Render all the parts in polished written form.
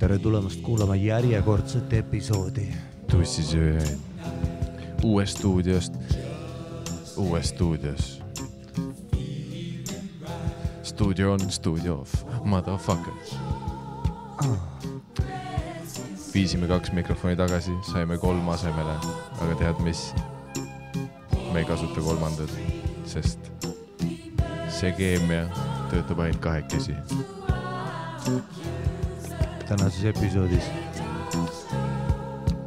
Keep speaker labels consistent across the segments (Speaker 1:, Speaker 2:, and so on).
Speaker 1: Tere tulemast kuulama järjekordset episoodi
Speaker 2: Tussisööjaid uues stuudios. Studio on studio off, motherfuckers. Viisime 2 mikrofoni tagasi, saime 3 asemele, aga tead mis? Me ei kasuta 3, sest see keemia töötab ainult 2.
Speaker 1: Tänases episoodis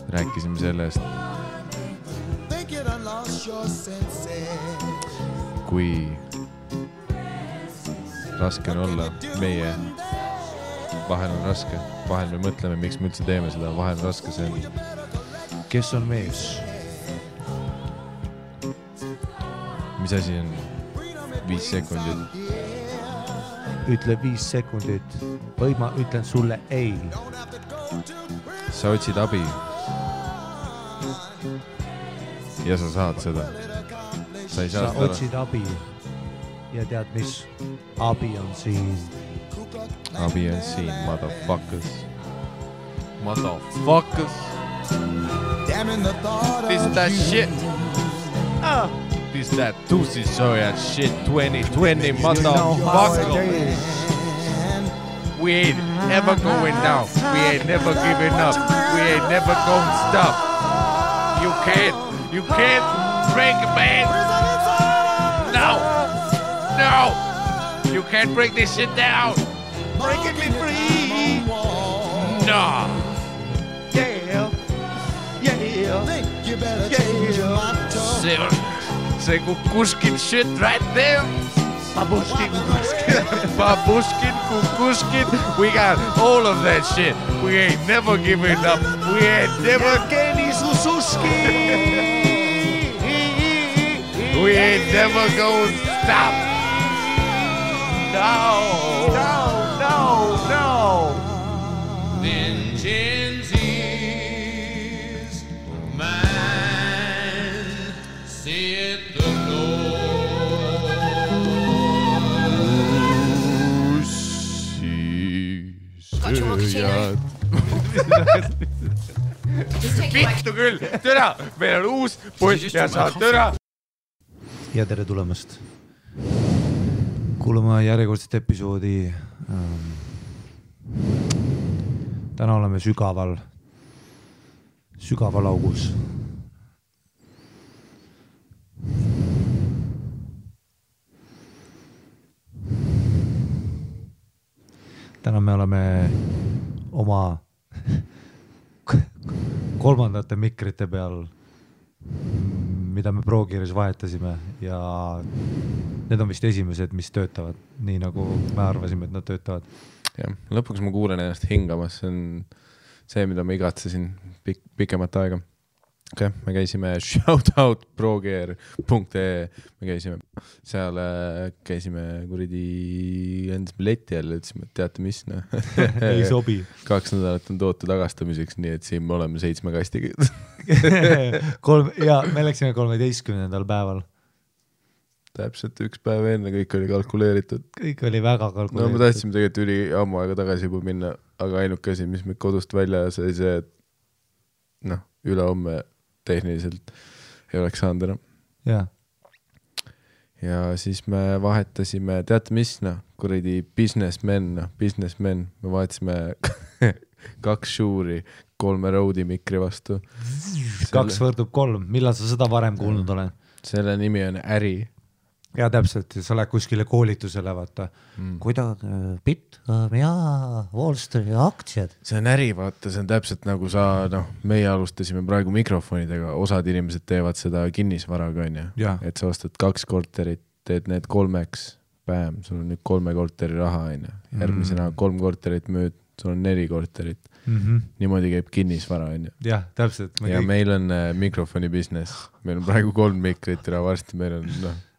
Speaker 2: rääkisime sellest, kui raske on olla meie. Vahel on raske, vahel me mõtleme, miks me üldse teeme seda, vahel on raske, see on.
Speaker 1: Kes on mees?
Speaker 2: Mis asi on 5 sekundit?
Speaker 1: Ütle 5 sekundit või ma ütlen sulle ei.
Speaker 2: Sa otsid abi ja sa saad seda.
Speaker 1: Sa otsid abi ja tead mis? Abi on siin.
Speaker 2: Abi on siin, motherfuckers. Motherfuckers. This that shit. This that Tussisööjad shit 2020, motherfuckers. We ain't ever going down. We ain't never giving up. We ain't never gonna stop. You can't break a man. No. You can't break this shit down. Breaking me free. No. Yeah. See kukushkin shit right there. Babushkin, kukushkin. We got all of that shit. We ain't never giving up. We ain't never getting susushki. We ain't never gonna stop. No. Vengeance is mine, said the Lord. Tussisööjad. Vittu küll, türa, meil on uus poiss ja saad türa.
Speaker 1: Ja tere tulemast kuulama järjekordset episoodi. Täna oleme sügaval augus. Täna me oleme oma 3. mikrite peal, mida me ProGearis vahetasime ja need on vist esimesed, mis töötavad nii nagu me arvasime, et nad töötavad.
Speaker 2: Ja, lõpuks ma kuulen ennast hingamas, see on see, mida ma igatsesin pikemat aega. Okay, me käisime shoutout progear.ee, me käisime seal, kuradi endasime leti jälle, ütlesime, et teate mis, no.
Speaker 1: Ei sobi.
Speaker 2: 2 nädalat on toote tagastamiseks, nii et siin me oleme 7 kastiga.
Speaker 1: Ja me läksime 13. päeval.
Speaker 2: Täpselt 1 päev enne, kõik oli kalkuleeritud.
Speaker 1: Kõik oli väga kalkuleeritud.
Speaker 2: No me tahtsime tegelikult üli ammu aega tagasi juba minna, aga ainuke asi, mis me kodust välja sai see, et üle homme tehniliselt ei oleks saanud enam. Ja siis me vahetasime, teate mis, kuradi businessmen, me vahetasime 2 Shure'i 3 Rode'i mikri vastu.
Speaker 1: 2 võrdub 3, millal sa seda varem kuulnud olen?
Speaker 2: Selle nimi on äri.
Speaker 1: Ja täpselt, sa lähed kuskile koolitusele, vaata. Kuidas Bitcoin ja Wall Street aktsiad?
Speaker 2: See on äri, vaata, see on täpselt nagu meie alustasime praegu mikrofonidega, osad inimesed teevad seda kinnisvaraga, et sa ostad 2 korterit, teed need 3-ks, päev, sul on nüüd 3 korteri raha, järgmisena 3 korterit müüd, sul on 4 korterit. Niimoodi käib kinnisvara,
Speaker 1: jah, täpselt.
Speaker 2: Ja meil on mikrofoni business, meil on praegu 3 mikrit ja varsti meil on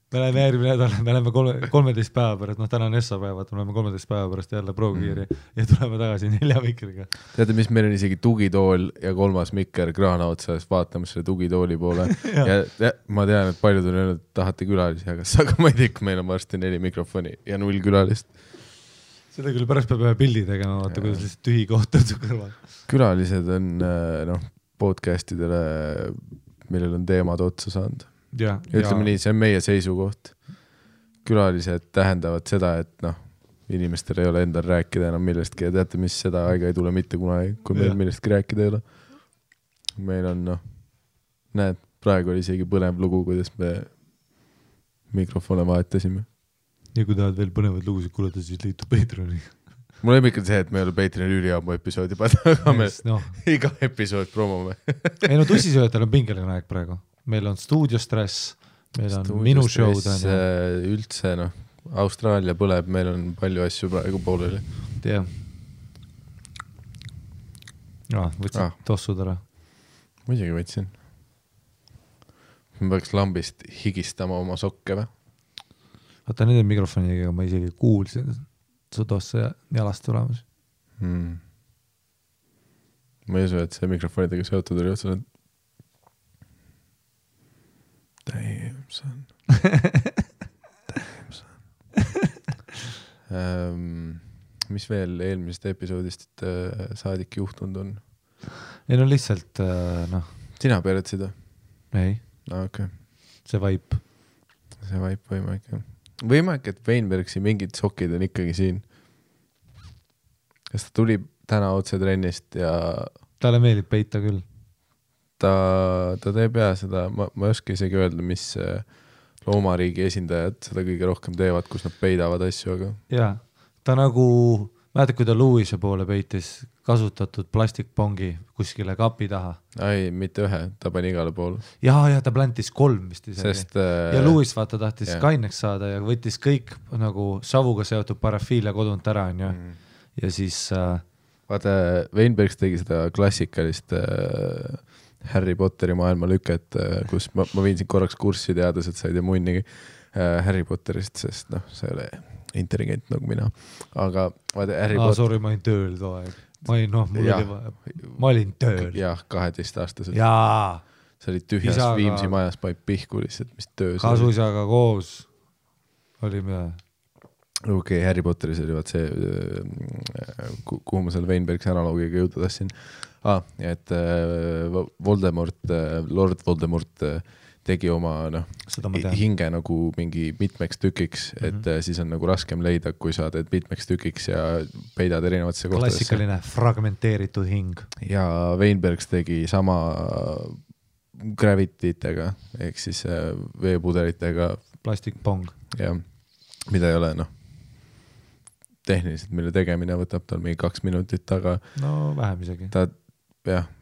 Speaker 1: Me oleme järgmine nädal, me oleme 13 päeva pärast, täna on Essa päevad, me oleme 13 päeva pärast jälle ProGeari ja tuleme tagasi 4 mikriga.
Speaker 2: Teate, mis meil on isegi tugitool ja 3. mikker kraana otsas vaatamas selle tugitooli poole ja ma tean, et paljud on öelnud, et tahate külalisi, aga ma ei tea, meil on varsti 4 mikrofoni ja 0 külalist.
Speaker 1: seda küll pärast peab ühe pildi tegema, vaata, kuidas lihtsalt tühi koht on su kõrval.
Speaker 2: Külalised on podcastidele, millel on teemad otsa saanud. Ütleme nii, see on meie seisukoht. Külalised tähendavad seda, et inimestel ei ole endal rääkida enam millestki ja teate, mis seda aega ei tule mitte kunagi, kui meil millestki rääkida ei ole. Meil on, näed, praegu oli isegi põnev lugu, kuidas me mikrofone vahetasime.
Speaker 1: Ja kui tahad veel põnevad lugusid kuulata, siis liitu Patreoni.
Speaker 2: Mul on ikka see, et me ei ole Patreoni üliammu episoodi panna, aga me iga episood promome.
Speaker 1: Ei tussisööjatel on pingeline aeg praegu. Meil on stuudiostress, meil on minu show'd.
Speaker 2: Üldse, Austraalia põleb, meil on palju asju praegu pooleli.
Speaker 1: Jah. Võtsid tossud ära.
Speaker 2: Muidugi võtsin. Ma peaks lambist higistama oma sokke või?
Speaker 1: Vaata nende mikrofonidega ma isegi kuulsin su tosse jalast tulemas.
Speaker 2: Ma ei usu, et see mikrofonidega seotud oli otsa. Damn son. Mis veel eelmisest episoodist saadik juhtunud on?
Speaker 1: Ei lihtsalt,
Speaker 2: Sina peeretsid või?
Speaker 1: Ei.
Speaker 2: Okay.
Speaker 1: See vaip.
Speaker 2: See vaip võimalik. Võimalik, et Weinbergsi mingid sokid on ikkagi siin. Kas ta tuli täna otse trennist ja...
Speaker 1: Talle meeldib peita küll.
Speaker 2: Ta teeb seda, ma ei oska isegi öelda, mis loomariigi esindajad seda kõige rohkem teevad, kus nad peidavad asju, aga... Jaa,
Speaker 1: ta mäletad, kui ta Louise poole peitis kasutatud plastikpongi kuskile kapi taha.
Speaker 2: Ei, mitte ühe, ta pani igale poole.
Speaker 1: Ja ta plantis 3 vist isegi.
Speaker 2: Sest,
Speaker 1: ja Louis vaata tahtis kaineks saada ja võttis kõik savuga seotud parafiile kodunt ära. Ja siis...
Speaker 2: Vaata, Weinbergs tegi seda klassikalist Harry Potteri maailma lüket, kus ma viin siin korraks kurssi teades, et sa ei tea munnigi Harry Potterist, sest see oli intelligent nagu mina. Aga vaata Harry Potter...
Speaker 1: Sorry, ma olin tööl too aeg. Ma olin tööl.
Speaker 2: Jah, 12-aastaselt.
Speaker 1: Jaa.
Speaker 2: See oli tühjas isaga... Viimsi majas paip pihku lihtsalt, mis töös.
Speaker 1: Kasuisaga koos oli mida?
Speaker 2: Okei, Harry Potteris oli vaat see, kuhu ma selle Weinbergsi analoogiga jõuda tassin. Et Lord Voldemort tegi oma hinge nagu mingi mitmeks tükiks, et siis on nagu raskem leida, kui sa teed mitmeks tükiks ja peidad erinevatesse kohtadesse.
Speaker 1: Klassikaline fragmenteeritud hing.
Speaker 2: Ja Weinbergs tegi sama gravititega, ehk siis veepudelitega.
Speaker 1: Plastikpong.
Speaker 2: Ja, mida ei ole, tehniliselt, mille tegemine võtab tal mingi 2 minutit, aga...
Speaker 1: vähem isegi.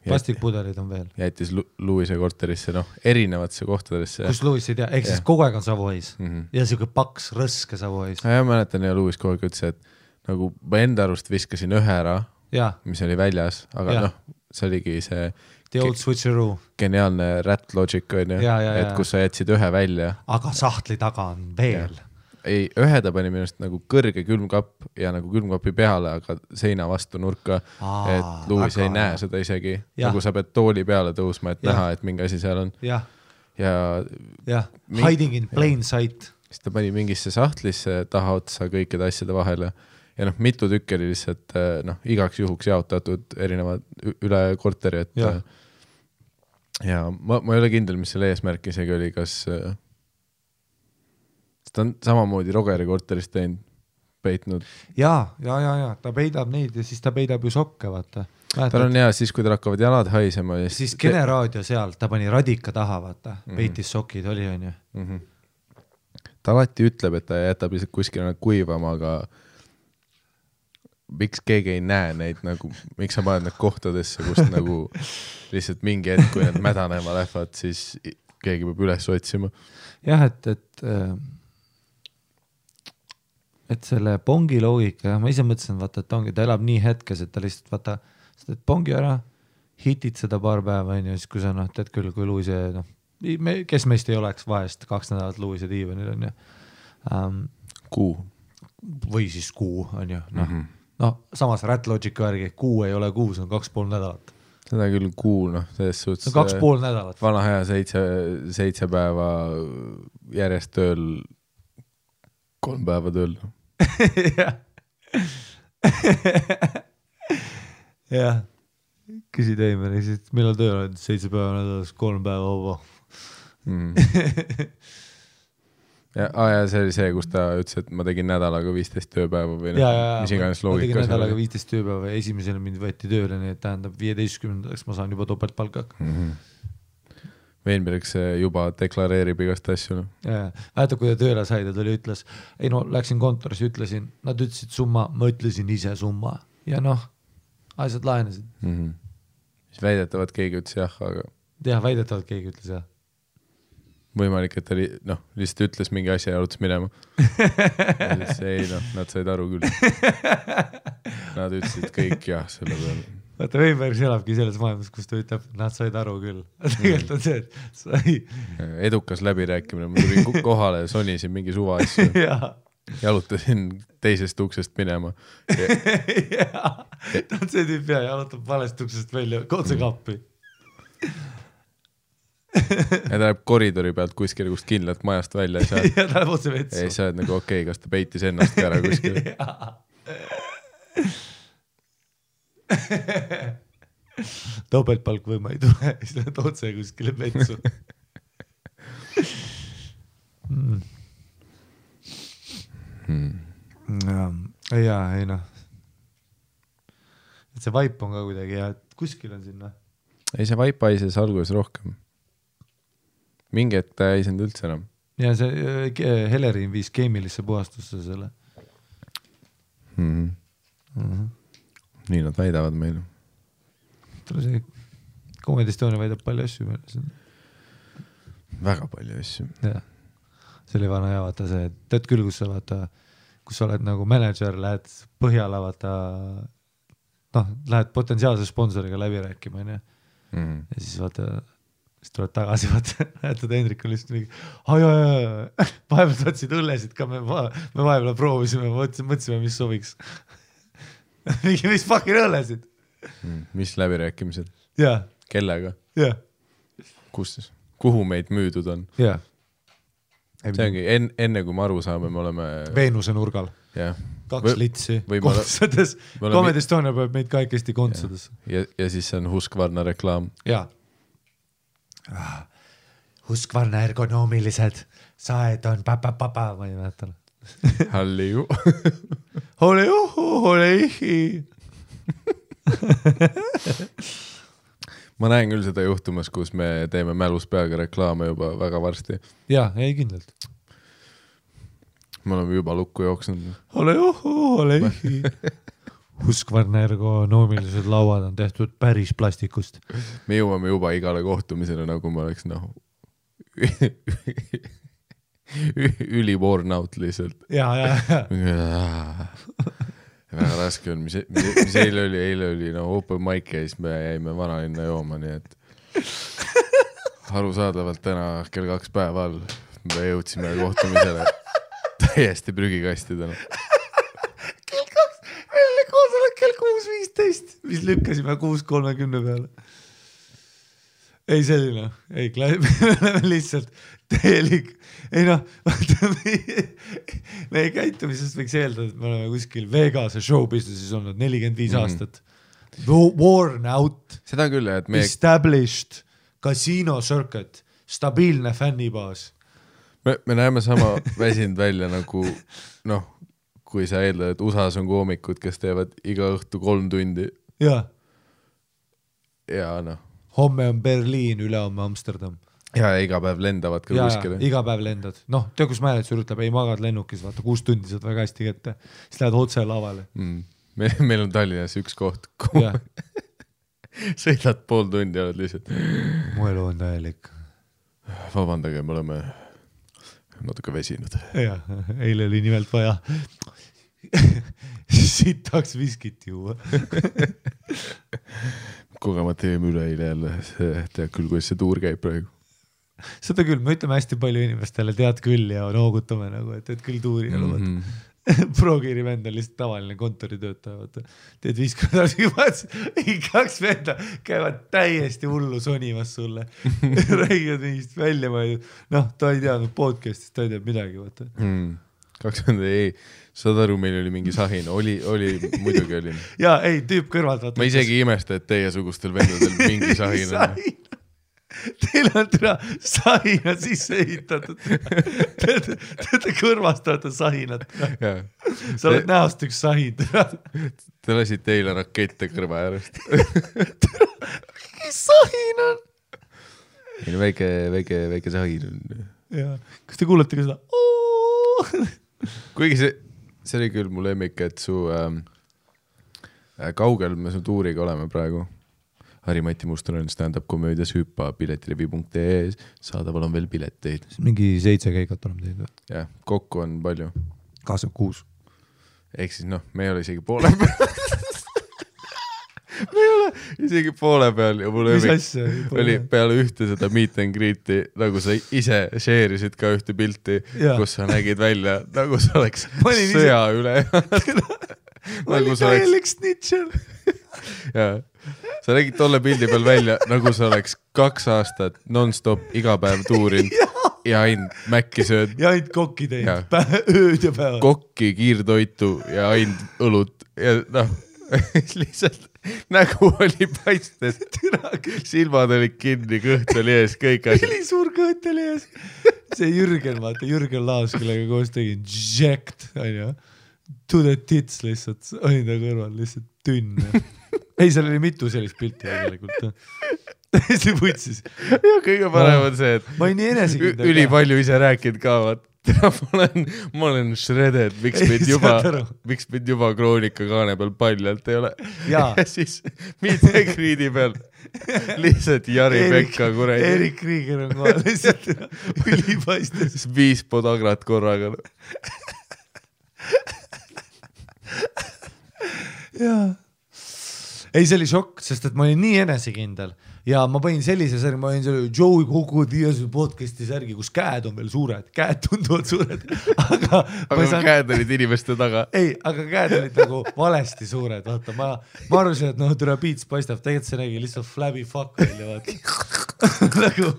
Speaker 1: Plastikpudelid on veel.
Speaker 2: Jättis Louise korterisse, erinevatesse kohtadesse.
Speaker 1: Kus Louis ei tea, ehk siis kogu aeg on Savois. Ja siuke paks, rõske Savois.
Speaker 2: Ja mäletan, ja Louis kogu aeg ütles, et nagu ma enda arust viskasin ühe ära, mis oli väljas, aga see oligi see...
Speaker 1: The old switcheroo.
Speaker 2: Geniaalne rat logic on ju, et kus sa jätsid ühe välja.
Speaker 1: Aga sahtli taga on veel.
Speaker 2: Ei, ühe ta pani minust nagu kõrge külmkapp ja nagu külmkapi peale, aga seina vastu nurka, et Louis ei näe seda isegi. Nagu sa pead tooli peale tõusma, et näha, et mingi asi seal on.
Speaker 1: Ja. Hiding in plain sight.
Speaker 2: Siis ta pani mingisse sahtlisse taha otsa kõikide asjade vahele. Ja mitu tükki oli lihtsalt igaks juhuks jaotatud erinevad üle korteri, et ja ma ei ole kindel, mis selle eesmärk isegi oli, kas ta on samamoodi Rogeri korterist teinud, peitnud. Ja,
Speaker 1: ta peidab neid ja siis ta peidab ju sokke, vaata.
Speaker 2: Tal on siis, kui tal hakkavad jalad haisema.
Speaker 1: Siis generaadio seal, ta pani radika taha, vaata, peitis sokid, oli on ju.
Speaker 2: Ta alati ütleb, et ta jätab lihtsalt kuskile kuivama, aga miks keegi ei näe neid, nagu, miks sa paned need kohtadesse, kus nagu lihtsalt mingi hetk, kui need mädanema lähevad, siis keegi peab üles otsima.
Speaker 1: Jah, et selle pongi loogika, ma ise mõtlesin, vaata, et ta elab nii hetkes, et ta lihtsalt, vaata, sa teed pongi ära, hitid seda paar päeva, ja siis kui sa, teed küll, kui Louise, kes meist ei oleks vahest 2 nädalat Louise diivanil, on ju.
Speaker 2: Kuu.
Speaker 1: Või siis kuu, on ju. Samas Rat Logic värgi, kuu ei ole kuu, see on 2,5 nädalat.
Speaker 2: Seda küll kuu, selles suhtes...
Speaker 1: 2,5 nädalat.
Speaker 2: Vana hea 7 päeva järjest tööl, 3 päeva tööl.
Speaker 1: Jah. jah, küsid Eimeri, siis millal tööl on 7 päeva nädalas, 3 päeva vaba.
Speaker 2: ja see oli see, kus ta ütles, et ma tegin nädalaga 15 tööpäeva või mis iganes loogika.
Speaker 1: Ma tegin nädalaga 15 tööpäeva ja esimesel mind võeti tööle, nii et tähendab 15. ma saan juba topeltpalka.
Speaker 2: Veenberg see juba deklareerib igast asju. No.
Speaker 1: Vaata, kui ta tööle sai, ta tuli ütles, ei no läksin kontoris, ütlesin, nad ütlesid summa, ma ütlesin ise summa ja noh, asjad lahenesid.
Speaker 2: Siis väidetavalt keegi ütles jah, aga...
Speaker 1: jah, väidetavalt keegi ütles jah.
Speaker 2: Võimalik, et ta lihtsalt ütles mingi asja ja arutas minema. Ei noh, nad said aru küll. Nad ütlesid kõik jah selle peale.
Speaker 1: Vaata, Veinberg elabki selles maailmas, kus ta ütleb, nad said aru küll. Tegelikult on see, et sai...
Speaker 2: Edukas läbirääkimine, ma tulin kohale ja sonisin mingi suva asju. Jalutasin teisest uksest minema.
Speaker 1: Ta on see tüüp ja jalutab valest uksest välja, otse kappi.
Speaker 2: Ja ta läheb koridori pealt kuskil kust kindlalt majast välja.
Speaker 1: Ja ta läheb otse vetsu.
Speaker 2: Ei, sa oled nagu okei, kas ta peitis ennast ka ära kuskil.
Speaker 1: Topeltpalk või ma ei tule, siis lähed otse kuskile vetsu. Jaa, ei noh. Et see vaip on ka kuidagi hea, et kuskil on sinna.
Speaker 2: Ei, see vaip haises alguses rohkem. Mingi hetk ta ei saanud üldse enam.
Speaker 1: Ja see Helerin viis keemilisse puhastusse selle.
Speaker 2: Nii nad väidavad meil.
Speaker 1: See Comedy Estonia väidab palju asju meil.
Speaker 2: Väga palju asju.
Speaker 1: Jah. See oli vana ja vaata see, tead küll, kus sa vaata, kus sa oled nagu manager, lähed Põhjala vaata, noh, lähed potentsiaalse sponsoriga läbi rääkima, ja siis vaata, siis tuleb tagasi, vaata, näetad Hendrik on lihtsalt mingi, vahepeal tahtsid õllesid ka, me vahepeal proovisime, mõtlesime, mis sobiks. Mingi, mis fucking õllesid?
Speaker 2: Mis läbirääkimised?
Speaker 1: Jah.
Speaker 2: Kellega?
Speaker 1: Jah.
Speaker 2: Kus? Kuhu meid müüdud on?
Speaker 1: Jah.
Speaker 2: See ongi, enne kui me aru saame, me oleme...
Speaker 1: Veenuse nurgal.
Speaker 2: Jah.
Speaker 1: 2 litsi kontsades. Comedy Estonia peab meid kaikesti kontsades.
Speaker 2: Ja siis see on Husqvarna reklaam.
Speaker 1: Jaa. Husqvarna ergonoomilised saed on papa, ma ei mäletan.
Speaker 2: Halliu.
Speaker 1: Holeihi.
Speaker 2: Ma näen küll seda juhtumas, kus me teeme mälus peaga reklaame juba väga varsti.
Speaker 1: Jaa, ei kindlalt.
Speaker 2: Me oleme juba lukku jooksnud.
Speaker 1: Holeihi. Husqvarna ergonoomilised lauad on tehtud päris plastikust.
Speaker 2: Me jõuame juba igale kohtumisele, nagu ma oleks üli-worn out lihtsalt.
Speaker 1: Ja.
Speaker 2: Väga raske on, mis eile oli open mic ja siis me jäime vanalinna jooma, nii et arusaadavalt täna kell 2 päeval me jõudsime kohtumisele täiesti prügikastidena.
Speaker 1: Kell 2, meil oli koosolek kell 6.15, mis lükkasime 6.30 peale. Ei selline, ei, me oleme lihtsalt täielik. Ei noh, meie käitumisest võiks eeldada, et me oleme kuskil Vegase showbusinessis olnud 45 aastat. Worn out,
Speaker 2: seda küll, et
Speaker 1: established, casino circuit, stabiilne fännibaas.
Speaker 2: Me näeme sama väsinud välja nagu, noh, kui sa eeldad, et USAs on koomikud, kes teevad iga õhtu 3 tundi.
Speaker 1: Ja
Speaker 2: noh.
Speaker 1: Homme on Berliin, ülehomme Amsterdam.
Speaker 2: Ja iga päev lendavad ka kuskile.
Speaker 1: Iga päev lendad. Noh, tea, kus määletsur ütleb, ei magad lennukis, vaata 6 tundi saad väga hästi kätte. Siis lähed otse lavale.
Speaker 2: Meil on Tallinnas üks koht. Sõidad 5 tundi ja oled lihtsalt.
Speaker 1: Mu elu on täielik.
Speaker 2: Vabandage, me oleme natuke vesinud.
Speaker 1: Ja, eile oli nimelt vaja sitaks viskit juua.
Speaker 2: Kogemata jäime üle eile jälle, tead küll, kuidas see tuur käib praegu.
Speaker 1: Seda küll, me ütleme hästi palju inimestele, tead küll ja noogutame nagu, et tead küll tuuri ja Progiiri vend on lihtsalt tavaline kontoritöötaja, teed 50 aastaga 2 venda käivad täiesti hullu sonimas sulle, räägivad mingist välja, noh, ta ei teadnud podcastist, ta ei tead midagi, vaata.
Speaker 2: ei, saad aru, meil oli mingi sahin, muidugi oli.
Speaker 1: Jaa, ei, tüüp kõrvalt.
Speaker 2: Ma isegi imesta, et teiesugustel vendadel mingi sahin on.
Speaker 1: Teil on sahina sisse ehitatud. Te kõrvastate sahinat. Sa oled näost üks sahin.
Speaker 2: Te lasid teile rakette kõrva äärest.
Speaker 1: Mis sahin on?
Speaker 2: Väike sahin on.
Speaker 1: Jaa. Kas te kuulete ka seda?
Speaker 2: Kuigi see oli küll mu lemmik, et su kaugel me su tuuriga oleme praegu. Harri-Mati Mustonen stand-up komöödias hüppa piletirivi.ee saadaval on veel pileteid.
Speaker 1: Mingi 7 käigat oleme teinud.
Speaker 2: Jah, kokku on palju.
Speaker 1: 26.
Speaker 2: Ehk siis me ei ole isegi poole peal. Me ei ole isegi poole peal ja mul oli peale ühte seda meet and greet'i, nagu sa ise share'isid ka ühte pilti, kus sa nägid välja, nagu sa oleks sõja üle.
Speaker 1: Nagu sa oleks snitcher.
Speaker 2: Jaa. Sa nägid tolle pildi peal välja, nagu sa oleks 2 aastat non-stop iga päev tuurinud ja ainult mäkki sööd.
Speaker 1: Ja ainult kokki teinud, ööd ja päevad.
Speaker 2: Kokki, kiirtoitu ja ainult õlut ja lihtsalt nägu oli paistes. Silmad olid kinni, kõht oli ees, kõik asjad.
Speaker 1: Oli suur kõht oli ees. See Jürgen Laas, kellega koos tegin jacked, to the tits lihtsalt, olin ta kõrval lihtsalt tünn. Ei, seal oli mitu sellist pilti tegelikult. Täiesti võtsis.
Speaker 2: Ja kõige parem on see, et
Speaker 1: ma ei nii enesikindel.
Speaker 2: Üli palju ise rääkinud ka, ma olen shredded, miks mind juba Kroonika kaane peal paljalt ei ole. Ja siis mitte kriidi peal lihtsalt Jari Pekka kuradi.
Speaker 1: Erik Krieger on kohe lihtsalt ülipaistes.
Speaker 2: 5 podagrat korraga.
Speaker 1: Jaa. Ei, see oli šokk, sest et ma olin nii enesekindel ja ma panin sellise särgi, ma olin selle Joey Kogu Diasu podcasti särgi, kus käed on veel suured, käed tunduvad suured, aga
Speaker 2: käed olid inimeste taga.
Speaker 1: Ei, aga käed olid nagu valesti suured, vaata, ma arvasin, et türa piits paistab, tegelikult see nägi lihtsalt flabby fuck välja, vaata.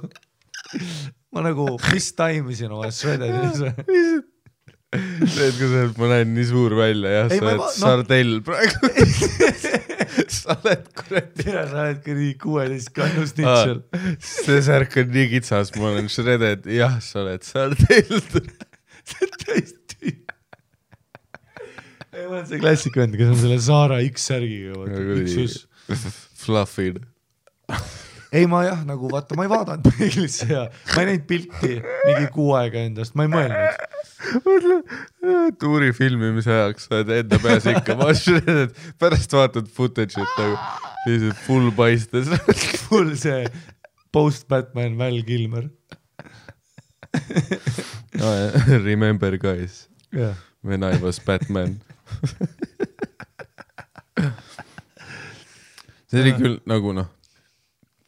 Speaker 1: Ma nagu mistime'isin oma shredded.
Speaker 2: See, et kui sa oled, ma näen nii suur välja, jah, sa oled sardell praegu. Sa oled kuradi.
Speaker 1: Sa oled kuradi 16 kannus nitšel.
Speaker 2: See särk on nii kitsas, ma olen shredded, jah, sa oled sardell.
Speaker 1: See on täiesti. Ei, ma olen see klassikvend, kes on selle Saara X-särgiga.
Speaker 2: Fluffid.
Speaker 1: Ei, ma jah, nagu vaata, ma ei vaadanud peeglisse ja ma ei näinud pilti mingi 6 aega endast, ma ei mõelnud.
Speaker 2: Tuuri filmimise ajaks sa oled enda peas ikka shredded, pärast vaatad footage'it nagu lihtsalt full paistes.
Speaker 1: Full see post-Batman Val Kilmer.
Speaker 2: Remember guys, when I was Batman. See oli küll nagu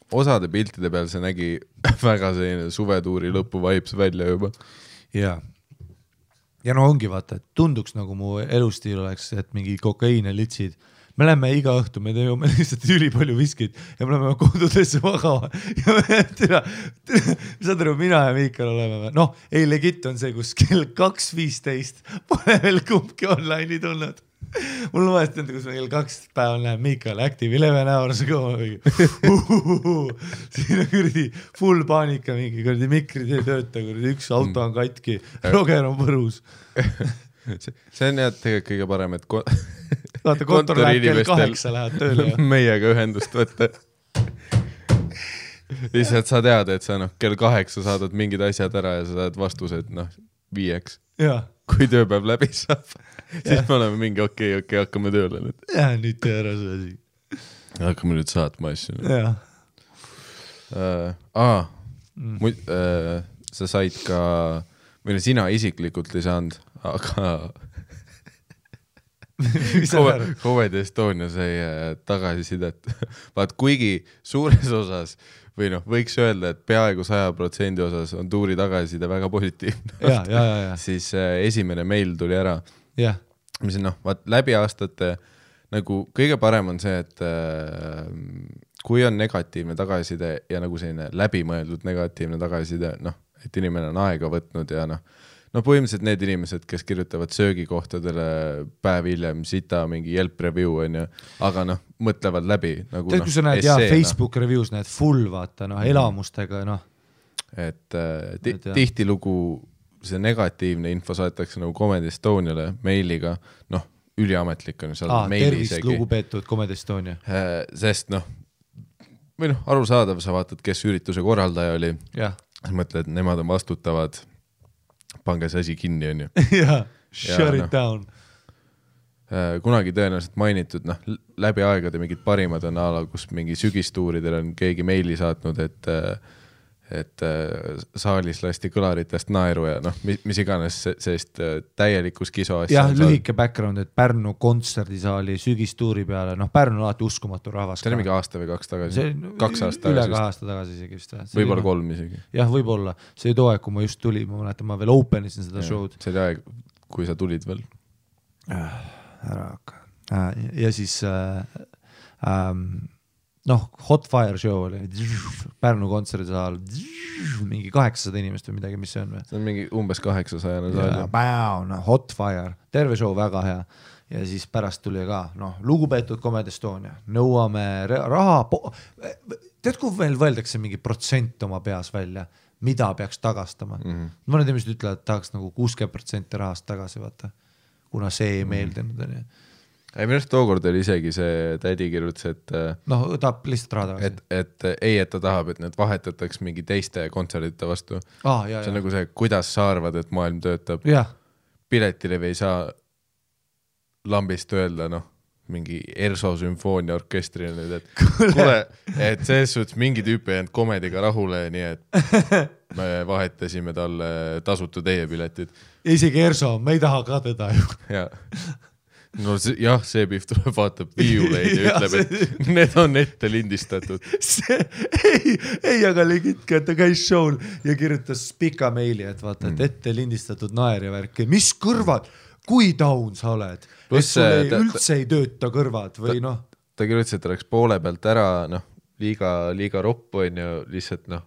Speaker 2: osade piltide peal see nägi väga selline suvetuuri lõpu vibes välja juba.
Speaker 1: Jaa. Ja ongi vaata, et tunduks nagu mu elustiil oleks, et mingi kokaiine litsid. Me läheme iga õhtu, me teeme lihtsalt üli palju viskid ja me läheme kodudesse magama. Ja me saad aru, mina ja Miikal oleme. Ei, legit on see, kus kell 2.15 pole veel kumbki online'i tulnud. Mul on vahest enda, kus ma kell 2 päeval näen Miikal Active 11 hours ago. Siin on kuradi full paanika mingi, kuradi mikrid ei tööta, kuradi üks auto on katki, Roger on võrus.
Speaker 2: See on jah tegelikult kõige parem, et
Speaker 1: vaata, kontor läheb kell 8 läheb tööle.
Speaker 2: Meiega ühendust võtta. Lihtsalt sa tead, et sa kell 8 saadad mingid asjad ära ja sa saad vastused 5.
Speaker 1: Jaa.
Speaker 2: Kui tööpäev läbi saab, siis me oleme mingi okei, hakkame tööle nüüd.
Speaker 1: Jah, nüüd tee ära see asi.
Speaker 2: Hakkame nüüd saatma asju.
Speaker 1: Jah.
Speaker 2: Sa said ka, või sina isiklikult ei saanud, aga Comedy Estonia sai tagasisidet. Vaat kuigi suures osas või võiks öelda, et peaaegu 100% osas on tuuri tagasiside väga positiivne. Siis esimene meil tuli ära. Mis on vaat läbi aastate nagu kõige parem on see, et kui on negatiivne tagasiside ja nagu selline läbimõeldud negatiivne tagasiside, et inimene on aega võtnud ja no põhimõtteliselt need inimesed, kes kirjutavad söögikohtadele päev hiljem sita mingi Yelp review on ju, aga noh, mõtlevad läbi nagu
Speaker 1: tead, kui sa näed Facebook reviews näed full vaata elamustega
Speaker 2: et tihtilugu see negatiivne info saadetakse nagu Comedy Estoniale meiliga, noh, üliametlik on seal meili
Speaker 1: tervist lugupeetud Comedy Estonia.
Speaker 2: Sest noh, või noh, arusaadav, sa vaatad, kes ürituse korraldaja oli, sa mõtled, nemad on vastutavad, pange see asi kinni, on ju.
Speaker 1: Shut it down.
Speaker 2: Kunagi tõenäoliselt mainitud, noh, läbi aegade mingid parimad on ala, kus mingi sügistuuridel on keegi meili saatnud, et saalis lasti kõlaritest naeru ja noh, mis iganes sellist täielikus kiso asja.
Speaker 1: Jah, lühike background, et Pärnu kontserdisaali sügistuuri peale, noh, Pärnu on alati uskumatu rahvas.
Speaker 2: See oli mingi aasta või 2 tagasi? 2 aastat
Speaker 1: tagasi. Üle 2 aasta tagasi isegi vist.
Speaker 2: Võib-olla 3 isegi.
Speaker 1: Jah, võib-olla. See oli too aeg, kui ma just tuli, ma mäletan, ma veel openisin seda show'd.
Speaker 2: See oli aeg, kui sa tulid veel.
Speaker 1: Ära hakka. Ja siis noh, Hot Fire show oli, Pärnu kontserdisaal, mingi 800 inimest või midagi, mis see on või?
Speaker 2: See on mingi umbes 800 saal.
Speaker 1: Hot Fire, terve show väga hea. Ja siis pärast tuli ka, noh, lugupeetud Comedy Estonia, nõuame raha, tead, kui veel võeldakse mingi protsent oma peas välja, mida peaks tagastama. Mõned inimesed ütlevad, et tahaks nagu 60% rahast tagasi, vaata, kuna see ei meeldinud, on ju.
Speaker 2: Ei, minu arust tookord oli isegi see tädi kirjutas, et
Speaker 1: noh, tahab lihtsalt raha tagasi.
Speaker 2: Et ta tahab, et need vahetataks mingi teiste kontserdite vastu. See on nagu see, kuidas sa arvad, et maailm töötab. Piletilevi ei saa lambist öelda, noh, mingi Erso sümfoonia orkestri nüüd, et kuule, et selles suhtes mingi tüüpi jäänud komediga rahule, nii et me vahetasime talle tasutu teie piletid.
Speaker 1: Isegi Erso, me ei taha ka teda ju.
Speaker 2: No jah, see Pihv tuleb, vaatab viiuleid ja ütleb, et need on ette lindistatud.
Speaker 1: Ei, aga legitke, et ta käis show'l ja kirjutas pika meili, et vaata, et ette lindistatud naer ja värki. Mis kõrvad? Kui down sa oled? Et sul üldse ei tööta kõrvad või noh?
Speaker 2: Ta kirjutas, et ta läks poole pealt ära, noh, liiga roppu on ju lihtsalt, noh,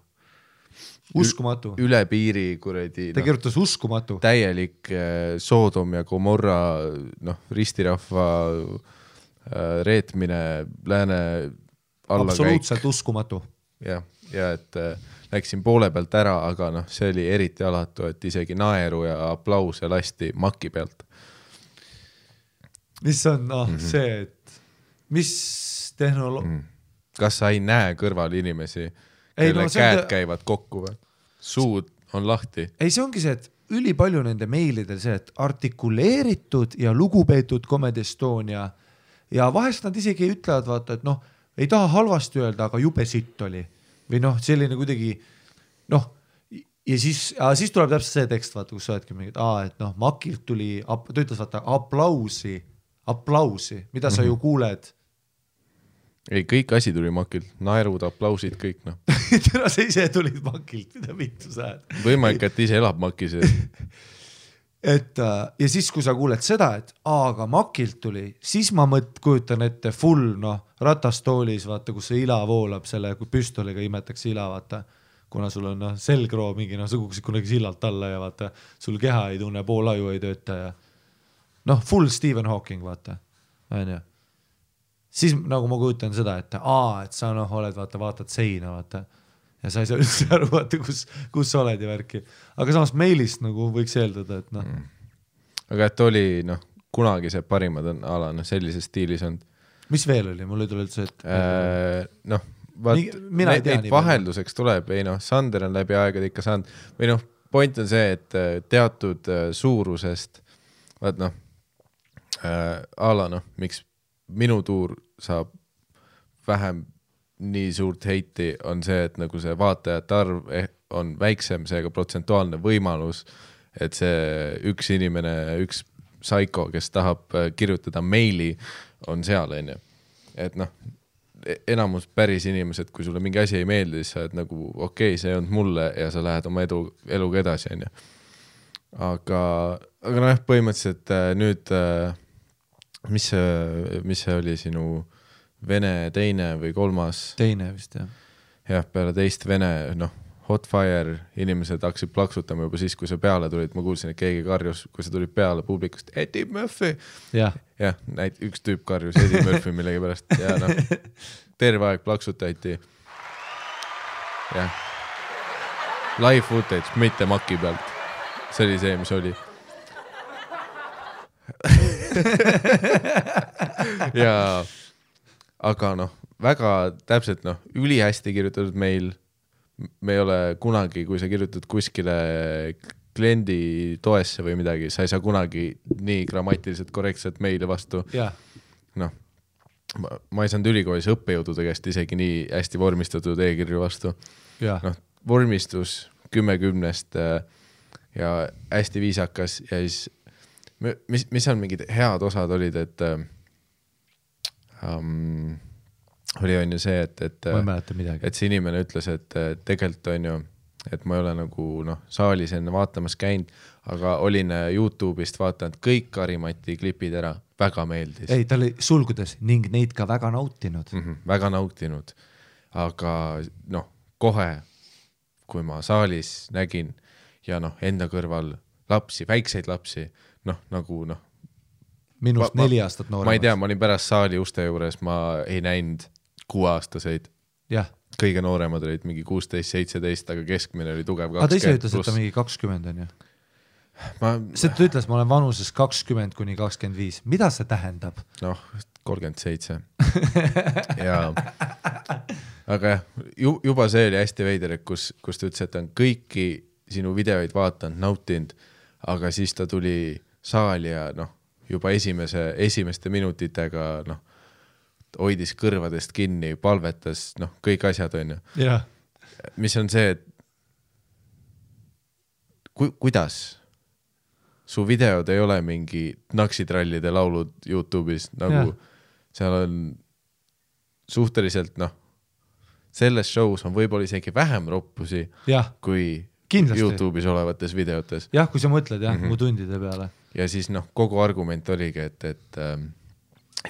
Speaker 1: uskumatu.
Speaker 2: Üle piiri kuradi.
Speaker 1: Ta kirjutas uskumatu.
Speaker 2: Täielik Soodom ja Gomorra, noh, ristirahva reetmine lääne allakäik.
Speaker 1: Absoluutselt uskumatu.
Speaker 2: Ja et läksin poole pealt ära, aga noh, see oli eriti alatu, et isegi naeru ja aplause lasti maki pealt.
Speaker 1: Mis on see, et mis
Speaker 2: Kas sa ei näe kõrval inimesi? Kelle käed käivad kokku või? Suud on lahti.
Speaker 1: Ei, see ongi see, et üli palju nende meilidel see, et artikuleeritud ja lugupeetud Comedy Estonia ja vahest nad isegi ütlevad, vaata, et noh, ei taha halvasti öelda, aga jube sitt oli. Või noh, selline kuidagi, noh, ja siis tuleb täpselt see tekst, vaata, kus sa oledki mingid, et noh, Makilt tuli, ta ütles, vaata, aplausi, mida sa ju kuuled.
Speaker 2: Ei, kõik asi tuli Makilt, naerud, aplausid, kõik noh.
Speaker 1: Täna sa ise tulid Makilt, mida vittu sa oled.
Speaker 2: Võimalik, et ise elab Makis.
Speaker 1: Ja siis, kui sa kuuled seda, et aga Makilt tuli, siis ma kujutan ette full, noh, ratastoolis, vaata, kus see ila voolab selle, kui püstoliga imetakse ila, vaata, kuna sul on selgroo mingi, noh, sa kukkusid kunagi sillalt alla ja vaata, sul keha ei tunne, pool aju ei tööta ja noh, full Stephen Hawking, vaata, on ju. Siis nagu ma kujutan seda, et sa noh, oled, vaatad seina, vaata, ja sa ei saa üldse aru, vaata, kus sa oled ja värki. Aga samas meilist nagu võiks eeldada, et noh.
Speaker 2: Aga et oli, noh, kunagi see parimad on ala, noh, sellises stiilis on.
Speaker 1: Mis veel oli? Mul ei tule üldse, et
Speaker 2: noh, neid vahelduseks tuleb, ei noh, Sander on läbi aegade ikka saanud, või noh, point on see, et teatud suurusest, vaat noh, ala, noh, miks minu tuur saab vähem nii suurt heiti, on see, et nagu see vaatajate arv on väiksem, seega protsentuaalne võimalus, et see üks inimene, üks psycho, kes tahab kirjutada meili, on seal, on ju. Et noh, enamus päris inimesed, kui sulle mingi asi ei meeldi, siis sa oled nagu, okei, see on mulle ja sa lähed oma eluga edasi, on ju. Aga noh, põhimõtteliselt nüüd mis see oli sinu Vene teine või kolmas?
Speaker 1: Teine vist, jah.
Speaker 2: Jah, peale teist Vene, noh, Hot Fire, inimesed hakkasid plaksutama juba siis, kui sa peale tulid, ma kuulsin, et keegi karjus, kui sa tulid peale publikust, Eddie Murphy. Jah, üks tüüp karjus Eddie Murphy millegi pärast ja noh, terve aeg plaksutati. Jah. Live footage, mitte maki pealt. See oli see, mis oli. Ja aga noh, väga täpselt ülihästi kirjutatud meil. Me ei ole kunagi, kui sa kirjutad kuskile kliendi toesse või midagi, sa ei saa kunagi nii grammatiliselt korrektselt meile vastu. Noh, ma ei saanud ülikoolis õppejõudude käest isegi nii hästi vormistatud e-kirju vastu. Noh, vormistus 10-10 ja hästi viisakas ja siis mis on mingid head osad olid, et oli on ju see, et see inimene ütles, et tegelikult on ju, et ma ei ole nagu saalis enne vaatamas käinud, aga olin YouTube'ist vaatanud kõik Karimati klipid ära, väga meeldis.
Speaker 1: Ei, ta oli sulgudes ning neid ka väga nautinud.
Speaker 2: Väga nautinud, aga kohe, kui ma saalis nägin ja enda kõrval lapsi, väikseid lapsi,
Speaker 1: minust 4 aastat nooremad.
Speaker 2: Ma ei tea, ma olin pärast saali uste juures, ma ei näinud 6-aastaseid. Kõige nooremad olid mingi 16-17, aga keskmine oli tugev 20+.
Speaker 1: Aga ta ise ütles, et ta mingi 20 on ju. See ta ütles, ma olen vanuses 20-25. Mida see tähendab?
Speaker 2: 37. Ja, aga juba see oli hästi veider, kus ta ütles, et ta on kõiki sinu videoid vaatanud, nautinud, aga siis ta tuli saali ja juba esimeste minutitega hoidis kõrvadest kinni, palvetas, kõik asjad on ju. Mis on see, et kuidas su videod ei ole mingi naksitrallide laulud YouTube'is, nagu seal on suhteliselt, selles show's on võib-olla isegi vähem roppusi kui kindlasti YouTube'is olevates videotes.
Speaker 1: Jah, kui sa mõtled mu tundide peale.
Speaker 2: Ja siis kogu argument oligi,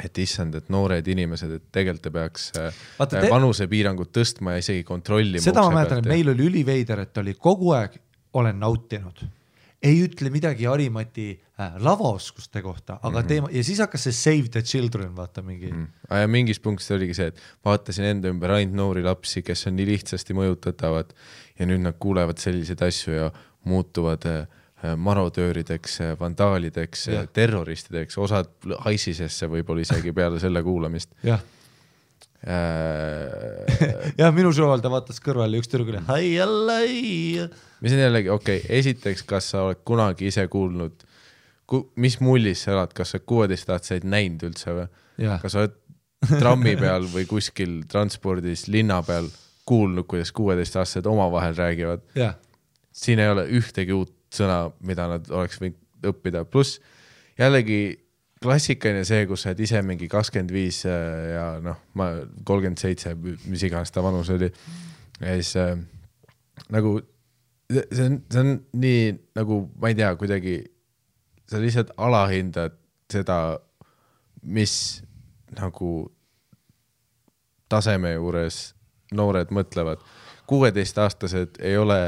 Speaker 2: et issand, et noored inimesed, et tegelikult te peaks vanusepiirangut tõstma ja isegi kontrollima.
Speaker 1: Seda ma mäletan, et meil oli üliveider, et oli kogu aeg olen nautinud. Ei ütle midagi Harimati lavaoskuste kohta, aga teema, ja siis hakkas see Save the Children, vaata mingi.
Speaker 2: Ja mingis punktis oligi see, et vaatasin enda ümber ainult noori lapsi, kes on nii lihtsasti mõjutatavad ja nüüd nad kuulevad selliseid asju ja muutuvad marodöörideks, vandaalideks, terroristideks, osad haisisesse võib-olla isegi peale selle kuulamist.
Speaker 1: Jah, minu show'l ta vaatas kõrval ja üks tüdruk oli
Speaker 2: mis on jällegi, esiteks, kas sa oled kunagi ise kuulnud, mis mullis sa elad, kas sa 16-aastaseid näinud üldse või? Kas sa oled trammi peal või kuskil transpordis linna peal kuulnud, kuidas 16-aastased omavahel räägivad? Siin ei ole ühtegi uut sõna, mida nad oleks võinud õppida. Plus jällegi klassikaline see, kus sa oled ise mingi 25 ja ma 37, mis iganes ta vanus oli. Ja siis nagu see on nii nagu, ma ei tea, kuidagi sa lihtsalt alahindad seda, mis nagu taseme juures noored mõtlevad. 16-aastased ei ole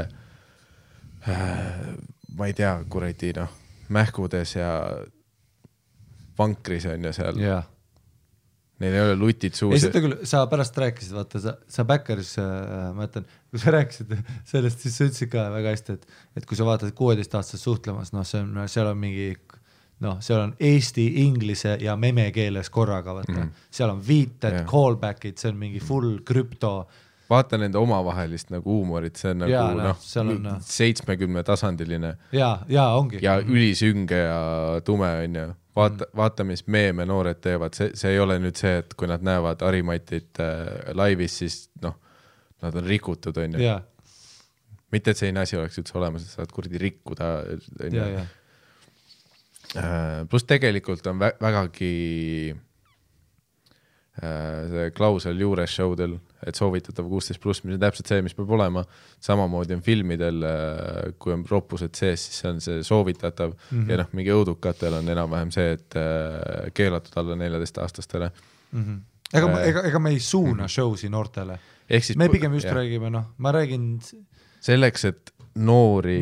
Speaker 2: ma ei tea, kuradi mähkudes ja vankris on ja seal. Neil ei ole lutid suus.
Speaker 1: Ei, seda küll, sa pärast rääkisid, vaata, sa Backeris, ma ütlen, kui sa rääkisid sellest, siis sa ütlesid ka väga hästi, et kui sa vaatad 16-aastased suhtlemas, seal on mingi, seal on eesti, inglise ja meme keeles korraga, vaata. Seal on viited, callbackid, see on mingi full krüpto.
Speaker 2: Vaata nende omavahelist nagu huumorit, see on nagu 70 tasandiline.
Speaker 1: Ja ongi.
Speaker 2: Ja ülisünge ja tume on ju. Vaata, mis meeme noored teevad. See ei ole nüüd see, et kui nad näevad Harimatit laivis, siis nad on rikutud on ju. Mitte, et selline asi oleks üldse olemas, et saad kurdi rikkuda. Plus tegelikult on vägagi see klausel juures showdel, et soovitatav 16+, mis on täpselt see, mis peab olema. Samamoodi on filmidel, kui on roppused sees, siis see on see soovitatav ja mingi õudukatel on enam-vähem see, et keelatud alla 14-aastastele.
Speaker 1: Ega me ei suuna showsi noortele. Me pigem just räägime, ma räägin
Speaker 2: selleks, et noori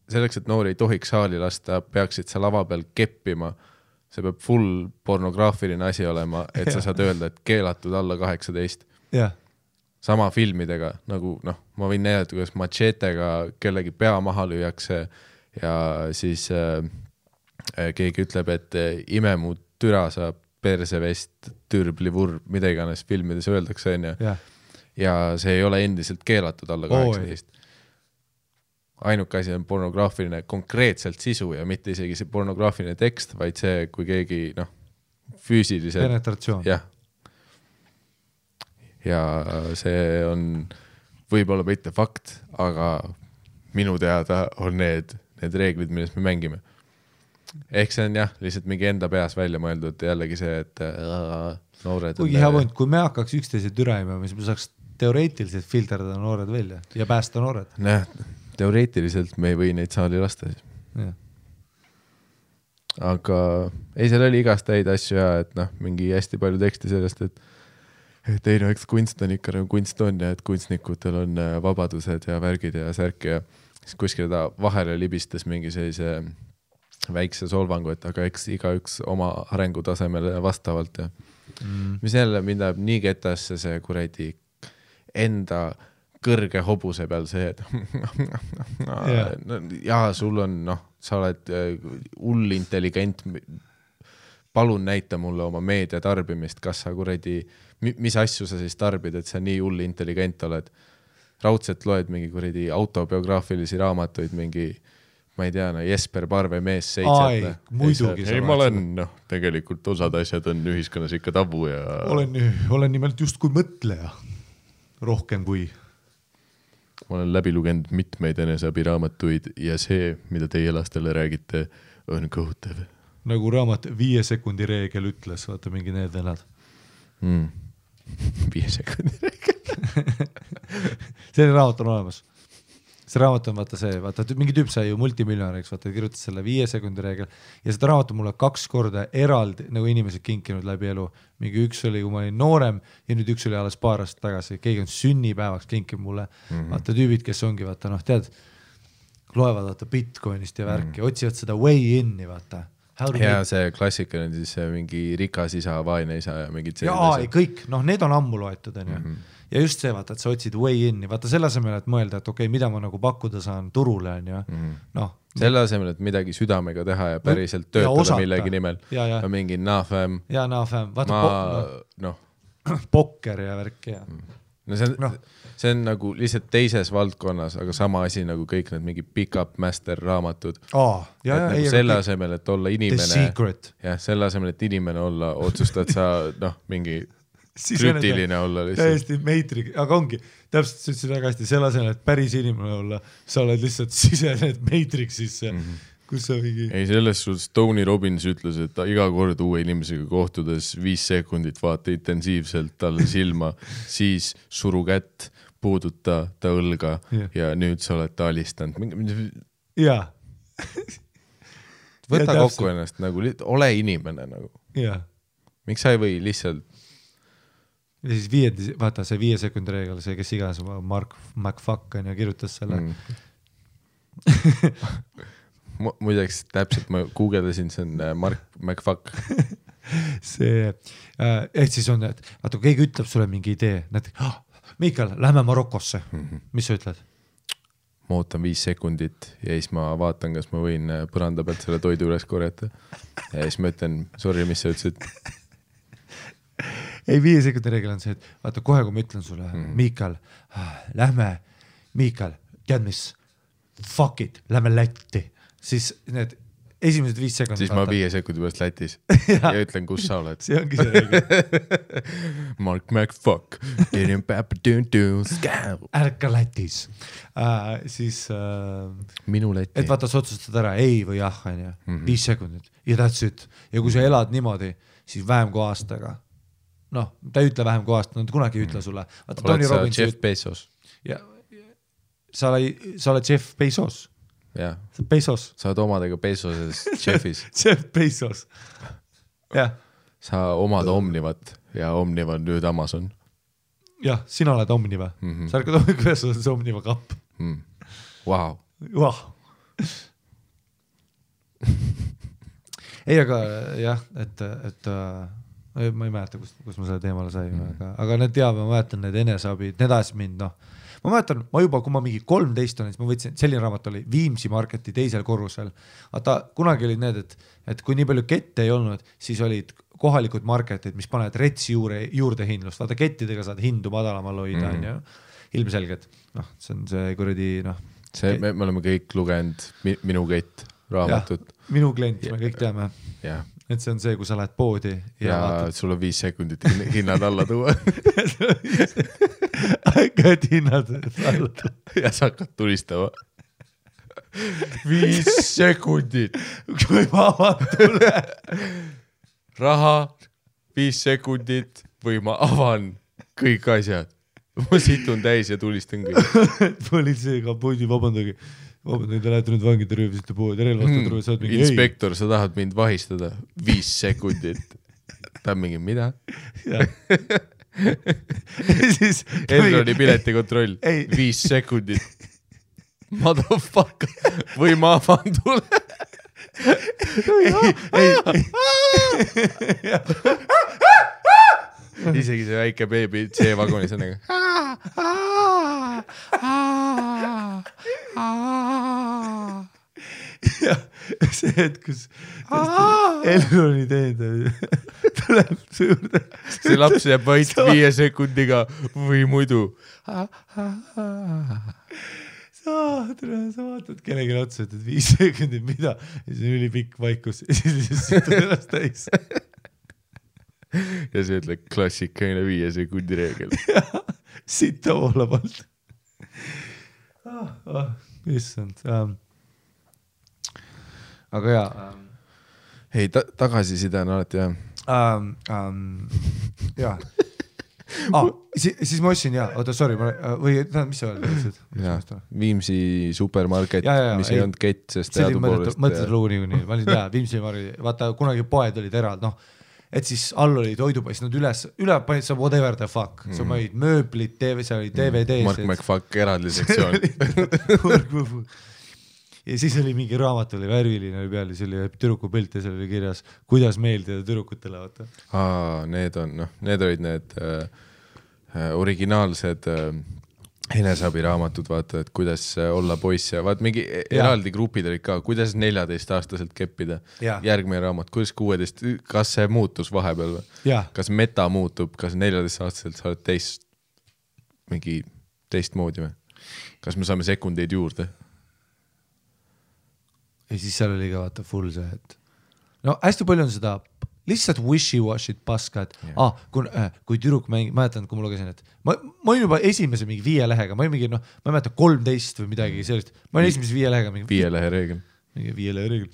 Speaker 2: selleks, et noori ei tohiks saali lasta, peaksid sa lava peal keppima. See peab full pornograafiline asi olema, et sa saad öelda, et keelatud alla 18. Sama filmidega, nagu ma võin näidata, kuidas machetega kellegi pea maha lüüakse ja siis keegi ütleb, et ime mu türa saab persevest, türblivurb, mida iganes filmides öeldakse, ja see ei ole endiselt keelatud alla 18. Ainuke asi on pornograafiline konkreetselt sisu ja mitte isegi see pornograafiline tekst, vaid see, kui keegi füüsiliselt
Speaker 1: penetratsioon.
Speaker 2: Ja see on võib-olla mitte fakt, aga minu teada on need reeglid, millest me mängime. Ehk see on lihtsalt mingi enda peas välja mõeldud jällegi see, et noored
Speaker 1: kuigi hea point, kui me hakkaks üksteise türaima, siis me saaks teoreetiliselt filterdada noored välja ja päästa noored.
Speaker 2: Teoreetiliselt me ei või neid saali lasta siis. Aga ei, seal oli igast häid asju ja et mingi hästi palju teksti sellest, et ei eks kunst on ikka nagu kunst on ja et kunstnikutel on vabadused ja värgid ja särk ja siis kuskil ta vahele libistas mingi sellise väikse solvangu, et aga eks igaüks oma arengutasemele vastavalt ja mis jälle mind läheb nii ketasse see kuradi enda kõrge hobuse peal see, et sul on, sa oled hull intelligent, palun näita mulle oma meedia tarbimist, kas sa kuradi, mis asju sa siis tarbid, et sa nii hull intelligent oled. Raudselt loed mingi kuradi autobiograafilisi raamatuid, mingi, ma ei tea, Jesper Parve mees 7.
Speaker 1: Muidugi.
Speaker 2: Ei, ma olen, tegelikult osad asjad on ühiskonnas ikka tabu ja...
Speaker 1: Olen nimelt just kui mõtleja, rohkem kui...
Speaker 2: Ma olen läbi lugenud mitmeid eneseabiraamatuid ja see, mida teie lastele räägite, on kohutav.
Speaker 1: Nagu raamat 5 sekundi reegel ütles, vaata mingi need venad.
Speaker 2: 5 sekundi reegel.
Speaker 1: See raamat on olemas. See raamat on vaata mingi tüüp sai ju multimiljonäriks, vaata kirjutas selle 5 sekundi reegel ja seda raamat on mulle 2 korda eraldi nagu inimesed kinkinud läbi elu. Mingi üks oli, kui ma olin noorem ja nüüd üks oli alles paar aastat tagasi. Keegi on sünnipäevaks kinkib mulle. Vaata tüübid, kes ongi, vaata tead, loevad vaata Bitcoinist ja värki, otsivad seda way in'i, vaata.
Speaker 2: Ja see klassika on siis mingi rikas isa, vaene isa ja mingid
Speaker 1: sellised. Kõik, need on ammu loetud, on ju. Ja just see, vaata, et sa otsid way in'i, vaata selle asemel, et mõelda, et okei, mida ma nagu pakkuda saan turule, on ju.
Speaker 2: Selle asemel, et midagi südamega teha ja päriselt töötada millegi nimel. Ja mingi naafäm.
Speaker 1: Ja naafäm. Pokker ja värk ja.
Speaker 2: See on nagu lihtsalt teises valdkonnas, aga sama asi nagu kõik need mingi pick-up master raamatud. Nagu selle asemel, et olla inimene. Ja selle asemel, et inimene olla, otsustad sa mingi krüptiline olla lihtsalt.
Speaker 1: Täiesti Matrix, aga ongi, täpselt sa ütlesid väga hästi, selle asemel, et päris inimene olla, sa oled lihtsalt sisened Matrixisse, kus sa mingi...
Speaker 2: Ei, selles suhtes Tony Robbins ütles, et iga kord uue inimesega kohtudes 5 sekundit vaata intensiivselt talle silma, siis suru kätt, puuduta ta õlga ja nüüd sa oled ta alistanud.
Speaker 1: Jaa.
Speaker 2: Võta kokku ennast, nagu, ole inimene nagu.
Speaker 1: Jaa.
Speaker 2: Miks sa ei või lihtsalt
Speaker 1: ja siis vaata see 5 sekundi reegel, see kes iganes Mark McFuck on ja kirjutas selle.
Speaker 2: Muideks täpselt ma guugeldasin, see on Mark McFuck.
Speaker 1: See, et siis on, et vaata, kui keegi ütleb sulle mingi idee, näiteks, Mikael, lähme Marokosse. Mis sa ütled?
Speaker 2: Ma ootan 5 sekundit ja siis ma vaatan, kas ma võin põranda pealt selle toidu üles korjata. Ja siis ma ütlen, sorry, mis sa ütlesid?
Speaker 1: Ei, 5 sekundi reegel on see, et vaata kohe, kui ma ütlen sulle, Mikael, lähme, Mikael, tead mis, fuck it, lähme Lätti, siis need esimesed 5 sekundit.
Speaker 2: Siis ma 5 sekundi pärast Lätis ja ütlen, kus sa oled.
Speaker 1: See ongi see reegel.
Speaker 2: Mark McFuck,
Speaker 1: ärka Lätis. Siis
Speaker 2: minu Läti.
Speaker 1: Et vaata, sa otsustad ära ei või jah, 5 sekundit ja that's it. Ja kui sa elad niimoodi, siis vähem kui aastaga. Ta ei ütle vähem kui aasta, nad kunagi ei ütle sulle.
Speaker 2: Oled sa Jeff Bezos?
Speaker 1: Ja, sa oled Jeff Bezos.
Speaker 2: Ja.
Speaker 1: Bezos.
Speaker 2: Sa oled omadega Bezoses Jeffis.
Speaker 1: Jeff Bezos. Ja.
Speaker 2: Sa omad Omnivat ja Omniva on nüüd Amazon.
Speaker 1: jah, sina oled Omniva. Sa ärkad hommikul üles, sa oled see Omniva kapp.
Speaker 2: Wow.
Speaker 1: Ei, aga jah, et ma ei mäleta, kus ma selle teemale sain, aga need ma mäletan need eneseabid, need ajas mind, ma mäletan, kui ma mingi 13 olen, siis ma võtsin, selline raamat oli Viimsi Marketi teisel korrusel. Vaata, kunagi olid need, et kui nii palju kette ei olnud, siis olid kohalikud marketid, mis panevad retsi juurde hindlust. Vaata, kettidega saad hindu madalamal hoida, ilmselgelt. See on see kuradi,
Speaker 2: me oleme kõik lugenud Minu kett raamatut.
Speaker 1: Minu klient, me kõik teame. Et see on see, kui sa lähed poodi
Speaker 2: ja sul on 5 sekundit hinnad alla tuua.
Speaker 1: Hakkad hinnad alla tuua.
Speaker 2: Ja sa hakkad tulistama. 5 sekundit.
Speaker 1: Kui ma avan tule.
Speaker 2: Raha, 5 sekundit või ma avan kõik asjad. Ma situn täis ja tulistan kõik.
Speaker 1: Politseega poodi, vabandage, te lähete nüüd vangide röövisite poodi, relvastatud röövised mingi
Speaker 2: inspektor, sa tahad mind vahistada 5 sekundit. Ta on mingi, mida? Elroni piletikontroll 5 sekundit. Motherfucker. Või ma avan tule. Isegi see väike beebi C-vagonis on nagu
Speaker 1: ja see hetk, kus Elroni teenindaja tuleb su juurde.
Speaker 2: See laps jääb vaid 5 sekundiga või muidu.
Speaker 1: Sa vaatad kellegi otsa, et 5 sekundit mida ja siis on ülipikk vaikus ja siis sütud ennast täis.
Speaker 2: Ja see ütleb klassikaline 5 sekundi reegel.
Speaker 1: Sita voolab alt. Issand. Aga jaa.
Speaker 2: Ei, tagasiside on alati jah.
Speaker 1: Jaa. Siis ma ostsin, oota, sorry, või mis sa öeldid?
Speaker 2: Viimsi supermarket, mis ei olnud kett, sest teadupoolest.
Speaker 1: Mõtlesid lugu nii, ma olin Viimsi market, vaata kunagi poed olid erald, et siis all oli toidupoiss, nad üle panid sa whatever the fuck, sa panid mööblit, seal oli DVD.
Speaker 2: Mark McFuck eraldi sektsioon.
Speaker 1: Ja siis oli mingi raamat, oli värviline oli peal ja see oli türuku pilt ja seal oli kirjas, kuidas meeldida tüdrukutele, vaata.
Speaker 2: Need olid need originaalsed eneseabiraamatud, vaata, et kuidas olla poiss ja vaat mingi eraldi grupid olid ka, kuidas 14-aastaselt keppida. Järgmine raamat, kuidas 16, kas see muutus vahepeal või? Kas meta muutub, kas 14-aastaselt sa oled teistmoodi või? Kas me saame sekundeid juurde?
Speaker 1: Ja siis seal oli ka vaata full see, et hästi palju on seda lihtsalt wishy-washid paska, et kui tüdruk mäletan, kui ma lugesin, et ma olin juba esimese mingi 5 lehega, ma olin mingi, ma ei mäleta 13 või midagi sellist, ma olin esimese 5 lehega.
Speaker 2: 5 lehe reegel.
Speaker 1: Mingi 5 lehe reegel.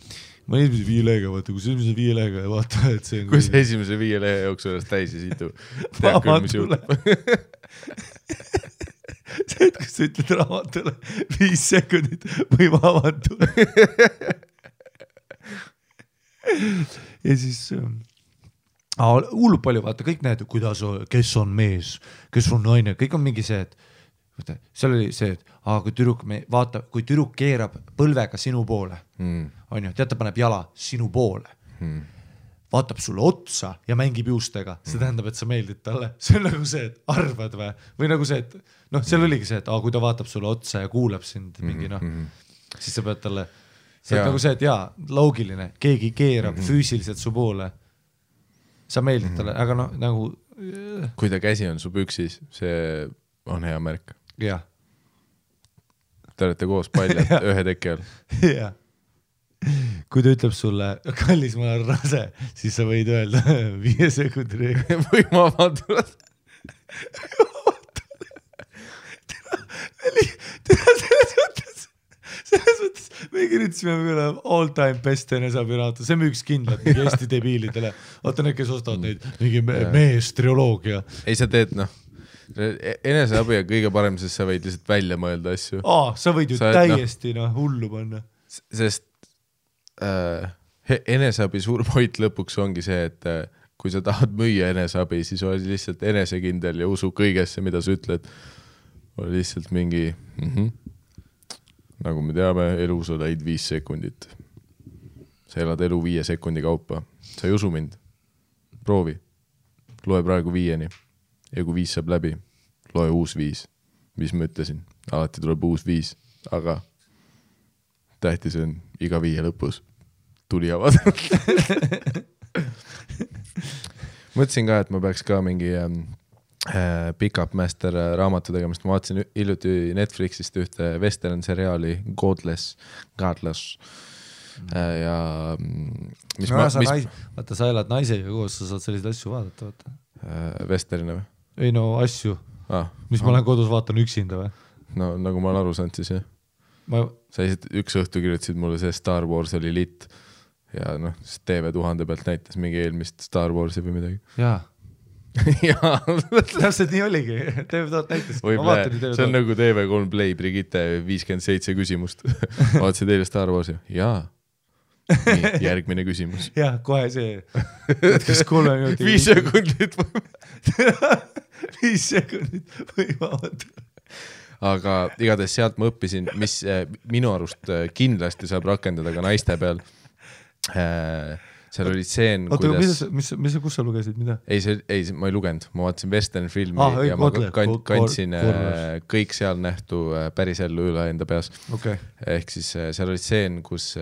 Speaker 1: Ma olin esimese 5 lehega, vaata, kui esimese 5 lehega ja vaata, et see on...
Speaker 2: Kui see esimese 5 lehe jooksu ennast täis ja situ, tead küll, mis juhtub.
Speaker 1: See, et kus sa ütled raamatule 5 sekundit või ma avan tule. Ja siis hullub palju, vaata, kõik näed, kes on mees, kes on naine, kõik on mingi see, et seal oli see, et kui tüdruk keerab põlvega sinu poole, on ju, tead, ta paneb jala sinu poole. Vaatab sulle otsa ja mängib juustega. See tähendab, et sa meeldid talle. See on nagu see, et arvad või nagu see, et seal oligi see, et kui ta vaatab sulle otsa ja kuulab sind mingi, siis sa pead talle, see on nagu see, et loogiline, keegi keerab füüsiliselt su poole. Sa meeldid talle, aga nagu...
Speaker 2: Kui ta käsi on su püksis, see on hea märk.
Speaker 1: Jah.
Speaker 2: Te olete koos paljad ühe teki all.
Speaker 1: Jah. Kui ta ütleb sulle, kallis, ma olen rase, siis sa võid öelda 5 sekundi reegel.
Speaker 2: Või ma vaatavad.
Speaker 1: Selles mõttes, me kirjutasime all time best eneseabiraatu, see müüks kindlalt mingi Eesti debiilidele. Vaata need, kes ostavad neid mingi meestrioloogia.
Speaker 2: Ei, sa teed, eneseabi on kõige parem, sest sa võid lihtsalt välja mõelda asju.
Speaker 1: Sa võid ju täiesti hullu panna.
Speaker 2: Sest eneseabi suur point lõpuks ongi see, et kui sa tahad müüa eneseabi, siis oli lihtsalt enesekindel ja usu kõigesse, mida sa ütled. Oli lihtsalt mingi nagu me teame, elus oled 5 sekundit. Sa elad elu 5 sekundi kaupa. Sa ei usu mind. Proovi. Loe praegu 5-ni. Ja kui 5 saab läbi, loe uus 5. Mis ma ütlesin? Alati tuleb uus 5. Aga tähtis on iga 5 lõpus. Tuli avada. Mõtlesin ka, et ma peaks ka mingi Pick-up Master raamatu tegemist. Ma vaatasin hiljuti Netflixist ühte western seriaali Godless. Ja mis
Speaker 1: vaata, sa elad naisega koos, sa saad selliseid asju vaadata, vaata.
Speaker 2: Westerina või?
Speaker 1: Ei no asju. Mis ma olen kodus vaatan üksinda või?
Speaker 2: No nagu ma olen aru saanud siis, jah. Sa üks õhtu kirjutasid mulle see Star Wars oli lit ja noh, TV1000 pealt näitas mingi eelmist Star Warsi või midagi.
Speaker 1: Jaa.
Speaker 2: Jaa.
Speaker 1: Täpselt nii oligi. TV1000 näitas.
Speaker 2: See on nagu TV3 Play Brigitte 57 küsimust. Vaatasid eile Star Warsi? Jaa. Nii, järgmine küsimus.
Speaker 1: Jah, kohe see. Kas 3 minutit?
Speaker 2: 5 sekundit või?
Speaker 1: 5 sekundit või vaadata.
Speaker 2: Aga igatahes sealt ma õppisin, mis minu arust kindlasti saab rakendada ka naiste peal. Seal oli stseen,
Speaker 1: kuidas... Kus sa lugesid, mida?
Speaker 2: Ei, ma ei lugenud. Ma vaatasin western filmi ja ma kandsin kõik seal nähtu päris ellu üle enda peas.
Speaker 1: Okay.
Speaker 2: Ehk siis seal oli stseen, kus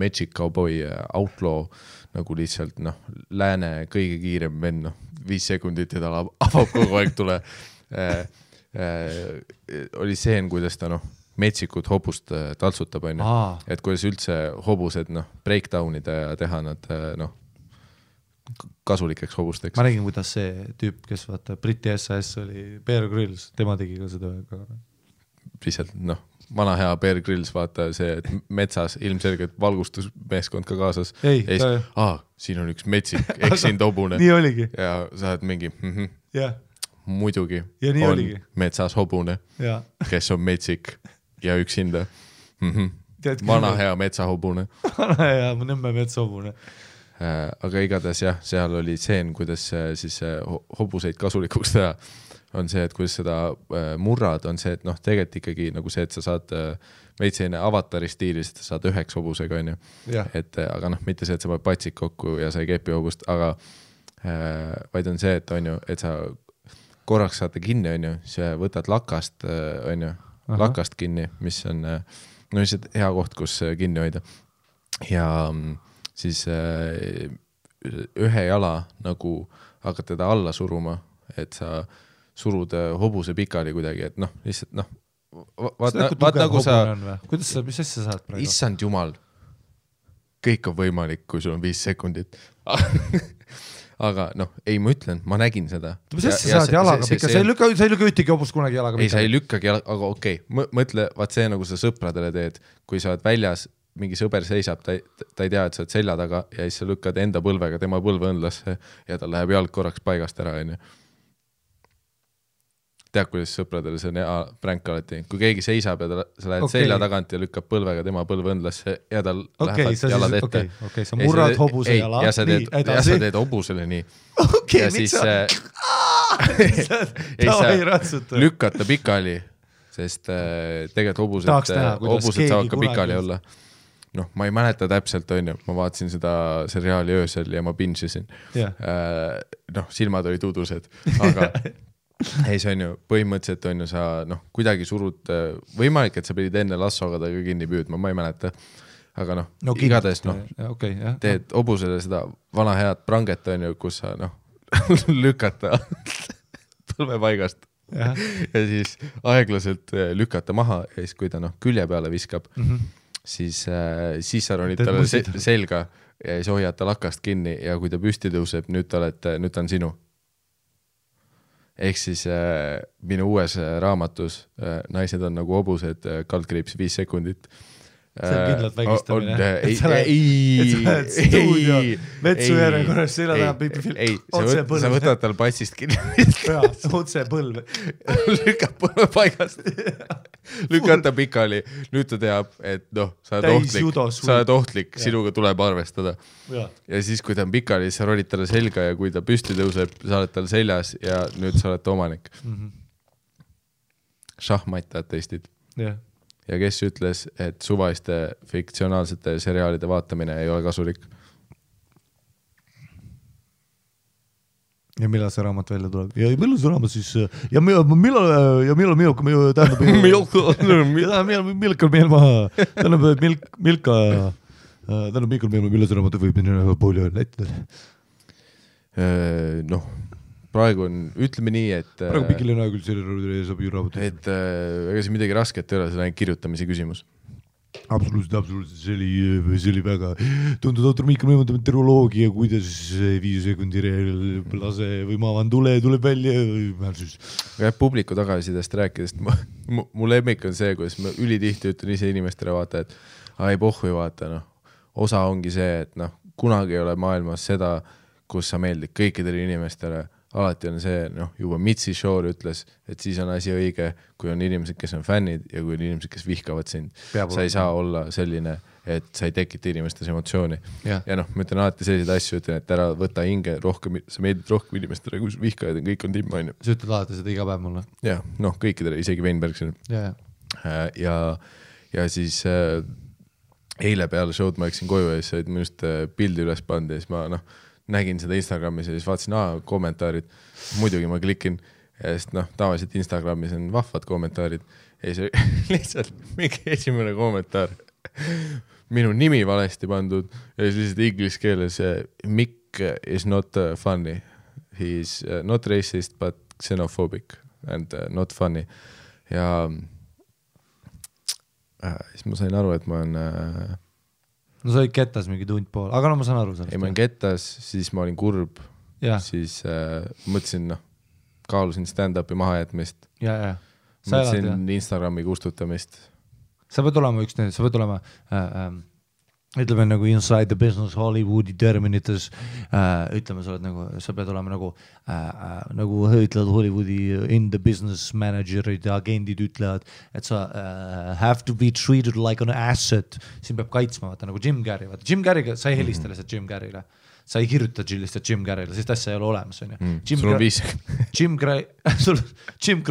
Speaker 2: Magic Cowboy Outlaw nagu lihtsalt lääne kõige kiirem venn, 5 sekundit ja ta avab kogu aeg tule. Oli seen, kuidas ta metsikud hobust taltsutab, et kuidas üldse hobused breakdownida ja teha nad kasulikeks hobusteks.
Speaker 1: Ma nägin, kuidas see tüüp, kes vaata Briti SAS oli Bear Grylls, tema tegi ka seda.
Speaker 2: Lihtsalt vana hea Bear Grylls, vaata see, et metsas ilmselgelt valgustusmeeskond ka kaasas. Siin on üks metsik, eksin hobune.
Speaker 1: Nii oligi.
Speaker 2: Ja sa oled mingi muidugi
Speaker 1: ja nii
Speaker 2: on
Speaker 1: oligi.
Speaker 2: Metsas hobune, kes on metsik ja üksinda. Vana hea metsahobune.
Speaker 1: Vana hea nõmme metsahobune.
Speaker 2: Aga igatahes jah, seal oli seen, kuidas siis hobuseid kasulikuks teha. On see, et kuidas seda murrad, on see, et tegelikult ikkagi nagu see, et sa saad veitseine avatari stiilis, et sa saad 9 hobusega, on ju. Aga mitte see, et sa paned patsik kokku ja sa ei kepi hobust, aga vaid on see, et on ju, et sa korraks saate kinni, on ju, sa võtad lakast, on ju, lakast kinni, mis on lihtsalt hea koht, kus kinni hoida. Ja siis ühe jala nagu hakkad teda alla suruma, et sa surud hobuse pikali kuidagi, et lihtsalt vaat nagu sa...
Speaker 1: Kuidas sa, mis asja saad praegu?
Speaker 2: Issand jumal, kõik on võimalik, kui sul on 5 sekundit. Aga ei, ma ütlen, ma nägin seda.
Speaker 1: Mis asja saad jalaga pikka? Sa ei lükka ühtegi hobust kunagi jalaga pikka?
Speaker 2: Ei, sa ei lükkagi jalaga, aga okei. Mõtle, vaat see nagu sa sõpradele teed, kui sa oled väljas, mingi sõber seisab, ta ei tea, et sa oled selja taga ja siis sa lükkad enda põlvega tema põlveõnlasse ja ta läheb jalg korraks paigast ära, on ju. Tead, kuidas sõpradele see on pränk alati. Kui keegi seisab ja sa lähed selja tagant ja lükkab põlvega tema põlveõnlasse ja tal lähevad jalad ette.
Speaker 1: Okei, sa murrad hobuse jala.
Speaker 2: Ja sa teed hobusele nii.
Speaker 1: Okei, miks sa...
Speaker 2: Ei saa lükata pikali, sest tegelikult hobused saavad ka pikali olla. Ma ei mäleta täpselt, on ju. Ma vaatasin seda seriaali öösel ja ma bingesin. Silmad olid udused, aga... Ei, see on ju, põhimõtteliselt on ju sa, kuidagi surud, võimalik, et sa pidid enne lassoga ta ka kinni püüdma, ma ei mäleta. Aga igatahes, teed hobusele seda vana head pranget, on ju, kus sa, lükata põlvepaigast ja siis aeglaselt lükata maha ja siis, kui ta, külje peale viskab, siis sa ronid talle selga ja siis hoiad ta lakast kinni ja kui ta püsti tõuseb, nüüd ta on sinu. Ehk siis minu uues raamatus naised on nagu hobused, kaldkriips 5 sekundit.
Speaker 1: see on kindlalt vägistamine.
Speaker 2: Ei,
Speaker 1: metsu järjekorras selja taha otse põlv.
Speaker 2: Sa võtad tal patsist kinni.
Speaker 1: Otse põlv.
Speaker 2: Lükkab põlve paigast. Lükad ta pikali. Nüüd ta teab, et sa oled ohtlik, sinuga tuleb arvestada. Ja siis, kui ta on pikali, siis sa rolid talle selga ja kui ta püsti tõuseb, sa oled tal seljas ja nüüd sa oled omanik. Šahmatad testid.
Speaker 1: Jah.
Speaker 2: Ja kes ütles, et suvaiste fiktsionaalsete seriaalide vaatamine ei ole kasulik?
Speaker 1: Ja millal see raamat välja tuleb? Ja millal see raamat siis... Ja millal Milka tähendab... Milka meil maha... Tähendab Milka... Tähendab millal see raamat võib minna pooli näitida?
Speaker 2: Praegu on, ütleme nii, et...
Speaker 1: Praegu pikil on küll selle saab ju raamat.
Speaker 2: Et ega see midagi rasket ei ole, see on kirjutamise küsimus.
Speaker 1: Absoluutselt. See oli väga tuntud autor Miikal Mõimundab teroloogia, kuidas 5 sekundi lase või ma avan tuleb välja.
Speaker 2: Publiku tagasidest rääkidest, mu lemmik on see, kuidas ma ülitihti ütlen ise inimestele vaata, et ei pohhu vaata, osa ongi see, et kunagi ei ole maailmas seda, kus sa meeldid kõikidele inimestele. Alati on see, juba Mitzi Shore ütles, et siis on asi õige, kui on inimesed, kes on fännid ja kui on inimesed, kes vihkavad sind. Sa ei saa olla selline, et sa ei tekita inimestes emotsiooni. Ja ma ütlen alati selliseid asju, ütlen, et ära võta hinge rohkem, sa meeldid rohkem inimestele, kui vihkajad on, kõik on timm, on ju.
Speaker 1: Sa ütled alati seda iga päev mulle.
Speaker 2: Ja, kõikidele, isegi Weinbergsile. Ja siis eile peale show'd ma läksin koju ja siis olid minust pildi üles pandi ja siis ma nägin seda Instagramis ja siis vaatasin, kommentaarid. Muidugi ma klikin ja siis tavaliselt Instagramis on vahvad kommentaarid ja siis lihtsalt mingi esimene kommentaar. Minu nimi valesti pandud ja siis lihtsalt inglise keeles Mick is not funny. He is not racist but xenophobic and not funny. Ja siis ma sain aru, et ma olen...
Speaker 1: No sa olid kettas mingi tund pool, aga ma saan aru sellest.
Speaker 2: Ei, ma olin kettas, siis ma olin kurb, siis mõtlesin, kaalusin stand-upi mahajätmist. Mõtlesin Instagrami kustutamist.
Speaker 1: Sa pead olema ütleme nagu inside the business Hollywoodi terminites, ütleme, sa pead olema nagu ütlevad Hollywoodi in the business managerid ja agendid ütlevad, et sa have to be treated like an asset, siin peab kaitsma, vaata nagu Jim Carrey, Jim Carrey'ga sa ei helista lihtsalt Jim Carrey'le, sa ei kirjuta lihtsalt Jim Carrey'le, sest asja ei ole olemas, on ju.
Speaker 2: Sul on 5.
Speaker 1: Jim Carrey, Jim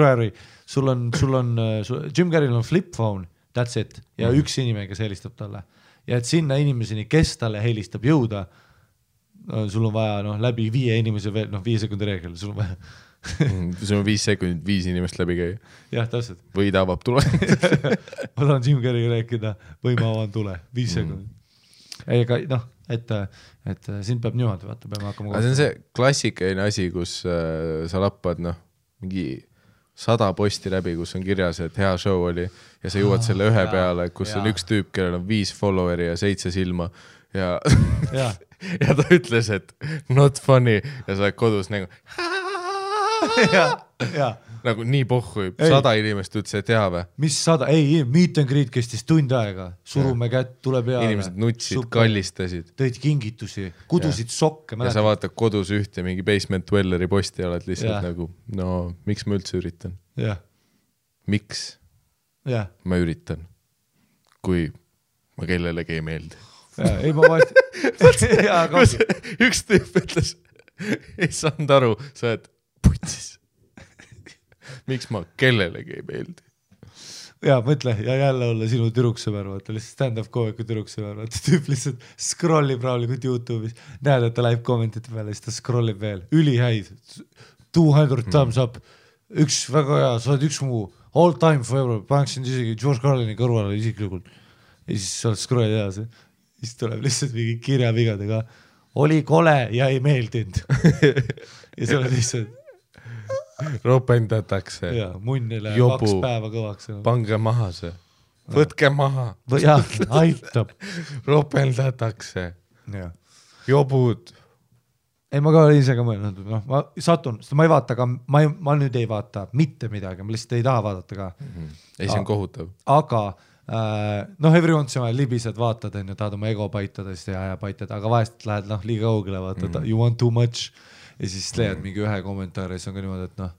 Speaker 1: Carrey'l on flip phone, that's it, ja üks inimene, kes helistab talle. Ja et sinna inimeseni, kes talle helistab jõuda, sul on vaja läbi 5 inimese veel, 5 sekundi reegel, sul on vaja.
Speaker 2: Sul on 5 sekundit 5 inimest läbi käia.
Speaker 1: Jah, täpselt.
Speaker 2: Või ta avab tule.
Speaker 1: Ma tahan Jim Carrey'ga rääkida, või ma avan tule, 5 sekundit. Ega, et siin peab niimoodi, vaata, peame hakkama.
Speaker 2: Aga see on see klassikaline asi, kus sa lappad, mingi 100 posti läbi, kus on kirjas, et hea show oli ja sa jõuad selle ühe peale, kus on üks tüüp, kellel on 5 followeri ja 7 silma ja ta ütles, et not funny ja sa oled kodus nagu nagu nii pohhu, 100 inimest ütles, et hea või?
Speaker 1: Mis 100? Ei, meet and greet kestis tund aega, surume kätt, tule peale.
Speaker 2: Inimesed nutsid, kallistasid.
Speaker 1: Tõid kingitusi, kudusid sokke.
Speaker 2: Ja sa vaatad kodus ühte mingi Basement Dwelleri posti ja oled lihtsalt nagu, miks ma üldse üritan? Miks ma üritan, kui ma kellelegi ei meeldi?
Speaker 1: Ei, ma vaest...
Speaker 2: Üks tüüp ütles, ei saanud aru, sa oled putsis. Miks ma kellelegi ei meeldi?
Speaker 1: Ja mõtle, ja jälle olla sinu türuksõber, vaata, lihtsalt stand-up koomiku türuksõber, vaata, tüüp lihtsalt scrollib rahulikult YouTube'is, näed, et ta läheb kommentite peale, siis ta scrollib veel, ülihäid, 200 thumbs up, üks väga hea, sa oled üks mu all time forever, paneksin isegi George Carlini kõrvale isiklikult, ja siis sa oled scrollid edasi, siis tuleb lihtsalt mingi kirjavigadega, oli kole ja ei meeldinud. Ja see oled lihtsalt
Speaker 2: ropendatakse.
Speaker 1: Ja, munnile jobu, 2 päeva kõvaks.
Speaker 2: Pange maha see. Võtke maha.
Speaker 1: Jah, aitab.
Speaker 2: Ropendatakse. Jobud.
Speaker 1: Ei, ma ka olen ise ka mõelnud. Ma satun, sest ma ei vaata ka, ma nüüd ei vaata mitte midagi, ma lihtsalt ei taha vaadata ka.
Speaker 2: Ei, see on kohutav.
Speaker 1: Aga noh, every once in a while libised vaatad, on ju, tahad oma ego paitada ja paitad, aga vahest lähed liiga kaugele, vaatad, you want too much ja siis leiad mingi ühe kommentaari ja siis on ka niimoodi, et noh,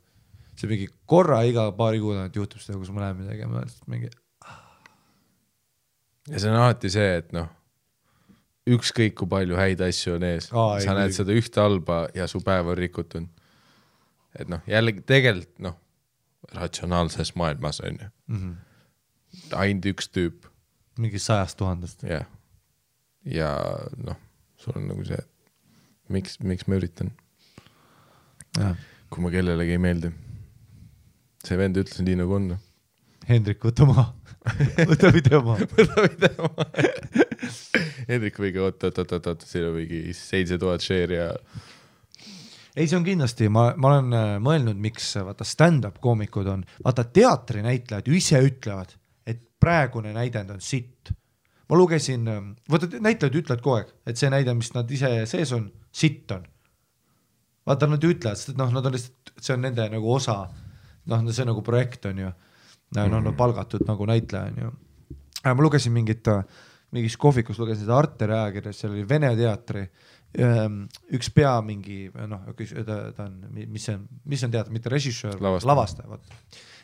Speaker 1: see mingi korra iga paari kuud juhtub seda, kus ma lähen midagi ja ma mingi...
Speaker 2: Ja see on alati see, et noh, ükskõik kui palju häid asju on ees, sa näed seda ühte halba ja su päev on rikutud. Et noh, jällegi tegelikult, noh, ratsionaalses maailmas on ju. Ainult üks tüüp.
Speaker 1: Mingi 100 000.
Speaker 2: Ja. Ja noh, sul on nagu see, miks ma üritan? Ja. Kui ma kellelegi ei meeldi. See vend ütles nii nagu on.
Speaker 1: Hendrik, võta maha. Võta video maha.
Speaker 2: Hendrik võigi, oot, siin on mingi 7000 share ja...
Speaker 1: Ei, see on kindlasti, ma olen mõelnud, miks vaata stand-up koomikud on, vaata teatrinäitlejad ju ise ütlevad, et praegune näidend on sitt. Ma lugesin, vaata näitlejad ütlevad kogu aeg, et see näide, mis nad ise sees on, sitt on. Vaata, nad ütlevad, sest noh, nad on lihtsalt, see on nende nagu osa, noh, see nagu projekt on ju, nad palgatud nagu näitleja on ju. Ma lugesin mingis kohvikus, lugesin seda Arteri ajakirjas, seal oli Vene teatri, üks pea mingi, noh, ta on, mis on teater, mitte režissöör, lavastaja.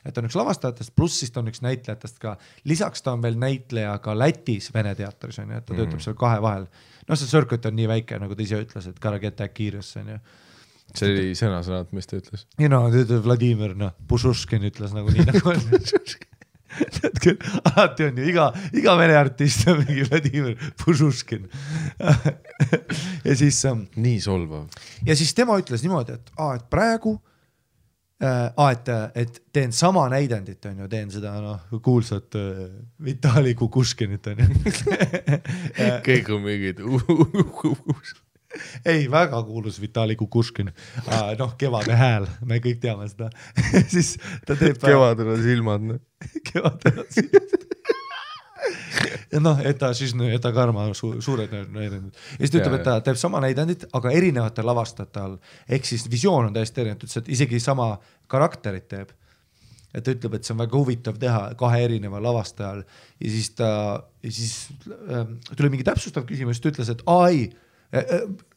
Speaker 1: Et on üks lavastajatest, pluss siis ta on üks näitlejatest ka. Lisaks ta on veel näitleja ka Lätis Vene teatris, on ju, et ta töötab seal kahe vahel. No see circuit on nii väike, nagu ta ise ütles, et gotta get that kiirus, on ju.
Speaker 2: See oli sõnasõnad, mis ta ütles?
Speaker 1: Ja no, Vladimir, noh, Pušuškin ütles nagu nii nagu on. Alati on ju, iga vene artist on mingi Vladimir Pušuškin. Ja siis...
Speaker 2: Nii solvav.
Speaker 1: Ja siis tema ütles niimoodi, et praegu et teen sama näidendit, on ju, teen seda kuulsat Vitali Kukuškinit, on ju.
Speaker 2: Kõik on mingid
Speaker 1: Ei, väga kuulus Vitali Kukuškin. Noh, kevade hääl, me kõik teame seda. Siis ta teeb...
Speaker 2: Kevadel on silmad.
Speaker 1: Kevadel on silmad. Ja noh, et ta karma suured näidendid. Ja siis ta ütleb, et ta teeb sama näidendit, aga erinevate lavastajate all. Ehk siis visioon on täiesti erinev, et isegi sama karakterit teeb. Et ta ütleb, et see on väga huvitav teha kahe erineva lavastajal. Ja siis tuli mingi täpsustav küsimus, ta ütles, et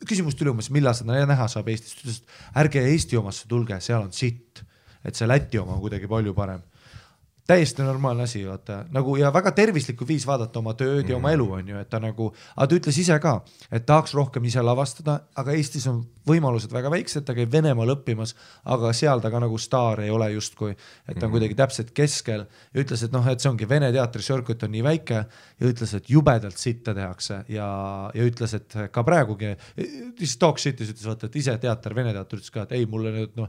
Speaker 1: küsimus tuli umbes, millal seda näha saab Eestis. Ta ütles, et ärge Eesti omasse tulge, seal on sitt. Et see Läti oma on kuidagi palju parem. Täiesti normaalne asi, vaata, nagu ja väga tervislikku viis vaadata oma tööd ja oma elu on ju, et ta nagu, aga ta ütles ise ka, et tahaks rohkem ise lavastada, aga Eestis on võimalused väga väiksed, ta käib Venemaal õppimas, aga seal ta ka nagu staar ei ole justkui, et ta on kuidagi täpselt keskel ja ütles, et noh, et see ongi Vene teatri circuit on nii väike ja ütles, et jubedalt sitta tehakse ja ütles, et ka praegugi, siis talk shitis ütles, vaata, et ise teater, Vene teater ütles ka, et ei, mulle nüüd noh,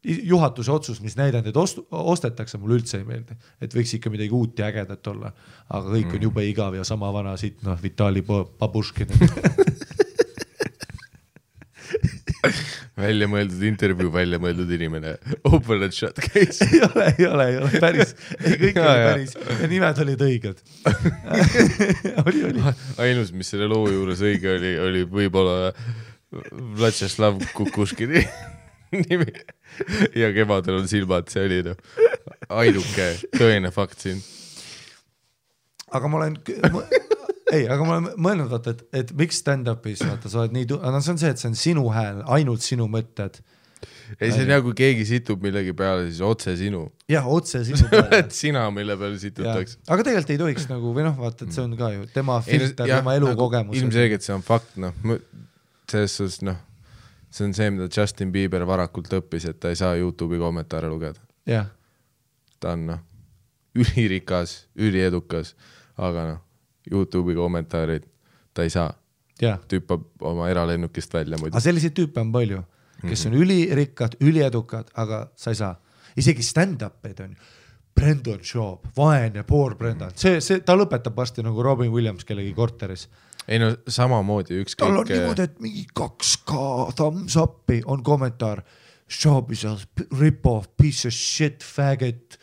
Speaker 1: juhatuse otsus, mis näidendid ostetakse, mulle üldse ei meeldi, et võiks ikka midagi uut ja ägedat olla, aga kõik on jube igav ja sama vana siit, noh, Vitali Babuškin.
Speaker 2: Välja mõeldud intervjuu, välja mõeldud inimene. Open and shut case.
Speaker 1: Ei ole, päris. Kõik oli päris. Ja nimed olid õiged. Oli.
Speaker 2: Ainus, mis selle loo juures õige oli võib-olla Vlatšeslav Kukuškini nimi. Ja kevadel on silmad, see oli ainuke tõene fakt siin.
Speaker 1: Aga ma olen mõelnud, vaata, et miks stand-upis, vaata, sa oled nii see on see, et see on sinu hääl, ainult sinu mõtted.
Speaker 2: Ei, see on nagu keegi situb millegi peale, siis otse sinu.
Speaker 1: Jah, otse sinu peale.
Speaker 2: Et sina, mille peale situtakse.
Speaker 1: Aga tegelikult ei tohiks nagu, või noh, vaata, et see on ka ju tema filter, tema elukogemus.
Speaker 2: Ilmselgelt see on fakt, noh, selles suhtes, noh, see on see, mida Justin Bieber varakult õppis, et ta ei saa YouTube'i kommentaare lugeda.
Speaker 1: Jah.
Speaker 2: Ta on, noh, ülirikas, üliedukas, aga noh, YouTube'i kommentaarid ta ei saa. Tüüpab oma eralennukist välja muidu.
Speaker 1: Aga selliseid tüüpe on palju, kes on ülirikkad, üliedukad, aga sa ei saa. Isegi stand-up'id on Brendan Schaub, vaene, poor Brendan. Ta lõpetab vasti nagu Robin Williams kellegi korteris.
Speaker 2: Ei no samamoodi ükskõik...
Speaker 1: Tal on niimoodi, et mingi 2K thumbs up'i on kommentaar. Schaub is a rip-off, piece of shit, faggot.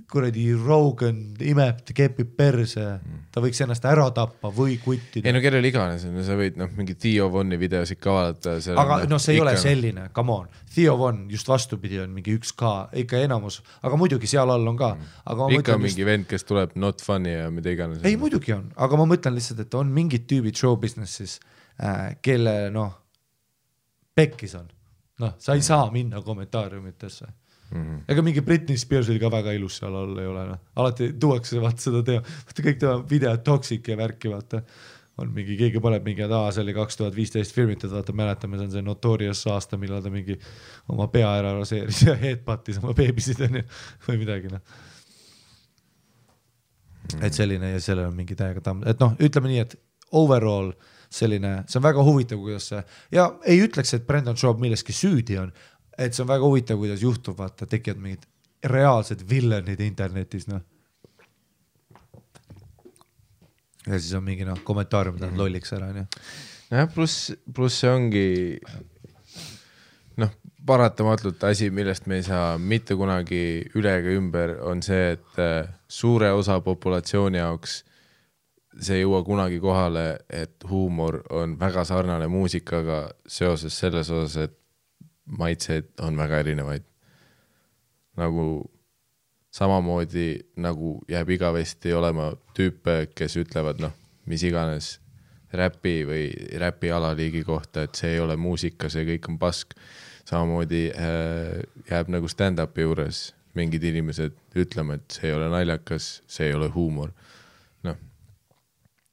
Speaker 1: kuradi Rogan imeb, kepib perse, ta võiks ennast ära tappa või kuttida.
Speaker 2: Ei no kellel iganes, sa võid mingi Theo Vonni videosid ka vaadata.
Speaker 1: Aga see ei ole selline, come on. Theo Von just vastupidi on mingi 1K, ikka enamus, aga muidugi seal all on ka. Aga
Speaker 2: ikka mingi vend, kes tuleb not funny ja mida iganes.
Speaker 1: Ei muidugi on, aga ma mõtlen lihtsalt, et on mingid tüübid show businessis, kelle pekkis on. Sa ei saa minna kommentaariumitesse. Ega mingi Britney Spears oli ka väga ilus seal all ei ole. Alati tuuakse vaata seda vaata kõik tema videod toxic ja värki vaata. On mingi, keegi paneb mingi, see oli 2015 filmitud, vaata mäletame, see on see Notorious aasta, millal ta mingi oma pea ära raseeris ja headbuttis oma beebisid või midagi. Et selline ja sellel on mingi täiega tamm. Et ütleme nii, et overall selline, see on väga huvitav, kuidas see, ja ei ütleks, et Brendan Schaub milleski süüdi on, et see on väga huvitav, kuidas juhtub, vaata, tekivad mingid reaalsed villanid internetis, Ja siis on mingi, kommentaariumid on lolliks ära,
Speaker 2: Ja, pluss see ongi, paratamatult asi, millest me ei saa mitte kunagi üle ega ümber, on see, et suure osa populatsiooni jaoks see ei jõua kunagi kohale, et huumor on väga sarnane muusikaga seoses selles osas, et maitseid on väga erinevaid. Nagu samamoodi nagu jääb igavesti olema tüüpe, kes ütlevad, mis iganes räpi või räpi alaliigi kohta, et see ei ole muusika, see kõik on pask. Samamoodi jääb nagu stand-upi juures mingid inimesed ütlema, et see ei ole naljakas, see ei ole huumor.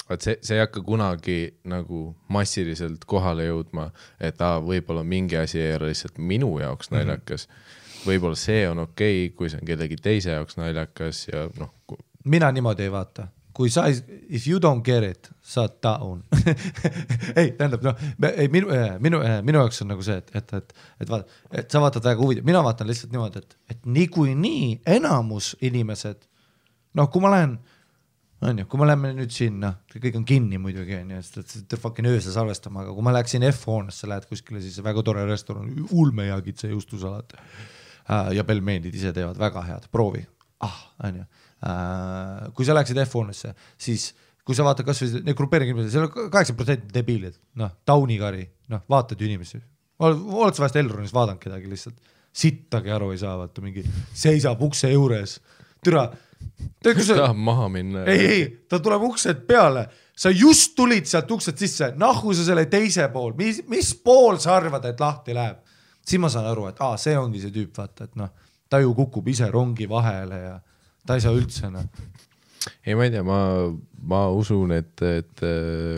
Speaker 2: See ei hakka kunagi nagu massiliselt kohale jõudma, et võib-olla mingi asi ei ole lihtsalt minu jaoks naljakas. Võib-olla see on okei, kui see on kellegi teise jaoks naljakas ja
Speaker 1: Mina niimoodi ei vaata. Kui sa, if you don't get it, saad down. Ei, tähendab, minu jaoks on nagu see, et sa vaatad väga huvitav. Mina vaatan lihtsalt niimoodi, et nii enamus inimesed, kui ma lähen kui ma lähme nüüd sinna, kõik on kinni muidugi, et fucking ööse salvestama, aga kui ma läheksin F-hoonesse, lähed kuskile, siis väga tore restoran, ulme ja kitse juustusalat ja pelmeenid ise teevad väga head, proovi. Kui sa läheksid F-hoonesse, siis kui sa vaatad kas või need grupeeringi inimesed, seal on 8% debiilid, taunikari, vaatad ju inimesi. Oled sa vahest Elronis vaadanud kedagi lihtsalt, sittagi aru ei saa, vaata mingi seisab ukse juures, türa,
Speaker 2: tahab maha minna.
Speaker 1: Ei, ta tuleb uksed peale. Sa just tulid sealt uksed sisse. Nahku sa selle teise pool. Mis pool sa arvad, et lahti läheb? Siis ma saan aru, et see ongi see tüüp, vaata, et ta ju kukub ise rongi vahele ja ta ei saa üldse.
Speaker 2: Ei, ma ei tea, ma usun, et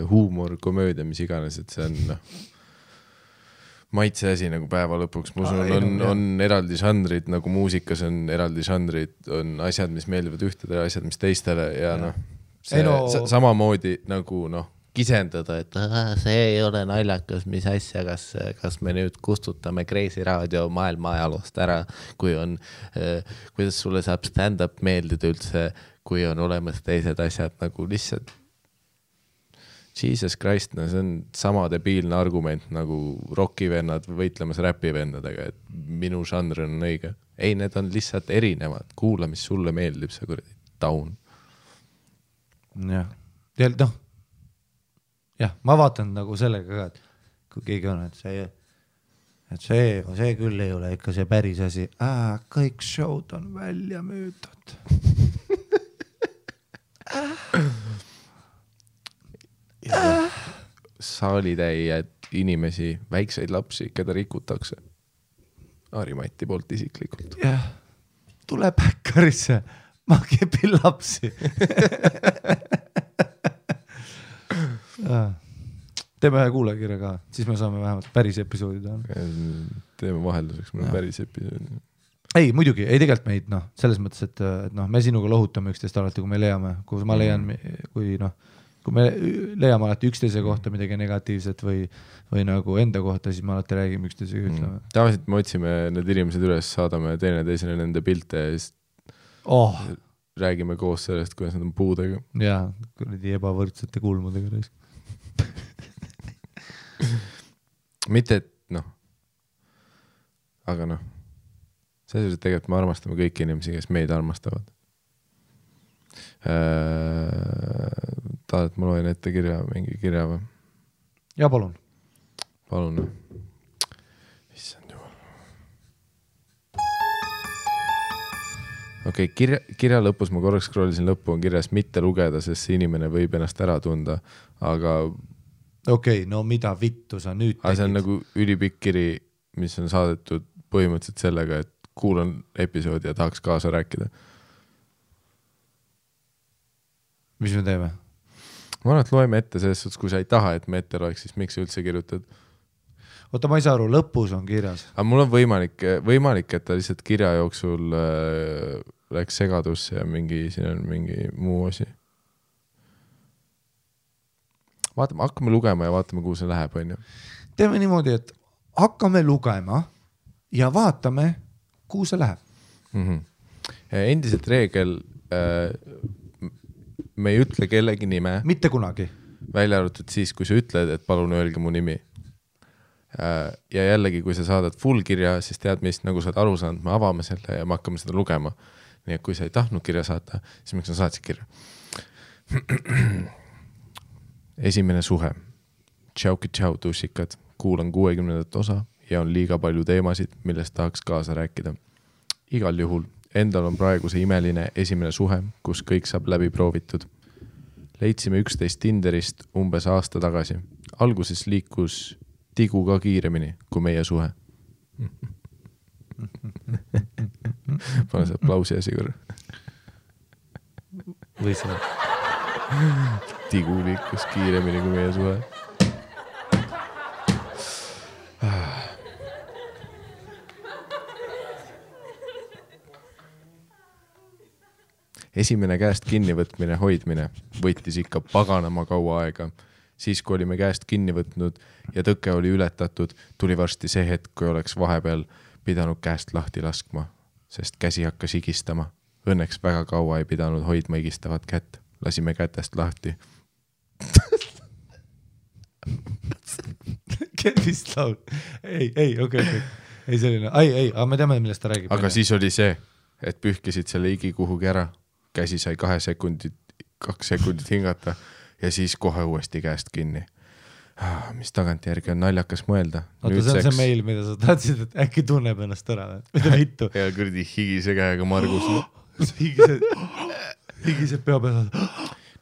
Speaker 2: huumor, komöödia, mis iganes, et see on maitse asi nagu päeva lõpuks. Ma usun, on eraldi žanrid, nagu muusikas on eraldi žanrid, on asjad, mis meeldivad ühtedele, asjad, mis teistele ja samamoodi nagu kisendada, et see ei ole naljakas, mis asja, kas me nüüd kustutame Kreisi raadio maailma ajaloost ära, kui on, kuidas sulle saab stand-up meeldida üldse, kui on olemas teised asjad nagu lihtsalt Jesus Christ, see on sama debiilne argument nagu rockivennad võitlemas räpivennadega, et minu žanr on õige. Ei, need on lihtsalt erinevad. Kuula, mis sulle meeldib, see kuradi taun.
Speaker 1: Jah, ma vaatan nagu sellega ka, et kui keegi on, et see küll ei ole ikka see päris asi. Kõik showd on välja müüdud.
Speaker 2: Saalitäijad inimesi, väikseid lapsi, keda rikutakse. Harimati poolt isiklikult.
Speaker 1: Jah, tule Päkkarisse, ma kepin lapsi. Teeme ühe kuulajakirja ka, siis me saame vähemalt päris episoodi teha.
Speaker 2: Teeme vahelduseks, meil on päris episoodi.
Speaker 1: Ei, muidugi, ei tegelikult meid, selles mõttes, et me sinuga lohutame üksteist alati, kui me leiame, kui ma leian, kui me leiame alati üksteise kohta midagi negatiivset või nagu enda kohta, siis me alati räägime üksteisega ütleme.
Speaker 2: Tavaliselt me otsime need inimesed üles, saadame teineteisele nende pilte ja siis räägime koos sellest, kuidas nad on puudega.
Speaker 1: Jaa, kuradi ebavõrdsete kulmudega.
Speaker 2: Mitte, et aga selles mõttes tegelikult me armastame kõiki inimesi, kes meid armastavad. Tahad, ma loen ette mingi kirja või?
Speaker 1: Ja palun.
Speaker 2: Palun. Issand jumal. Okei, kirja lõpus ma korraks scrollisin lõppu, on kirjas mitte lugeda, sest see inimene võib ennast ära tunda, aga...
Speaker 1: Okei, no mida vittu sa nüüd tegid?
Speaker 2: Aga see on nagu ülipikk kiri, mis on saadetud põhimõtteliselt sellega, et kuulan episoodi ja tahaks kaasa rääkida.
Speaker 1: Mis me teeme?
Speaker 2: Ma arvan, et loeme ette selles suhtes, kui sa ei taha, et me ette loeks, siis miks sa üldse kirjutad?
Speaker 1: Oota, ma ei saa aru, lõpus on kirjas.
Speaker 2: Aga mul on võimalik, et ta lihtsalt kirja jooksul läks segadusse ja siin on mingi muu asi. Vaatame, hakkame lugema ja vaatame, kuhu see läheb, on ju.
Speaker 1: Teeme niimoodi, et hakkame lugema ja vaatame, kuhu see läheb.
Speaker 2: Endiselt reegel, me ei ütle kellegi nime.
Speaker 1: Mitte kunagi.
Speaker 2: Välja arvatud siis, kui sa ütled, et palun öelge mu nimi. Ja jällegi, kui sa saadad full kirja, siis tead mis, nagu sa oled aru saanud, me avame selle ja me hakkame seda lugema. Nii et kui sa ei tahtnud kirja saata, siis miks sa saatsid kirja? Esimene suhe. Tšau, tussikad. Kuulan 60. osa ja on liiga palju teemasid, millest tahaks kaasa rääkida. Igal juhul, endal on praegu see imeline esimene suhe, kus kõik saab läbi proovitud. Leidsime 11 Tinderist umbes aasta tagasi. Alguses liikus tigu ka kiiremini kui meie suhe. Pane see aplausi asi korra.
Speaker 1: Või see?
Speaker 2: Tigu liikus kiiremini kui meie suhe. Esimene käest kinnivõtmine, hoidmine võttis ikka paganama kaua aega. Siis, kui olime käest kinni võtnud ja tõke oli ületatud, tuli varsti see hetk, kui oleks vahepeal pidanud käest lahti laskma, sest käsi hakkas higistama. Õnneks väga kaua ei pidanud hoidma higistavat kätt. Lasime kätest lahti.
Speaker 1: Vist laul. Ei, okei. Ei selline, aga me teame, millest ta räägib.
Speaker 2: Aga siis oli see, et pühkisid selle higi kuhugi ära. Käsi sai 2 sekundit hingata ja siis kohe uuesti käest kinni. Mis tagantjärgi on naljakas mõelda.
Speaker 1: Oota, see on see meil, mida sa tahtsid, et äkki tunneb ennast ära. Mida vittu?
Speaker 2: Ja kurdi higise käega Margus.
Speaker 1: Higised pea peal.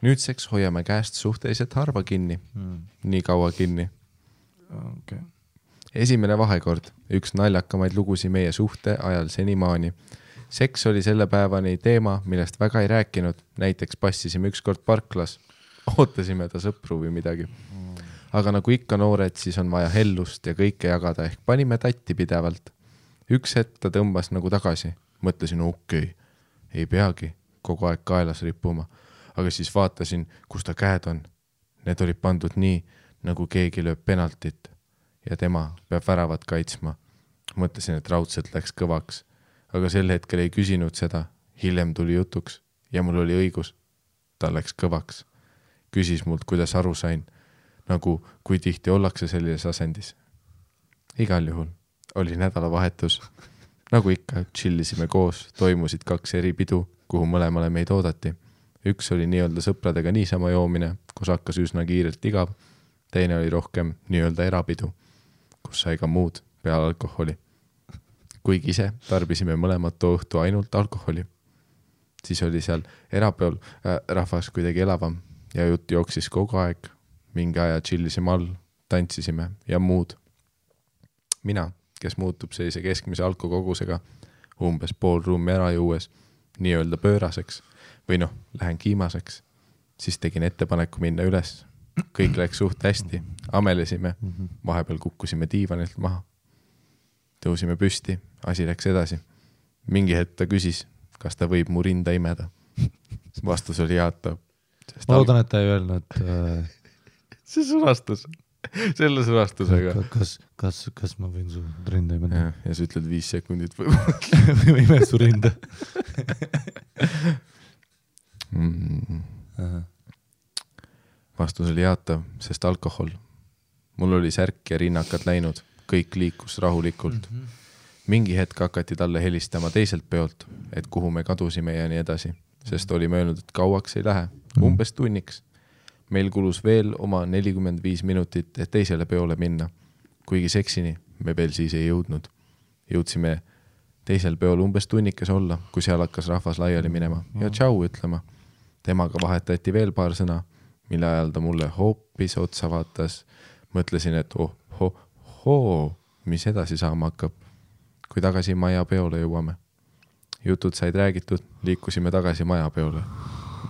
Speaker 2: Nüüdseks hoiame käest suhteliselt harva kinni. Nii kaua kinni.
Speaker 1: Okay.
Speaker 2: Esimene vahekord. Üks naljakamaid lugusi meie suhte ajal senimaani. Seks oli selle päevani teema, millest väga ei rääkinud. Näiteks passisime ükskord parklas. Ootasime ta sõpru või midagi. Aga nagu ikka noored, siis on vaja hellust ja kõike jagada ehk panime tatti pidevalt. Üks hetk ta tõmbas nagu tagasi. Mõtlesin, okei, ei peagi kogu aeg kaelas rippuma. Aga siis vaatasin, kus ta käed on. Need olid pandud nii, nagu keegi lööb penaltit ja tema peab väravat kaitsma. Mõtlesin, et raudselt läks kõvaks. Aga sel hetkel ei küsinud seda. Hiljem tuli jutuks ja mul oli õigus. Ta läks kõvaks. Küsis mult, kuidas aru sain. Nagu kui tihti ollakse sellises asendis. Igal juhul oli nädalavahetus. Nagu ikka, chillisime koos. Toimusid 2 eri pidu, kuhu mõlemale meid oodati. Üks oli nii-öelda sõpradega niisama joomine, kus hakkas üsna kiirelt igav. Teine oli rohkem nii-öelda erapidu, kus sai ka muud peale alkoholi. Kuigi ise tarbisime mõlemad too õhtu ainult alkoholi. Siis oli seal erapeol rahvas kuidagi elavam ja jutt jooksis kogu aeg. Mingi aja chillisime all, tantsisime ja muud. Mina, kes muutub sellise keskmise alkokogusega, umbes pool ruumi ära juues, nii-öelda pööraseks või lähen kiimaseks, siis tegin ettepaneku minna üles. Kõik läks suht hästi, amelesime, vahepeal kukkusime diivanilt maha. Tõusime püsti, asi läks edasi. Mingi hetk ta küsis, kas ta võib mu rinda imeda. Vastus oli jaatav.
Speaker 1: Ma loodan, et ta ei öelnud.
Speaker 2: See sõnastus. Selle sõnastusega.
Speaker 1: Kas ma võin su rinda imeda?
Speaker 2: Ja sa ütled 5 sekundit või
Speaker 1: ime su rinda.
Speaker 2: Vastus oli jaatav, sest alkohol. Mul oli särk ja rinnakad läinud. Kõik liikus rahulikult. mingi hetk hakati talle helistama teiselt peolt, et kuhu me kadusime ja nii edasi, sest oli möönud, et kauaks ei lähe, umbes tunniks. Meil kulus veel oma 45 minutit, et teisele peole minna, kuigi seksini me veel siis ei jõudnud. Jõudsime teisel peol umbes tunnikes olla, kui seal hakkas rahvas laiali minema ja tšau ütlema. Temaga vahetati veel paar sõna, mille ajal ta mulle hoopis otsa vaatas. Mõtlesin, et mis edasi saama hakkab, kui tagasi maja peole jõuame. Jutud said räägitud, liikusime tagasi maja peole.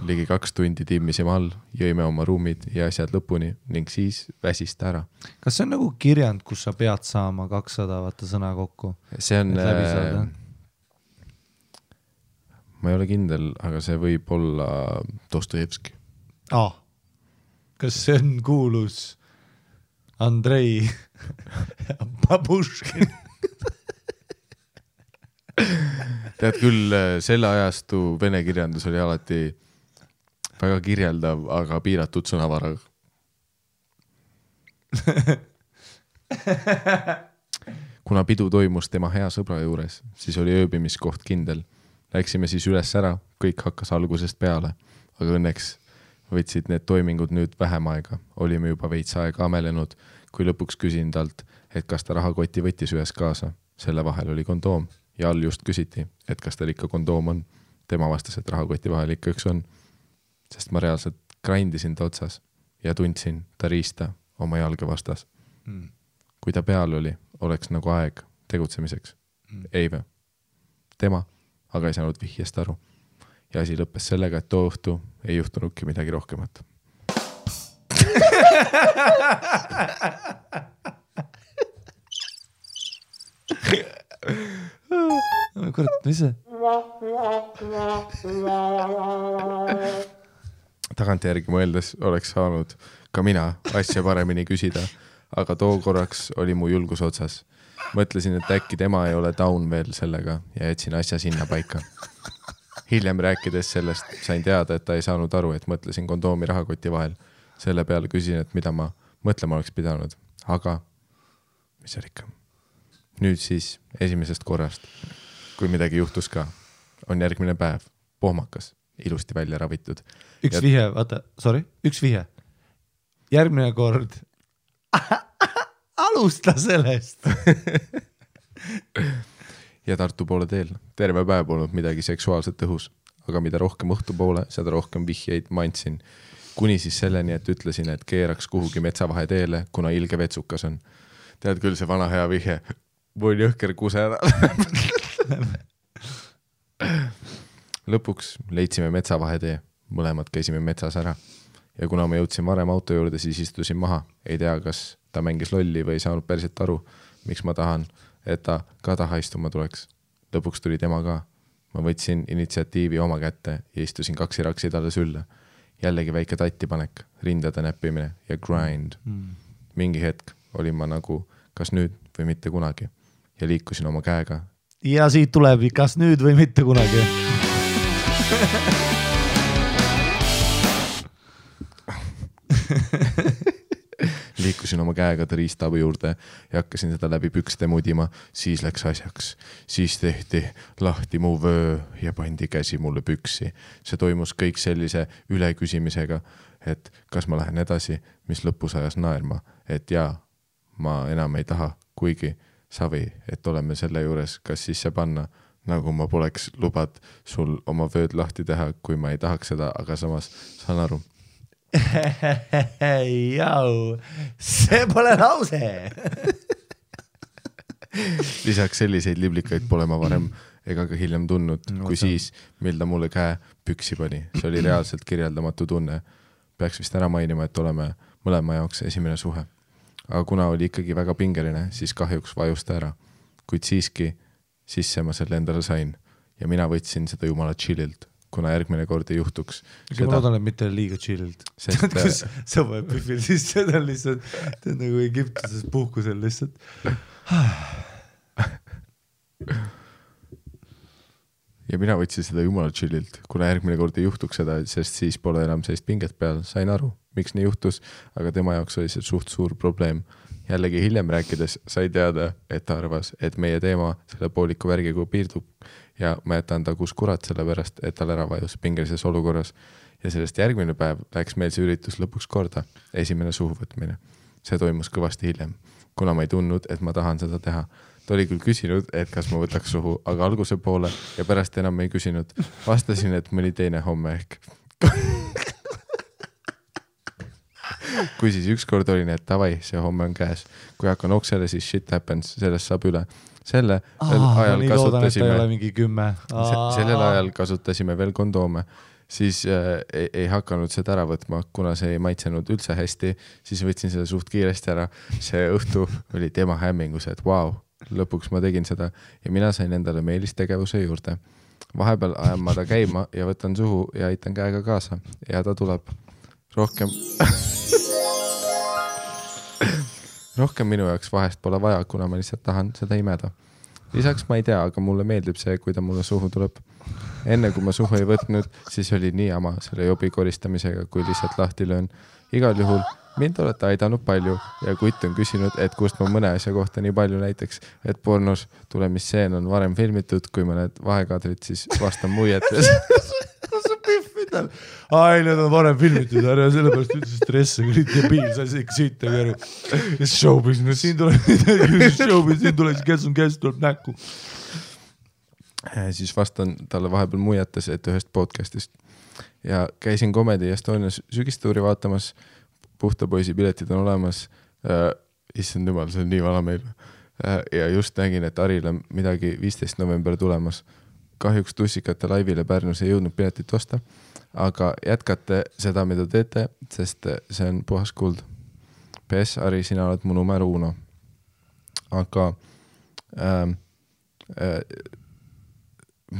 Speaker 2: Ligi 2 tundi timmisime all, jõime oma ruumid ja asjad lõpuni ning siis väsist ära.
Speaker 1: Kas see on nagu kirjand, kus sa pead saama 200 vaata sõna kokku?
Speaker 2: See on... Ma ei ole kindel, aga see võib olla Dostojevski.
Speaker 1: Kas see on kuulus Andrei Babuškin?
Speaker 2: Tead küll, selle ajastu vene kirjandus oli alati väga kirjeldav, aga piiratud sõnavaraga. Kuna pidu toimus tema hea sõbra juures, siis oli ööbimiskoht kindel. Läksime siis üles ära, kõik hakkas algusest peale, aga õnneks võtsid need toimingud nüüd vähem aega. Olime juba veits aega amelenud, kui lõpuks küsin talt, et kas ta rahakoti võttis ühes kaasa. Selle vahel oli kondoom ja all just küsiti, et kas tal ikka kondoom on. Tema vastas, et rahakoti vahel ikka üks on, sest ma reaalselt grindisin ta otsas ja tundsin ta riista oma jalge vastas. Kui ta peal oli, oleks nagu aeg tegutsemiseks. Ei või. Tema aga ei saanud vihjest aru. Ja asi lõppes sellega, et too õhtu ei juhtunudki midagi rohkemat.
Speaker 1: Kurat, mis see?
Speaker 2: Tagantjärgi mõeldes oleks saanud ka mina asja paremini küsida, aga too korraks oli mu julgus otsas. Mõtlesin, et äkki tema ei ole down veel sellega ja jätsin asja sinna paika. Hiljem rääkides sellest sain teada, et ta ei saanud aru, et mõtlesin kondoomi rahakoti vahel. Selle peale küsin, et mida ma mõtlema oleks pidanud. Aga mis seal ikka? Nüüd siis esimesest korrast, kui midagi juhtus ka, on järgmine päev, pohmakas, ilusti välja ravitud.
Speaker 1: Üks vihje. Järgmine kord alusta sellest.
Speaker 2: Ja Tartu poole teel. Terve päev polnud midagi seksuaalset õhus, aga mida rohkem õhtu poole, seda rohkem vihjeid ma andsin. Kuni siis selleni, et ütlesin, et keeraks kuhugi metsavahe teele, kuna ilge vetsukas on. Tead küll see vana hea vihje. Võin jõhker kuse ära. Lõpuks leidsime metsavahe tee. Mõlemad käisime metsas ära. Ja kuna ma jõudsin varem auto juurde, siis istusin maha. Ei tea, kas ta mängis lolli või ei saanud päriselt aru, miks ma tahan, et ta ka taha istuma tuleks. Lõpuks tuli tema ka. Ma võtsin initsiatiivi oma kätte ja istusin 2 raksi talle sülle. Jällegi väike tattipanek, rindade näppimine ja grind. Mingi hetk olin ma nagu kas nüüd või mitte kunagi ja liikusin oma käega.
Speaker 1: Ja siit tuleb kas nüüd või mitte kunagi.
Speaker 2: Liikusin oma käega ta riistaabi juurde ja hakkasin seda läbi pükste mudima, siis läks asjaks. Siis tehti lahti mu vöö ja pandi käsi mulle püksi. See toimus kõik sellise üleküsimisega, et kas ma lähen edasi, mis lõpus ajas naerma, et jaa, ma enam ei taha, kuigi savi, et oleme selle juures, kas sisse panna, nagu ma poleks lubad sul oma vööd lahti teha, kui ma ei tahaks seda, aga samas saan aru.
Speaker 1: Jau, see pole lause.
Speaker 2: Lisaks selliseid liblikaid pole ma varem ega ka hiljem tundnud, kui siis, mil ta mulle käe püksi pani. See oli reaalselt kirjeldamatu tunne. Peaks vist ära mainima, et oleme mõlema jaoks esimene suhe. Aga kuna oli ikkagi väga pingeline, siis kahjuks vajusta ära. Kuid siiski sisse ma selle endale sain ja mina võtsin seda jumala chillilt. Kuna järgmine kord ei juhtuks.
Speaker 1: Ma loodan, et mitte liiga chillilt. Kus sa võid pühvil siis seda lihtsalt, ta on nagu Egiptuses puhkusel lihtsalt.
Speaker 2: Ja mina võtsin seda jumala chillilt, kuna järgmine kord ei juhtuks seda, sest siis pole enam sellist pinget peal. Sain aru, miks nii juhtus, aga tema jaoks oli see suht suur probleem jällegi hiljem rääkides sai teada, et ta arvas, et meie teema selle pooliku värgiga piirdub ja ma jätan ta kus kurat selle pärast, et tal ära vajus pingelises olukorras. Ja sellest järgmine päev läks meil see üritus lõpuks korda, esimene suhuvõtmine. See toimus kõvasti hiljem, kuna ma ei tundnud, et ma tahan seda teha. Ta oli küll küsinud, et kas ma võtaks suhu, aga alguse poole ja pärast enam ei küsinud. Vastasin, et mõni teine homme ehk. Kui siis ükskord oli need tavai, see homme on käes. Kui hakkan oksele, siis shit happens, sellest saab üle. Sellel ajal kasutasime veel kondoome. Siis ei hakanud seda ära võtma, kuna see ei maitsenud üldse hästi. Siis võtsin seda suht kiiresti ära. See õhtu oli tema hämmingus, et wow, lõpuks ma tegin seda ja mina sain endale meelistegevuse juurde. Vahepeal ajan ma ta käima ja võtan suhu ja aitan käega kaasa ja ta tuleb rohkem minu jaoks vahest pole vaja, kuna ma lihtsalt tahan seda imeda. Lisaks ma ei tea, aga mulle meeldib see, kui ta mulle suhu tuleb. Enne kui ma suhu ei võtnud, siis oli nii ama selle jobi koristamisega, kui lihtsalt lahti löön. Igal juhul mind olete aidanud palju ja kutt on küsinud, et kust ma mõne asja kohta nii palju näiteks, et pornos tulemisseen on varem filmitud, kui mõned vahekaadrid, siis vastan muietes.
Speaker 1: Ai, need on varem filmitud, ära sellepärast ütles stresse, kui olid debiil, sa ikka siita kõru. Ja showbiz, no siin tuleb käest tuleb näkku.
Speaker 2: Siis vastan talle vahepeal muiates, et ühest podcastist. Ja käisin Comedy Estonias sügistuuri vaatamas, puhta poisi piletid on olemas. Issand jumal, see on nii vana meil. Ja just nägin, et Aril on midagi 15. november tulemas. Kahjuks tussikate laivile Pärnus ei jõudnud piletit osta, aga jätkate seda, mida teete, sest see on puhas kuld. PS, Ari, sina oled mu number 1. Aga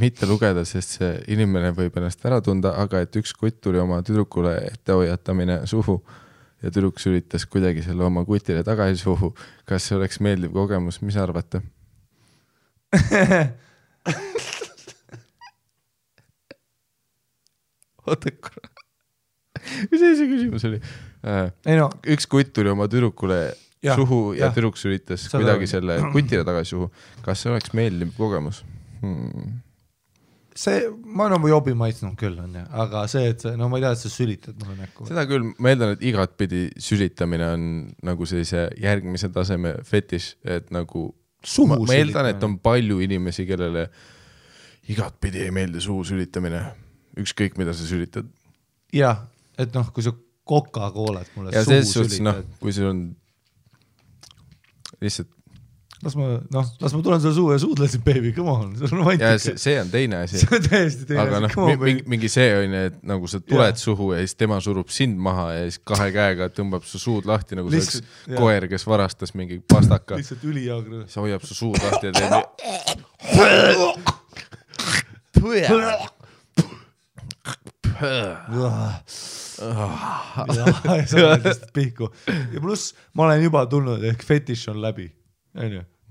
Speaker 2: mitte lugeda, sest see inimene võib ennast ära tunda, aga et üks kutt tuli oma tüdrukule ettehoiatamine suhu ja tüdruk üritas kuidagi selle oma kutile tagasi suhu. Kas see oleks meeldiv kogemus? Mis arvate? Oota korra. Mis see küsimus oli? Üks kutt tuli oma tüdrukule suhu ja tüdruk üritas kuidagi selle kutile tagasi suhu. Kas see oleks meeldiv kogemus?
Speaker 1: See, ma olen jobi maitsnud küll, aga see, et no ma ei tea, et sa sülitad mulle näkku.
Speaker 2: Seda küll, ma eeldan, et igatpidi sülitamine on nagu sellise järgmise taseme fetiš, et nagu ma eeldan, et on palju inimesi, kellele igatpidi ei meeldi suhu sülitamine. Ükskõik, mida sa sülitad.
Speaker 1: Jah, et noh, kui sa Coca-Colat mulle
Speaker 2: ja
Speaker 1: suhu
Speaker 2: sülitad. Kui sul on lihtsalt
Speaker 1: las ma tulen selle suhu ja suudlesin, baby, come on.
Speaker 2: Ja see on teine asi.
Speaker 1: See on täiesti teine
Speaker 2: asi. Aga mingi see on, et nagu sa tuled suhu ja siis tema surub sind maha ja siis kahe käega tõmbab su suud lahti, nagu see oleks koer, kes varastas mingi pastaka.
Speaker 1: Lihtsalt ülijaagre.
Speaker 2: See hoiab su suud lahti ja
Speaker 1: teeb ja pluss ma olen juba tulnud, ehk fetiš on läbi.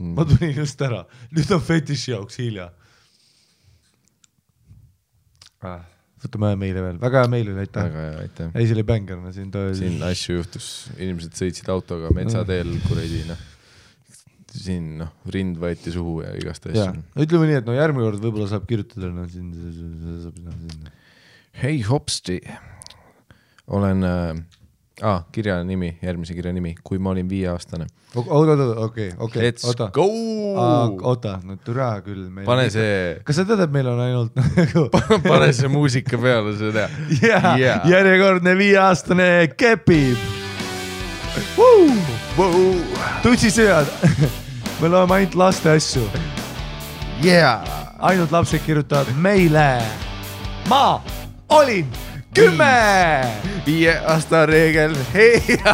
Speaker 1: Ma tulin just ära. Nüüd on fetiši jaoks hilja. Võtame meile veel. Väga hea meile, aitäh. Ei, see oli bängerna.
Speaker 2: Siin asju juhtus. Inimesed sõitsid autoga metsateel kuredi. Siin rind võeti suhu ja igast asju.
Speaker 1: Ütleme nii, et järgmine kord võib-olla saab kirjutada.
Speaker 2: Hei hopsti. Olen kirja nimi, järgmise kirja nimi, kui ma olin 5-aastane.
Speaker 1: Okei.
Speaker 2: Let's go!
Speaker 1: Oota, türa küll.
Speaker 2: Pane see...
Speaker 1: Kas sa tead, et meil on ainult...
Speaker 2: Pane see muusika peale, seda.
Speaker 1: Järjekordne 5-aastane kepib. Tutsisööd. Me loeme ainult laste asju. Ainult lapsed kirjutavad meile. Ma olin 10!
Speaker 2: 5 aasta reegel, heia!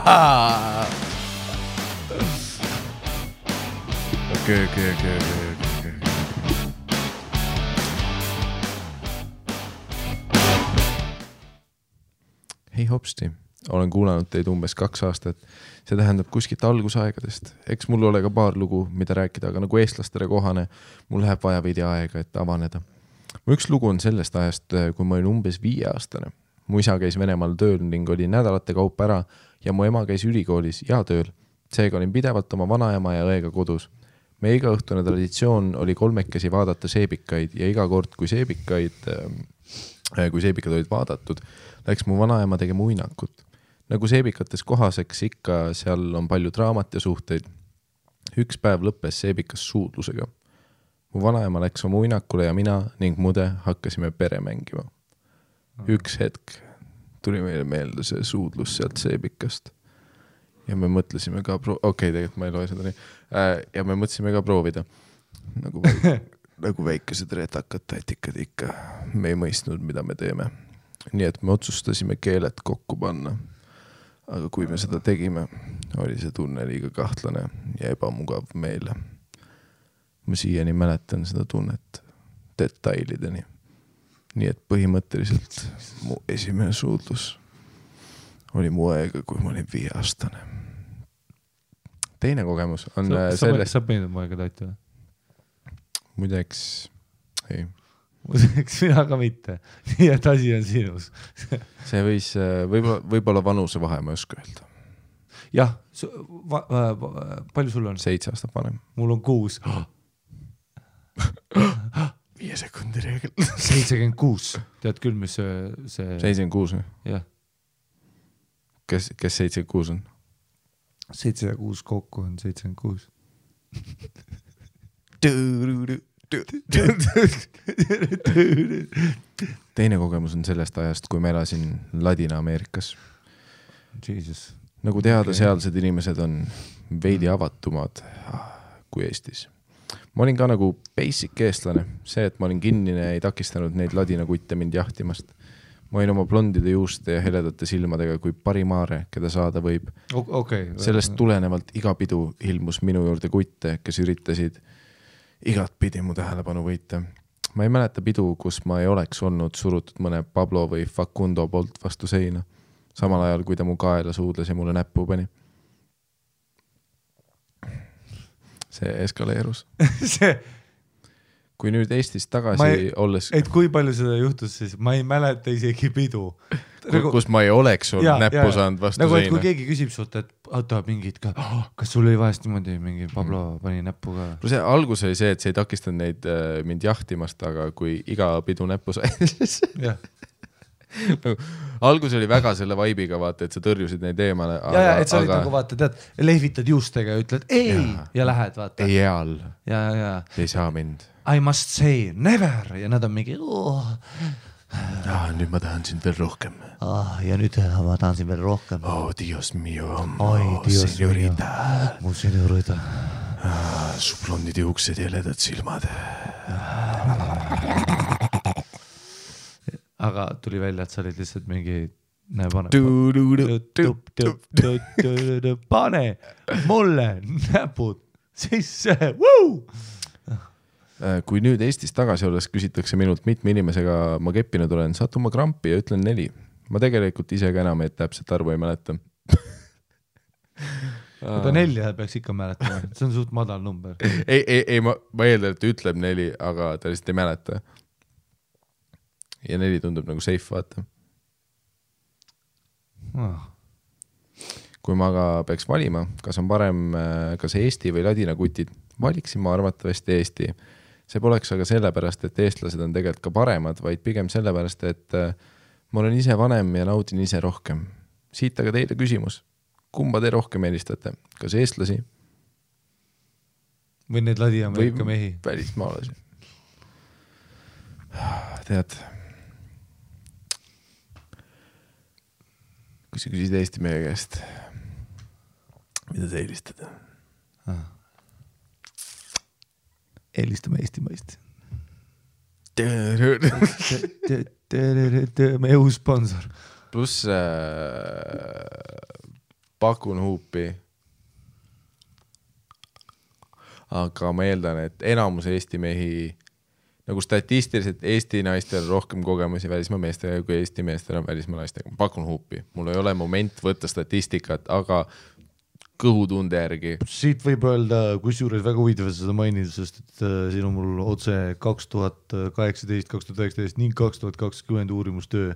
Speaker 2: Okei. Hei hopsti, olen kuulanud teid umbes 2 aastat. See tähendab kuskilt algusaegadest. Eks mul ole ka paar lugu, mida rääkida, aga nagu eestlastele kohane, mul läheb vaja veidi aega, et avaneda. Mu üks lugu on sellest ajast, kui ma olin umbes 5-aastane. Mu isa käis Venemaal tööl ning oli nädalate kaupa ära ja mu ema käis ülikoolis ja tööl. seega olin pidevalt oma vanaema ja õega kodus. Meie igaõhtune traditsioon oli kolmekesi vaadata seebikaid ja iga kord, kui seebikad olid vaadatud, läks mu vanaema tegema uinakut. Nagu seebikates kohaseks ikka, seal on palju draamat ja suhteid. Üks päev lõppes seebikas suudlusega. Mu vanaema läks oma uinakule ja mina ning mude hakkasime pere mängima. Üks hetk tuli meile meelde see suudlus sealt seebikast. Ja me mõtlesime ka tegelikult ma ei loe seda nii. Ja me mõtlesime ka proovida. Nagu väikesed retakad tatikad ikka. Me ei mõistnud, mida me teeme. Nii et me otsustasime keeled kokku panna. Aga kui me seda tegime, oli see tunne liiga kahtlane ja ebamugav meile. Ma siiani mäletan seda tunnet detailideni. Nii et põhimõtteliselt mu esimene suudlus oli mu aega, kui ma olin 5-aastane. Teine kogemus on
Speaker 1: Sa peenid mu aega taiti või?
Speaker 2: Muideks, ei.
Speaker 1: Muideks mina ka mitte. Nii et asi on sinus.
Speaker 2: See võis, võib-olla vanuse vahe, ma ei oska öelda.
Speaker 1: Jah, palju sul on?
Speaker 2: 7 aastat vanem.
Speaker 1: Mul on 6.
Speaker 2: 5 sekundi reegel.
Speaker 1: 76. Tead küll, mis see...
Speaker 2: 76 või?
Speaker 1: Jah.
Speaker 2: Kes 76 on?
Speaker 1: 7 ja 6 kokku on 76.
Speaker 2: Teine kogemus on sellest ajast, kui ma elasin Ladina-Ameerikas.
Speaker 1: Jesus.
Speaker 2: Nagu teada, sealsed inimesed on veidi avatumad kui Eestis. Ma olin ka nagu basic eestlane. See, et ma olin kinnine, ei takistanud neid ladinakutte mind jahtimast. Ma olin oma blondide juuste ja heledate silmadega kui parimaare, keda saada võib. Sellest tulenevalt iga pidu ilmus minu juurde kutte, kes üritasid igat pidi mu tähelepanu võita. Ma ei mäleta pidu, kus ma ei oleks olnud surutud mõne Pablo või Facundo poolt vastu seina. Samal ajal, kui ta mu kaela suudles ja mulle näppu pani. See eskaleerus. Kui nüüd Eestis tagasi olles...
Speaker 1: Et kui palju seda juhtus siis? Ma ei mäleta isegi pidu.
Speaker 2: Kus ma ei oleks olnud näppu saanud vastu
Speaker 1: nagu,
Speaker 2: seina.
Speaker 1: Kui keegi küsib sult, et auto mingid ka, kas sul oli vahest niimoodi mingi Pablo pani näppu ka?
Speaker 2: See algus oli see, et see ei takistanud neid mind jahtimast, aga kui iga pidu näppu sai,
Speaker 1: jah.
Speaker 2: Algus oli väga selle vaibiga, vaata, et sa tõrjusid neid eemale.
Speaker 1: Et sa olid nagu vaata, tead, lehvitad juustega ja ütled ei ja lähed, vaata.
Speaker 2: Ei eal.
Speaker 1: Ja.
Speaker 2: Ei saa mind.
Speaker 1: I must say never ja nad on mingi
Speaker 2: nüüd ma tahan sind veel rohkem.
Speaker 1: Ja nüüd ma tahan sind veel rohkem.
Speaker 2: Dios mio.
Speaker 1: Dios mio. Mu senorita.
Speaker 2: Su blondid juuksed ja ledad silmad.
Speaker 1: Aga tuli välja, et sa olid lihtsalt mingi pane mulle näpud sisse.
Speaker 2: Kui nüüd Eestis tagasi olles küsitakse minult mitme inimesega ma keppinud olen, satun ma krampi ja ütlen 4. Ma tegelikult ise ka enam täpselt arvu ei mäleta.
Speaker 1: Aga 4 peaks ikka mäletama. See on suht madal number.
Speaker 2: Ei, ma eeldan, et ütleb 4, aga ta lihtsalt ei mäleta. Ja 4 tundub nagu safe, vaata. Kui ma aga peaks valima, kas on parem kas Eesti või ladina kutid, valiksin ma arvatavasti Eesti. See poleks aga sellepärast, et eestlased on tegelikult ka paremad, vaid pigem sellepärast, et ma olen ise vanem ja naudin ise rohkem. Siit aga teile küsimus. Kumba te rohkem eelistate? Kas eestlasi?
Speaker 1: Või need Ladina-Ameerika mehi?
Speaker 2: Välismaalasi. Tead, kui sa küsid Eesti mehe käest, mida sa eelistad?
Speaker 1: Eelistame Eesti maist. Meie uus sponsor.
Speaker 2: Plus pakun huupi. Aga ma eeldan, et enamus Eesti mehi, nagu statistiliselt Eesti naistel rohkem kogemusi välismaa meestega kui Eesti meestel on välismaa naistega. Pakun huupi. Mul ei ole moment võtta statistikat, aga kõhutunde järgi.
Speaker 1: Siit võib öelda, kus juures väga huvitav seda mainida, sest et siin on mul otse 2018, 2019 ning 2020 uurimustöö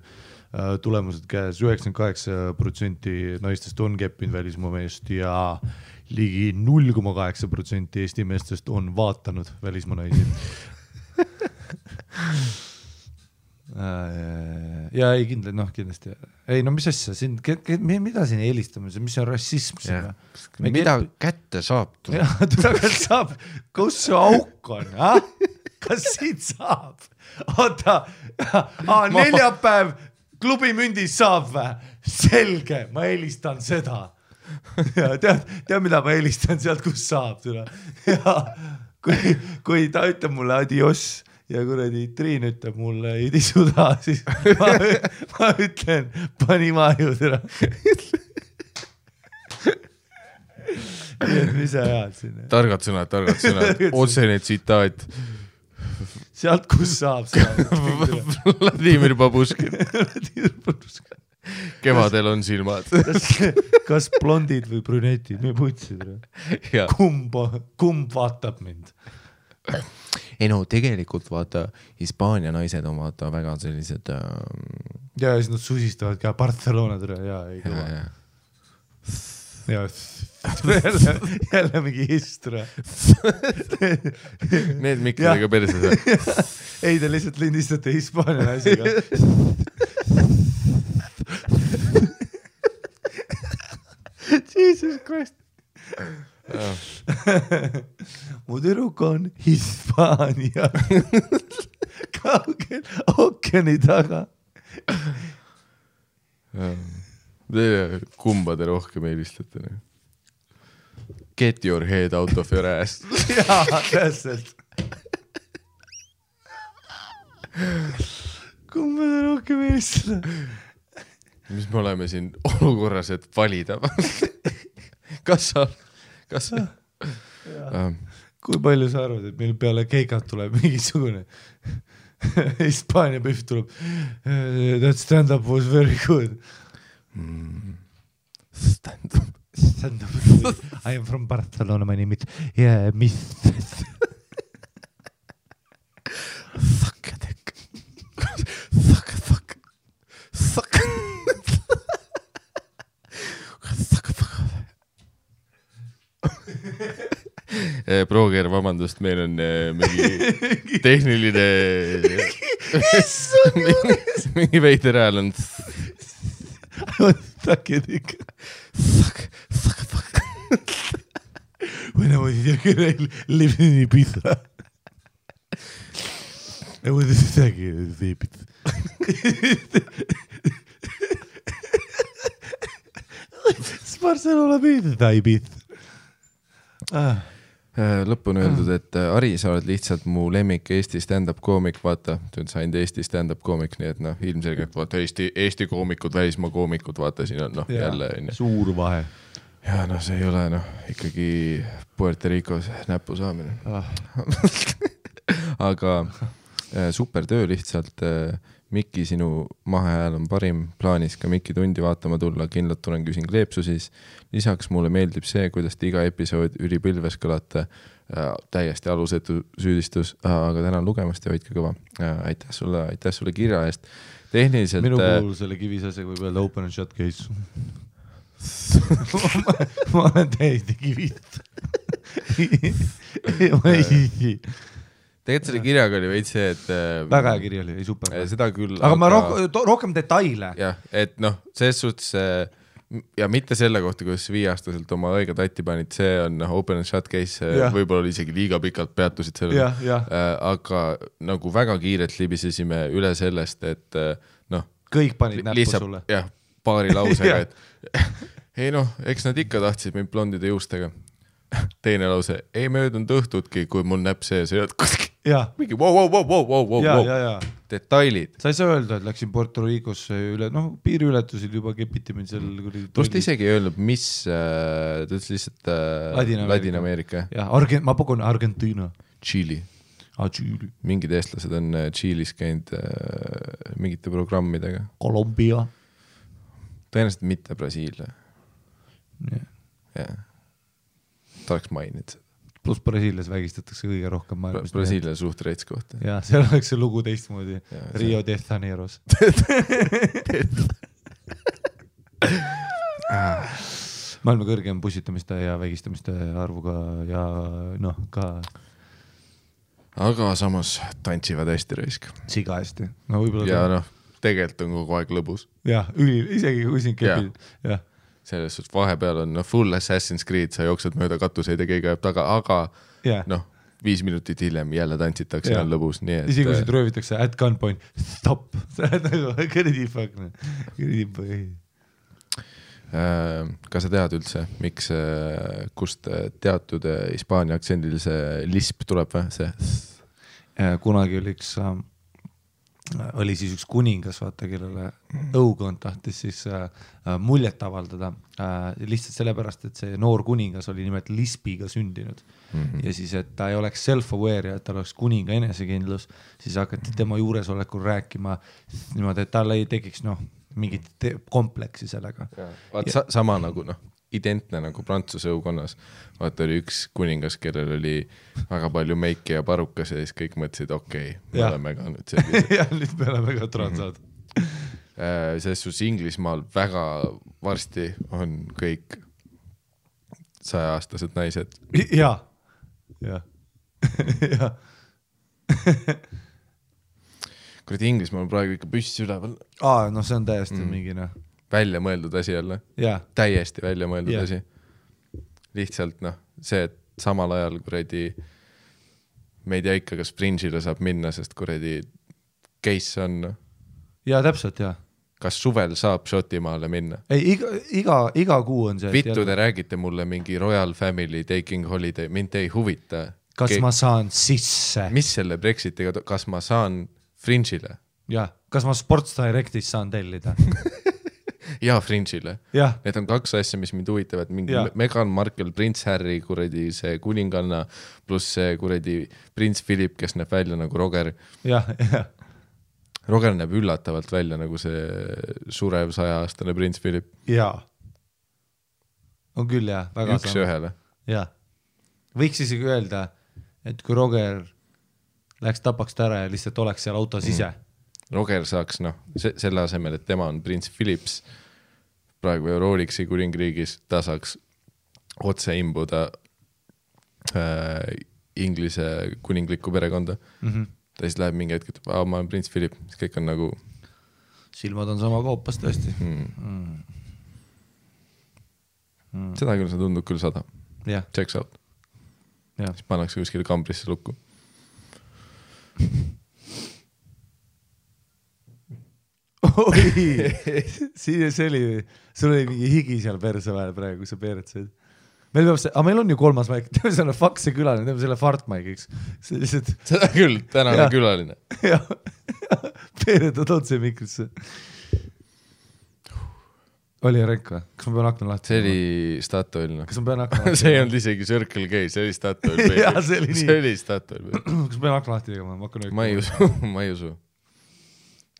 Speaker 1: tulemused käes. 98% naistest on keppinud välismaa meest ligi 0,8% Eesti meestest on vaatanud välismaa naisi. Ja ei kindlasti. Ei no mis asja, mida siin eelistame, mis on rassism siin?
Speaker 2: Mida kätte saab?
Speaker 1: Kätte saab, kus see auk on? Kas siit saab? Oota, neljapäev klubimündis saab vä? Selge, ma eelistan seda. Tead, mida ma eelistan sealt, kus saab? Ja kui ta ütleb mulle adios ja kuradi Triin ütleb mulle ei tisuda, siis ma ütlen, pani maju täna. Mis sa ajad sinna?
Speaker 2: Targad sõnad. Otsene tsitaat.
Speaker 1: Sealt, kus saab.
Speaker 2: Vladimir Babuškin. Kevadel on silmad.
Speaker 1: Kas blondid või brünetid? Me putsid. Kumb vaatab mind?
Speaker 2: Ei no tegelikult vaata Hispaania naised on vaata väga sellised
Speaker 1: ja siis nad susistavad ka Barcelona tõre ja ei kõva jälle mingi histra
Speaker 2: need mikkidega perses
Speaker 1: ei te lihtsalt lindistate Hispaania naisega Jesus Christ mu tüdruk on Hispaania kaugel ookeani taga.
Speaker 2: Kumba te rohkem eelistate? Get your head out of your ass.
Speaker 1: Jaa, täpselt. Kumba te rohkem eelistate?
Speaker 2: Mis me oleme siin olukorras, et valida? Kas sa?
Speaker 1: Kui palju sa arvad, et meil peale keikat tuleb mingisugune Hispaania pühv tuleb that stand-up was very good stand-up I am from Barcelona, my name is Miss
Speaker 2: Prooger, vabandust, meil on mingi tehniline mingi veider hääl on
Speaker 1: When I was younger, I lived in Ibiza. I was Ibiza. Barcelona Ibiza.
Speaker 2: Lõppu on öeldud, et Ari, sa oled lihtsalt mu lemmik Eesti stand-up koomik, vaata, sain Eesti stand-up koomik, nii et ilmselgelt vaata Eesti koomikud, välismaa koomikud, vaata siin on jälle
Speaker 1: suur vahe.
Speaker 2: Ja see ei ole ikkagi Puerto Ricos näpu saamine. Aga super töö lihtsalt. Mikki, sinu mahehääl on parim, plaanis ka Mikki tundi vaatama tulla, kindlalt tulen küsin kleepsu siis. Lisaks mulle meeldib see, kuidas te iga episood ülipilves kõlate, täiesti alusetu süüdistus, aga tänan lugemast ja hoidke kõva. Aitäh sulle kirja eest. Tehniliselt...
Speaker 1: Minu puhul selle kivisasega võib öelda open and shut case. ma olen täiesti kivist. Ma ei...
Speaker 2: Tegelikult selle kirjaga oli veid see, et...
Speaker 1: Väga hea kiri oli, ei super.
Speaker 2: Seda küll.
Speaker 1: Aga ma rohkem detaile.
Speaker 2: Jah, et selles suhtes ja mitte selle kohta, kuidas 5-aastaselt oma õige tatti panid, see on open and shut case, võib-olla oli isegi liiga pikalt peatusid sellele. Aga nagu väga kiirelt libisesime üle sellest, et
Speaker 1: kõik panid näppu sulle.
Speaker 2: Jah, paari lausega, et ei eks nad ikka tahtsid mind blondide juustega. Teine lause, ei möödunud õhtutki, kui mul näpp sees ei olnud kuskil. Mingi wow. Detailid.
Speaker 1: Sa ei saa öelda, et läksin Puerto Ricosse üle, piiriületusil juba kepiti mind seal.
Speaker 2: Tust isegi ei öelnud, mis, ta ütles lihtsalt Ladina-Ameerika.
Speaker 1: Ma pakun Argentina.
Speaker 2: Tšiili. Mingid eestlased on Tšiilis käinud mingite programmidega.
Speaker 1: Kolumbia.
Speaker 2: Tõenäoliselt mitte Brasiilia. Jah. Ta oleks maininud seda.
Speaker 1: Plus Brasiilias vägistatakse kõige rohkem maailmas.
Speaker 2: Brasiilia suht reits kohta.
Speaker 1: Ja, seal oleks see lugu teistmoodi. Rio de Janeiros. maailma kõrgem pussitamiste ja vägistamiste arvuga ja noh, ka
Speaker 2: aga samas tantsivad hästi raisk.
Speaker 1: Siga hästi. No,
Speaker 2: ja noh, tegelikult on kogu aeg lõbus.
Speaker 1: Jah, isegi kui siin kepid. Jah.
Speaker 2: Selles suhtes vahepeal on full Assassin's Creed, sa jooksed mööda katuseid ja keegi ajab taga, aga noh, 5 minutit hiljem jälle tantsitakse ja on lõbus.
Speaker 1: Isegi kui siit röövitakse at gunpoint, stop. Kõrdi fuck.
Speaker 2: Kas sa tead üldse, miks, kust teatud hispaania aktsendil see lisp tuleb või? See?
Speaker 1: Kunagi oli siis üks kuningas, vaata, kellele õukond tahtis siis muljet avaldada lihtsalt sellepärast, et see noor kuningas oli nimelt lispiga sündinud. Ja siis, et ta ei oleks self-aware ja et tal oleks kuninga enesekindlus, siis hakati tema juuresolekul rääkima niimoodi, et tal ei tekiks mingit kompleksi sellega.
Speaker 2: Sama nagu identne nagu Prantsuse õukonnas. Vaata oli üks kuningas, kellel oli väga palju meiki ja parukas ja siis kõik mõtlesid, okei, me oleme ka nüüd sellised.
Speaker 1: Ja nüüd me oleme ka transad.
Speaker 2: Selles sus Inglismaal väga varsti on kõik 100-aastased naised.
Speaker 1: Ja.
Speaker 2: Kuradi Inglismaal on praegu ikka püssi üleval.
Speaker 1: No see on täiesti mingi
Speaker 2: välja mõeldud asi jälle. Täiesti välja mõeldud asi. Lihtsalt see, et samal ajal kuradi me ei tea ikka, kas Fringe'ile saab minna, sest kuradi case on.
Speaker 1: Ja täpselt, jah.
Speaker 2: Kas suvel saab Šotimaale minna?
Speaker 1: Ei, iga kuu on see.
Speaker 2: Vittu te räägite mulle mingi Royal Family taking holiday, mind ei huvita.
Speaker 1: Kas ma saan sisse?
Speaker 2: Mis selle Brexitiga, kas ma saan Fringe'ile?
Speaker 1: Jah, kas ma Sports Directis saan tellida?
Speaker 2: Ja Fringe'ile. Need on 2 asja, mis mind huvitavad. Mingi Meghan Markle, Prince Harry, kuradi see kuninganna, pluss see kuradi Prince Philip, kes näeb välja nagu Roger. Roger näeb üllatavalt välja nagu see surev 100-aastane Prince Philip.
Speaker 1: On küll, jah. Väga
Speaker 2: üks ühele.
Speaker 1: Võiks isegi öelda, et kui Roger läks tapaks ta ära ja lihtsalt oleks seal autos ise.
Speaker 2: Roger saaks, selle asemel, et tema on Prince Philips praegu Euroliksi kuningriigis, ta saaks otse imbuda Inglise kuninglikku perekonda. Ta siis läheb mingi hetk, et ma olen Prince Philip, siis kõik on nagu
Speaker 1: silmad on sama koopas tõesti.
Speaker 2: Seda küll, see tundub küll 100. Checks out. Siis pannakse kuskile kambrisse lukku.
Speaker 1: Oi, sul oli mingi higi seal perse vahel praegu, kui sa peeretsaid. Meil on ju 3. maik, teeme selle fakse külaline, teeme selle fartmaigiks.
Speaker 2: Seda küll, tänane külaline.
Speaker 1: Peeretad otse mikrisse. Oli ränk või? Kas ma pean akna lahti?
Speaker 2: See oli Statoil.
Speaker 1: Kas ma pean akna lahti?
Speaker 2: See ei olnud isegi Circle K, see oli Statoil. See oli Statoil.
Speaker 1: Kas ma pean akna lahti tegema?
Speaker 2: Ma ei usu.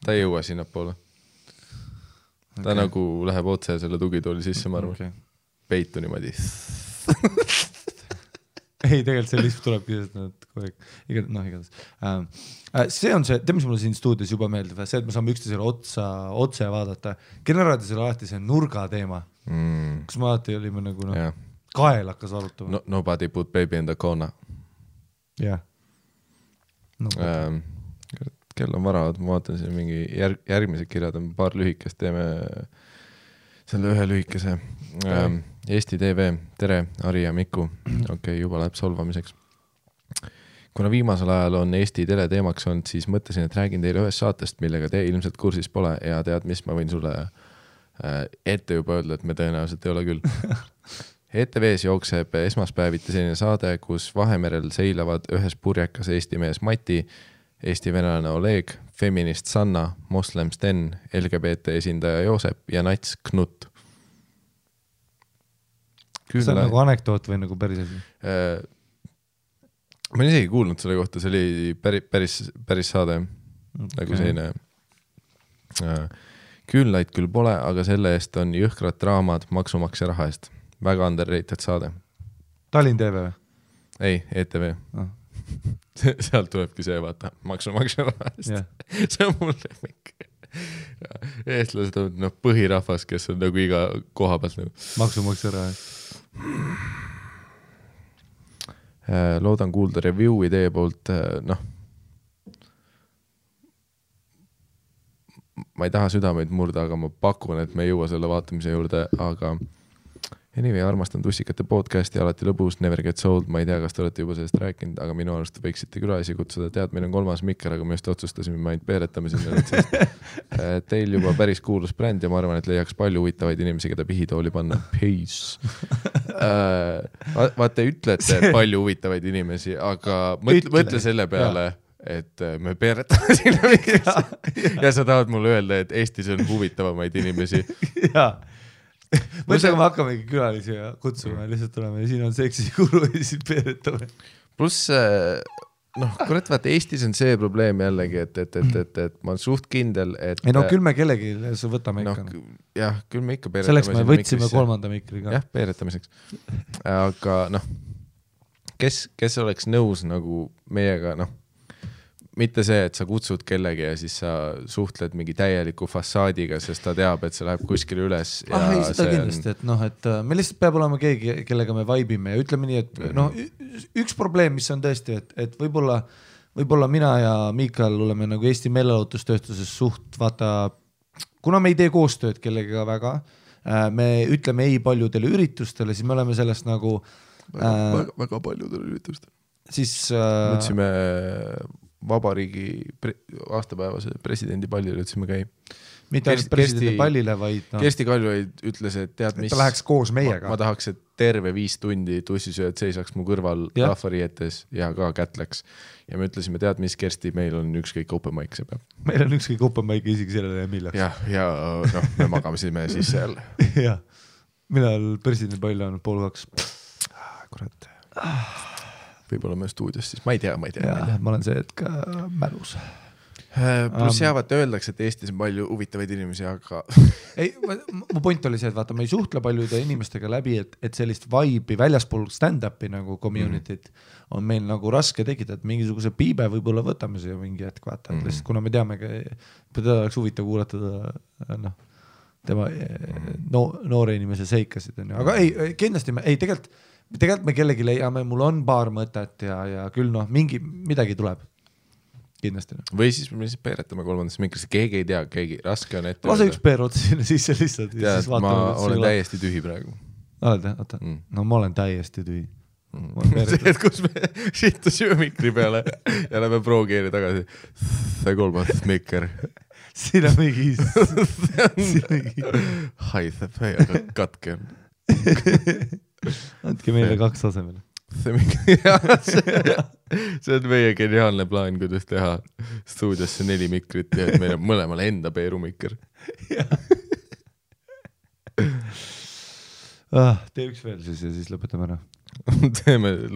Speaker 2: Ta ei jõua sinna poole. Ta nagu läheb otse selle tugitooli sisse, ma arvan. Peitu niimoodi.
Speaker 1: Ei, tegelikult see lihtsalt tulebki igatahes. See on see, mis mulle siin stuudios juba meeldib, see, et me saame üksteisele otse vaadata. Generaadisele alati see nurga teema. Kus me alati olime nagu kael hakkas arutama.
Speaker 2: Nobody put baby in the corner.
Speaker 1: Jah.
Speaker 2: Kell on vara, ma vaatan siin mingi järgmised kirjad on paar lühikest, teeme selle ühe lühikese. Eesti TV, tere, Ari ja Miku. Okei, juba läheb solvamiseks. Kuna viimasel ajal on Eesti tele teemaks olnud, siis mõtlesin, et räägin teile ühest saatest, millega te ilmselt kursis pole ja tead, mis ma võin sulle ette juba öelda, et me tõenäoliselt ei ole küll. ETV-s jookseb esmaspäeviti selline saade, kus Vahemerel seilavad ühes purjekas Eesti mees Mati, Eesti venelane Oleg, feminist Sanna, moslem Sten, LGBT esindaja Joosep ja nats Knut.
Speaker 1: See on nagu anekdoot või nagu päris asi?
Speaker 2: Ma olen isegi kuulnud selle kohta, see oli päris saade. Nagu selline küünlaid küll pole, aga selle eest on jõhkrad draamad maksumaksja raha eest. Väga underrated saade.
Speaker 1: Tallinn TV või?
Speaker 2: Ei, ETV. Sealt tulebki see, vaata, maksumaksja raha eest. See on mulle mingi. eestlased on põhirahvas, kes on nagu iga koha pealt nagu.
Speaker 1: Maksumaksja raha.
Speaker 2: Loodan kuulda review'i teie poolt, ma ei taha südameid murda, aga ma pakun, et me ei jõua selle vaatamise juurde, aga anyway, armastan Tussikate podcasti, alati lõbus, Never Get Sold, ma ei tea, kas te olete juba sellest rääkinud, aga minu arust võiksite külalisi kutsuda, tead, meil on 3. mikker, aga me just otsustasime, me ainult peeretame sinna, teil juba päris kuulus bränd ja ma arvan, et leiaks palju huvitavaid inimesi, keda pihitooli panna. Peace. Vaata, ütlete palju huvitavaid inimesi, aga mõtle selle peale, et me peeretame sinna mikrisse ja sa tahad mulle öelda, et Eestis on huvitavamaid inimesi.
Speaker 1: Jaa. Mõtlega me hakkamegi külalisi kutsuma ja lihtsalt tuleme ja siin on seksi kuru ja siis peeretame.
Speaker 2: Pluss, kurat, vaata, Eestis on see probleem jällegi, et ma olen suht kindel, et...
Speaker 1: Ei küll me kellegi võtame ikka.
Speaker 2: Jah, küll me ikka peeretame.
Speaker 1: Selleks me võtsime 3. mikri ka.
Speaker 2: Jah, peeretamiseks. Aga kes oleks nõus nagu meiega, mitte see, et sa kutsud kellegi ja siis sa suhtled mingi täieliku fassaadiga, sest ta teab, et see läheb kuskile üles.
Speaker 1: Ei, seda kindlasti, et me lihtsalt peab olema keegi, kellega me vaibime ja ütleme nii, et üks probleem, mis on tõesti, et võib-olla mina ja Miikal oleme nagu Eesti meelelahutustööstuses suht, vaata, kuna me ei tee koostööd kellega väga, me ütleme ei paljudele üritustele, siis me oleme sellest nagu
Speaker 2: väga paljudele üritustele.
Speaker 1: Siis
Speaker 2: võtsime vabariigi aastapäevase presidendi pallile ütlesime käi.
Speaker 1: Mitte ainult presidendi pallile, vaid
Speaker 2: Kersti Kaljulaid ütles, et tead mis...
Speaker 1: Ta läheks koos meiega.
Speaker 2: Ma tahaks, et terve 5 tundi tussisööd seisaks mu kõrval rahvarietes ja ka kätleks. Ja me ütlesime, tead mis, Kersti, meil on ükskõik open mic see peab.
Speaker 1: Meil on ükskõik open mic isegi sellele millaks.
Speaker 2: Ja me magamesime sisse jälle.
Speaker 1: Jah. Millal presidendi pall on 1:30?
Speaker 2: Kurat. Võib-olla me stuudios siis, ma ei tea.
Speaker 1: Ma olen see, et ka mälus.
Speaker 2: Plus jaavad öeldakse, et Eestis on palju huvitavaid inimesi, aga...
Speaker 1: Ei, mu point oli see, et vaata, ma ei suhtle paljude inimestega läbi, et sellist vibe'i väljaspool stand-up'i nagu community't on meil nagu raske tekitada, et mingisuguse piibe võib-olla võtame see mingi hetk, vaata, et lihtsalt kuna me teamegi, teda oleks huvitav kuulata tema noore inimese seikasid, aga ei, kindlasti tegelikult me kellegi leiame, mul on paar mõtet ja küll midagi tuleb. Kindlasti.
Speaker 2: Või siis me lihtsalt peeretame 3. mikrisse, keegi ei tea, raske on ette.
Speaker 1: Lase üks peer otsa sinna sisse lihtsalt.
Speaker 2: Tead, ma olen täiesti tühi praegu.
Speaker 1: Oled, oota. No ma olen täiesti tühi.
Speaker 2: See, et kus me sittusime mikri peale ja lähme proogeeri tagasi. See 3. mikker.
Speaker 1: Siin on mingi...
Speaker 2: Haiseb, aga katke on.
Speaker 1: Andke meile 2 asemele.
Speaker 2: See on meie geniaalne plaan, kuidas teha stuudiosse 4 mikrit ja et meil on mõlemal enda peerumikker.
Speaker 1: Tee üks veel siis ja siis lõpetame ära.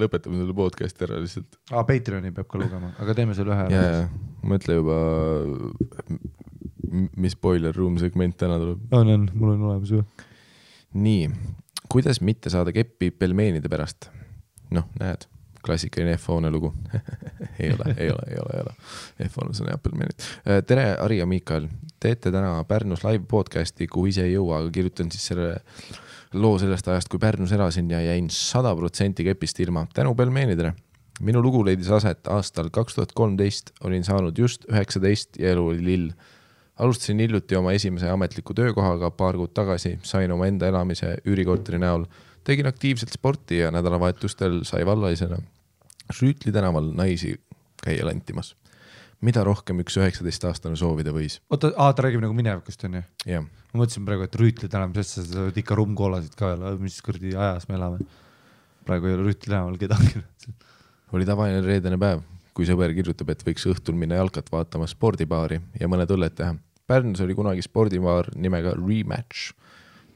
Speaker 2: Lõpetame selle podcasti ära lihtsalt.
Speaker 1: Patreoni peab ka lugema, aga teeme selle ühe ära.
Speaker 2: Mõtle juba, mis Boiler Room segment täna tuleb.
Speaker 1: On, mul on olemas ju.
Speaker 2: Nii, kuidas mitte saada keppi pelmeenide pärast? Näed, klassikaline F-hoone lugu. ei ole. F-hoone on Appelmeenid. Tere, Ari ja Miikal. Teete täna Pärnus live podcasti, kuhu ise ei jõua, aga kirjutan siis selle loo sellest ajast, kui Pärnus elasin ja jäin 100% kepist ilma. Tänu pelmeenidele. Minu lugu leidis aset aastal 2013, olin saanud just 19 ja elu oli lill. Alustasin hiljuti oma esimese ametliku töökohaga paar kuud tagasi, sain oma enda elamise üürikorteri näol. Tegin aktiivselt sporti ja nädalavahetustel sai vallalisena Rüütli tänaval naisi käia lantimas. Mida rohkem üks 19-aastane soovida võis?
Speaker 1: Oota, ta räägib nagu minevikust, on ju?
Speaker 2: Jah.
Speaker 1: Ma mõtlesin praegu, et Rüütli tänaval, sest sa oled ikka rummkoolasid ka, mis kõrdi ajas me elame. Praegu ei ole Rüütli tänaval kedagi.
Speaker 2: Oli tavaline reedene päev, kui sõber kirjutab, et võiks õhtul minna jalkat vaatama spordibaari ja mõned õlled teha. Pärnus oli kunagi spordibaar nimega Rematch,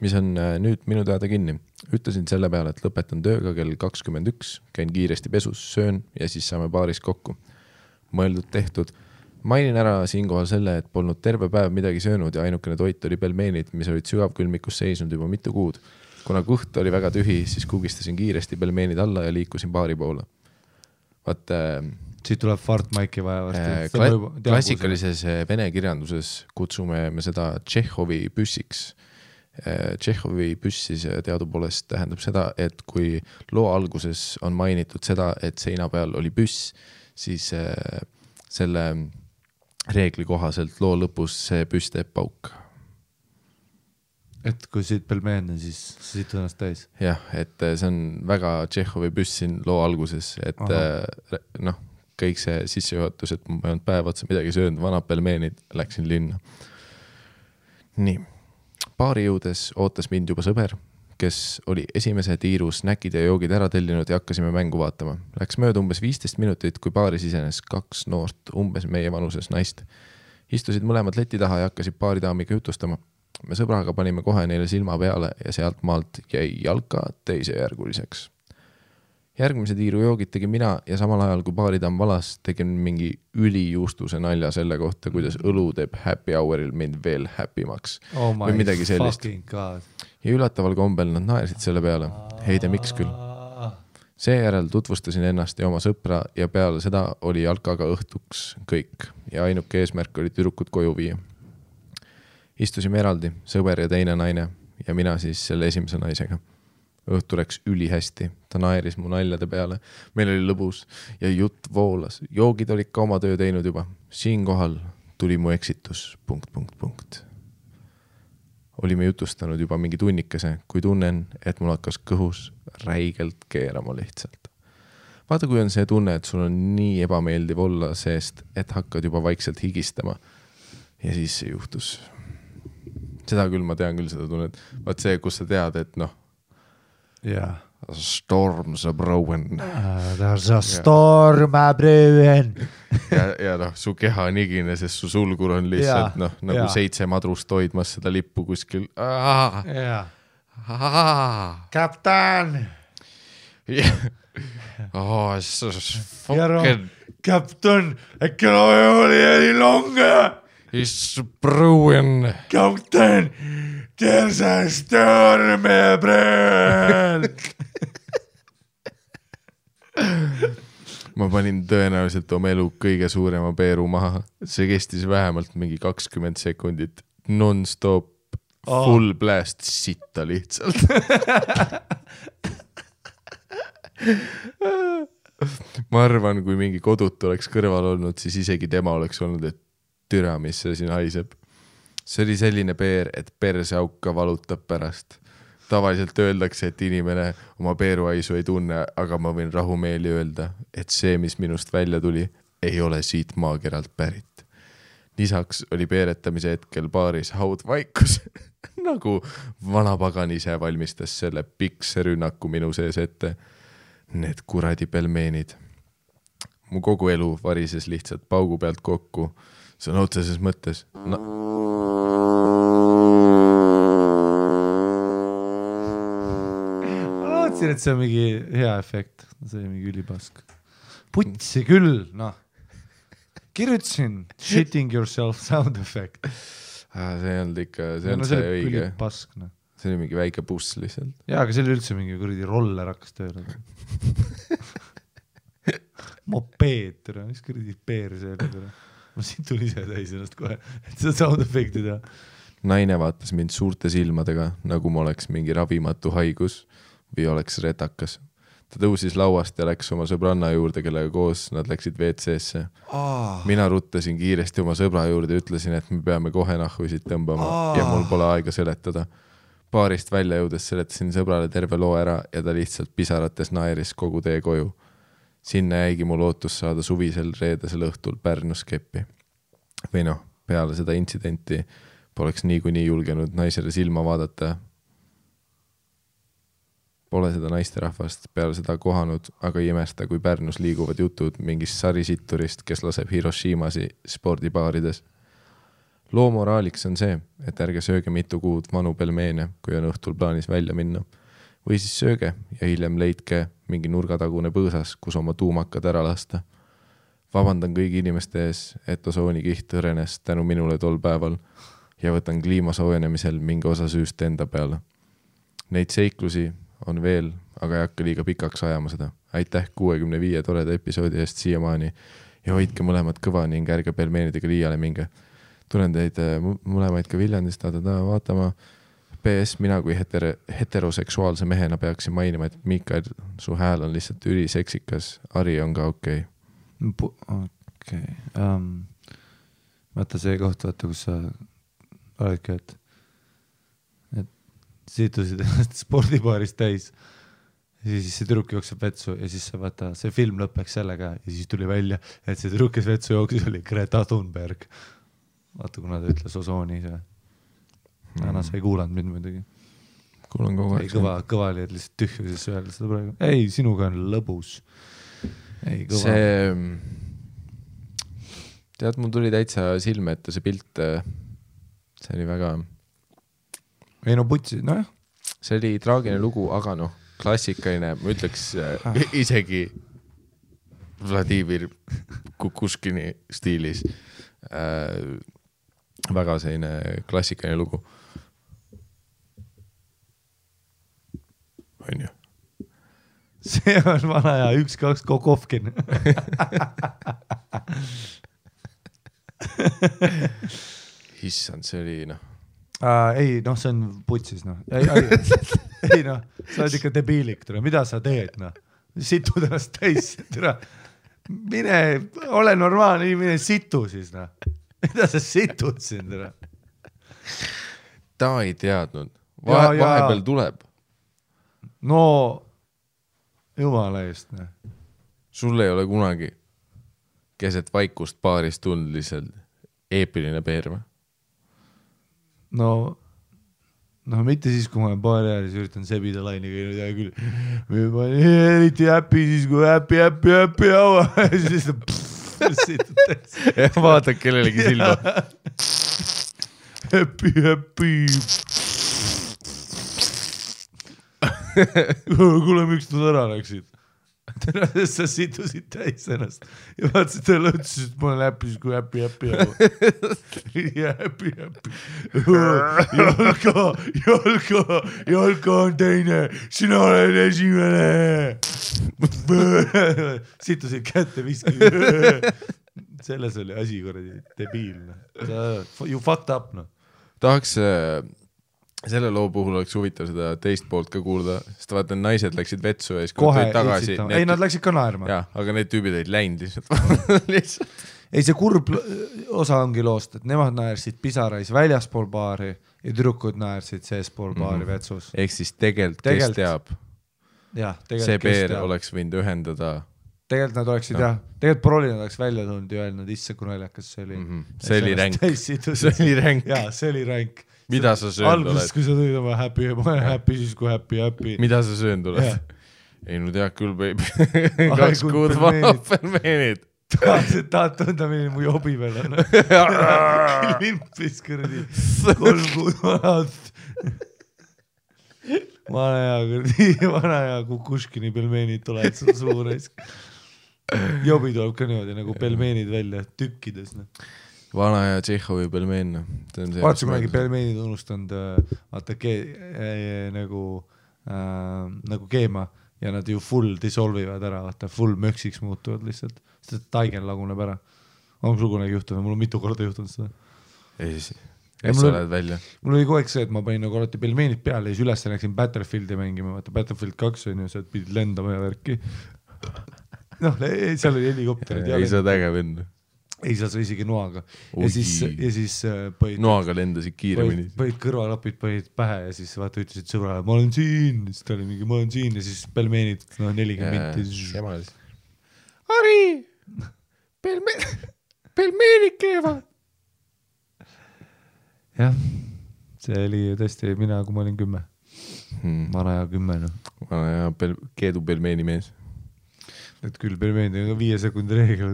Speaker 2: mis on nüüd minu teada kinni. Ütlesin selle peale, et lõpetan tööga kell 21, käin kiiresti pesus, söön ja siis saame baaris kokku. Mõeldud tehtud. Mainin ära siinkohal selle, et polnud terve päev midagi söönud ja ainukene toit oli pelmeenid, mis olid sügavkülmikus seisnud juba mitu kuud. Kuna kõht oli väga tühi, siis kugistasin kiiresti pelmeenid alla ja liikusin baari poole. Vaat
Speaker 1: Siit tuleb Fartmaiki vaja varsti.
Speaker 2: Klassikalises vene kirjanduses kutsume me seda Tšehhovi püssiks. Tšehhovi püssis teadupoolest tähendab seda, et kui loo alguses on mainitud seda, et seina peal oli püss, siis selle reegli kohaselt loo lõpus see püss teeb pauk.
Speaker 1: Et kui siit pelmeene, siis siit ennast täis.
Speaker 2: Jah, et see on väga Tšehhovi püss siin loo alguses, et kõik see sissejuhatus, et ma ei olnud päev otsa midagi söönud, vanad pelmeenid, läksin linna. Nii, baari jõudes ootas mind juba sõber, kes oli esimese tiiru snäkid ja joogid ära tellinud ja hakkasime mängu vaatama. Läks mööda umbes 15 minutit, kui baaris isenes 2 noort, umbes meie vanuses naist. Istusid mõlemad leti taha ja hakkasid baaridaamiga jutustama. Me sõbraga panime kohe neile silma peale ja sealt maalt jäi jalka teisejärguliseks. Järgmise tiiru joogid tegin mina ja samal ajal kui baaridaam valas tegin mingi ülijuustuse nalja selle kohta, kuidas õlu teeb happy houril mind veel happimaks. Või midagi sellist. Ja ülataval kombel nad naersid selle peale. Heide, miks küll? Seejärel tutvustasin ennast ja oma sõpra ja peale seda oli jalkaga õhtuks kõik ja ainuke eesmärk oli tüdrukud koju viia. Istusime eraldi, sõber ja teine naine ja mina siis selle esimese naisega. Õhtu läks ülihästi, ta naeris mu naljade peale, meil oli lõbus ja jutt voolas. Joogid olid ka oma töö teinud juba. Siinkohal tuli mu eksitus ... Olime jutustanud juba mingi tunnikese, kui tunnen, et mul hakkas kõhus räigelt keerama lihtsalt. Vaata, kui on see tunne, et sul on nii ebameeldiv olla seest, et hakkad juba vaikselt higistama. Ja siis see juhtus. Seda küll, ma tean küll seda tunnet. Vaat see, kus sa tead, et
Speaker 1: yeah.
Speaker 2: Storm's a brewing.
Speaker 1: There's a storm a brewing.
Speaker 2: ja su keha on igine, sest su sulgur on lihtsalt nagu 7 madrust hoidmas seda lippu kuskil.
Speaker 1: Kapten! Kapten, äkki oli eli longe?
Speaker 2: It's brewing.
Speaker 1: Kapten, there's a storm a brewing.
Speaker 2: Ma panin tõenäoliselt oma elu kõige suurema peeru maha. See kestis vähemalt mingi 20 sekundit. Non-stop, full blast sitta lihtsalt. Ma arvan, kui mingi kodut oleks kõrval olnud, siis isegi tema oleks olnud, et türa, mis see siin haiseb. See oli selline peer, et perseauka valutab pärast. Tavaliselt öeldakse, et inimene oma peeruhaisu ei tunne, aga ma võin rahumeeli öelda, et see, mis minust välja tuli, ei ole siit maakeralt pärit. Lisaks oli peeretamise hetkel baaris haudvaikus, nagu vanapagan ise valmistas selle pikse rünnaku minu sees ette. Need kuradi pelmeenid. Mu kogu elu varises lihtsalt paugu pealt kokku. See on otseses mõttes. Ma
Speaker 1: lootsin, et see on mingi hea efekt. See on mingi ülipask. Putsi küll, Kirjutasin shitting yourself sound effect.
Speaker 2: See on ikka, see on see õige.
Speaker 1: Pask,
Speaker 2: See oli mingi väike buss lihtsalt.
Speaker 1: Jaa, aga see oli üldse mingi kuradi roller hakkas tööle. Mopeed, mis kuradi peer see oli. Ma siin tuli ise täis ennast kohe, et seda sound effekti teha.
Speaker 2: Naine vaatas mind suurte silmadega, nagu ma oleks mingi ravimatu haigus või oleks retakas. Ta tõusis lauast ja läks oma sõbranna juurde, kellega koos nad läksid WC-sse. Mina ruttasin kiiresti oma sõbra juurde ja ütlesin, et me peame kohe nahhuisid tõmbama ja mul pole aega seletada. Baarist välja jõudes seletasin sõbrale terve loo ära ja ta lihtsalt pisarates naeris kogu tee koju. Sinna jäigi mul ootus saada suvisel reedesel õhtul Pärnus keppi. Või peale seda intsidenti poleks niikuinii julgenud naisele silma vaadata. Pole seda naisterahvast peale seda kohanud, aga ei imesta, kui Pärnus liiguvad jutud mingist sarisitturist, kes laseb Hiroshimasi spordibaarides. Loo moraaliks on see, et ärge sööge mitu kuud vanu pelmeene, kui on õhtul plaanis välja minna. Või siis sööge ja hiljem leidke mingi nurgatagune põõsas, kus oma tuumakad ära lasta. Vabandan kõigi inimeste ees, et osoonikiht õrenes tänu minule tol päeval ja võtan kliima soojenemisel mingi osa süüst enda peale. Neid seiklusi on veel, aga ei hakka liiga pikaks ajama seda. Aitäh 65 toreda episoodi eest siiamaani ja hoidke mõlemad kõva ning ärge pelmeenidega liiale minge. Tulen teid mõlemaid ka Viljandist vaatama. PS, mina kui heteroseksuaalse mehena peaksin mainima, et Mikael, su hääl on lihtsalt üliseksikas. Ari on ka okei.
Speaker 1: Okei. Vaata see koht, vaata, kus sa oledki, et situsid ennast spordibaaris täis ja siis see tüdruk jookseb vetsu ja siis sa vaata, see film lõpeks sellega ja siis tuli välja, et see tüdruk, kes vetsu jooksis, oli Greta Thunberg. Vaata, kuna ta ütles osooni see. Anna, sa ei kuulanud mind muidugi.
Speaker 2: Kuulan kogu aeg.
Speaker 1: Kõva oli, et lihtsalt tühjuses öelda seda praegu. Ei, sinuga on lõbus. Ei, kõva.
Speaker 2: Tead, mul tuli täitsa silme ette see pilt. See oli väga...
Speaker 1: Ei no putsi, nojah.
Speaker 2: See oli traagiline lugu, aga noh, klassikaline, ma ütleks isegi Vladimir Kukushkini stiilis. Väga selline klassikaline lugu. On ju?
Speaker 1: See on vana ja 1-2 Kokovkin.
Speaker 2: Issand, see oli noh.
Speaker 1: Ei, noh, see on putsis, noh. Ei, noh, sa oled ikka debiilik, mida sa teed, noh. Situd ennast täis, mine, ole normaalne, mine situ siis, noh. Mida sa situd siin,
Speaker 2: Ta ei teadnud. Vahepeal tuleb.
Speaker 1: No, jumala eest, noh.
Speaker 2: Sul ei ole kunagi keset vaikust paaris tund lihtsalt eepiline peerma?
Speaker 1: No, mitte siis, kui ma olen paari ääres ja üritan sebida laini käinud ja küll. Ma olen eriti häppi siis, kui häppi haua. Ja siis
Speaker 2: ja vaatad kellelegi silma.
Speaker 1: Häppi. Kuule, miks nad ära läksid? Sa situsid täis ennast ja vaatasid talle ütlesid, et ma olen häppis, kui häppi ja häppi. Jalka on teine, sina oled esimene. Situsid kätte viski. Selles oli asi korradi debiilne. You fucked up, no.
Speaker 2: Tahaks... Selle loo puhul oleks huvitav seda teist poolt ka kuulda, sest vaata, naised läksid vetsu ja siis
Speaker 1: kohe tagasi. Ei, nad läksid ka naerma.
Speaker 2: Jah, aga need tüübid olid läinud lihtsalt.
Speaker 1: Ei, see kurb osa ongi loost, et nemad naersid pisarais väljaspool baari ja tüdrukud naersid seespool baari vetsus.
Speaker 2: Ehk siis tegelikult, kes teab, see peer oleks võinud ühendada.
Speaker 1: Tegelikult nad oleksid, tegelikult prolli nad oleks välja tulnud ja öelnud, isse kui naljakas see oli.
Speaker 2: See oli ränk.
Speaker 1: Jaa, see oli ränk.
Speaker 2: Mida sa söönd oled?
Speaker 1: Alguses, kui sa tõid oma häppi, siis kui häppi.
Speaker 2: Mida sa söönd oled? Ei, no tead küll, baby. 2 kuud pelmeenid.
Speaker 1: Tahad tunda, milline mu jobi veel on. Limpis kõrdi. 3 kuud vanad. Vana ja Kukushkini pelmeenid tulevad seda suures. Jobi tuleb ka niimoodi nagu pelmeenid välja tükkides.
Speaker 2: Vana ja Tšehhovi pelmeen.
Speaker 1: Vaatsi kunagi pelmeenid unustanud nagu keema ja nad ju full dissolvivad ära, full möksiks muutuvad lihtsalt, sest taigen laguneb ära. On sul kunagi juhtunud, mul on mitu korda juhtunud seda.
Speaker 2: Ei, sa oled välja.
Speaker 1: Mul oli kogu aeg see, et ma panin nagu alati pelmeenid peale ja siis üles läksin Battlefieldi mängima, Battlefield 2 on ju, sa pidid lendama ja värki. Noh, seal oli helikopterid.
Speaker 2: Ei saa tägev enne.
Speaker 1: Ei saa sa isegi noaga. Ja siis põhid...
Speaker 2: Noaga lendasid kiiremini.
Speaker 1: Põhid kõrvalapid, põhid pähe ja siis vaata ütlesid sõbrale, ma olen siin. Siis ta oli mingi, ma olen siin ja siis pelmeenid 40 minti. Ari! Pelmeenid keevad! Jah, see oli tõesti mina, kui ma olin 10. Vana ja 10.
Speaker 2: Vana ja keedu pelmeeni mees.
Speaker 1: Et küll pelmeenid on 5 sekundi reegel.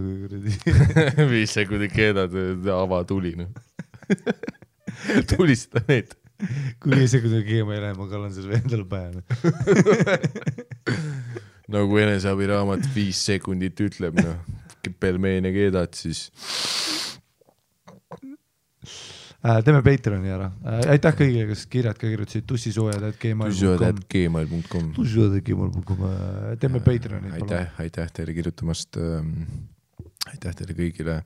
Speaker 2: 5 sekundi keedad, ava tuli. Tulista need.
Speaker 1: Kui 5 sekundi keema ei lähe, ma kallan selle endale pähe.
Speaker 2: Nagu eneseabiraamat 5 sekundit ütleb, pelmeene keedad, siis...
Speaker 1: Teeme Patreoni ära. Aitäh kõigile, kes kirjad ka kirjutasid tussisujad@gmail.com. Teeme Patreoni.
Speaker 2: Aitäh teile kirjutamast. Aitäh teile kõigile.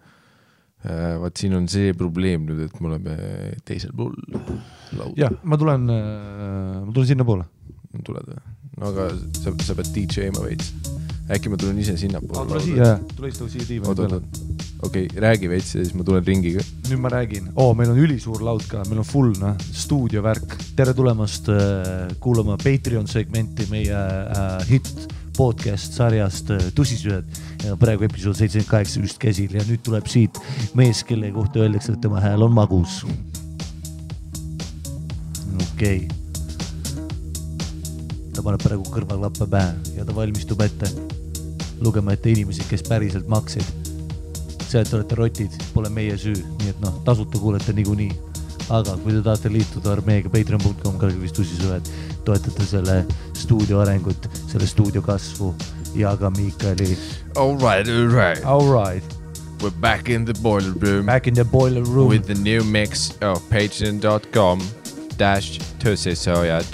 Speaker 2: Vaat siin on see probleem nüüd, et me oleme teisel pool lauda.
Speaker 1: Jah, ma tulen sinna poole.
Speaker 2: Tuled või? No aga sa pead DJ-ma veits. Äkki ma tulen ise sinna poole.
Speaker 1: Tule istu siia tiiva peale.
Speaker 2: Okei, räägi veits ja siis ma tulen ringiga.
Speaker 1: Nüüd ma räägin. Meil on ülisuur laud ka, meil on full stuudiovärk. Tere tulemast kuulama Patreon segmenti meie hit podcast sarjast Tussisühed. Praegu episood 78 just käsil ja nüüd tuleb siit mees, kelle kohta öeldakse, et tema hääl on magus. Okei. Ta paneb praegu kõrvaklappe pähe ja ta valmistub ette lugema ette inimesi, kes päriselt maksid. See, et olete rotid, pole meie süü, nii et tasuta kuulete niikuinii. Aga kui te tahate liituda armeega patreon.com kalgivist Tussisühed, toetate selle stuudio arengut, selle stuudio kasvu ja ka Miikali.
Speaker 2: All right. We're back in the boiler room. With the new mix of patreon.com/tussisojad.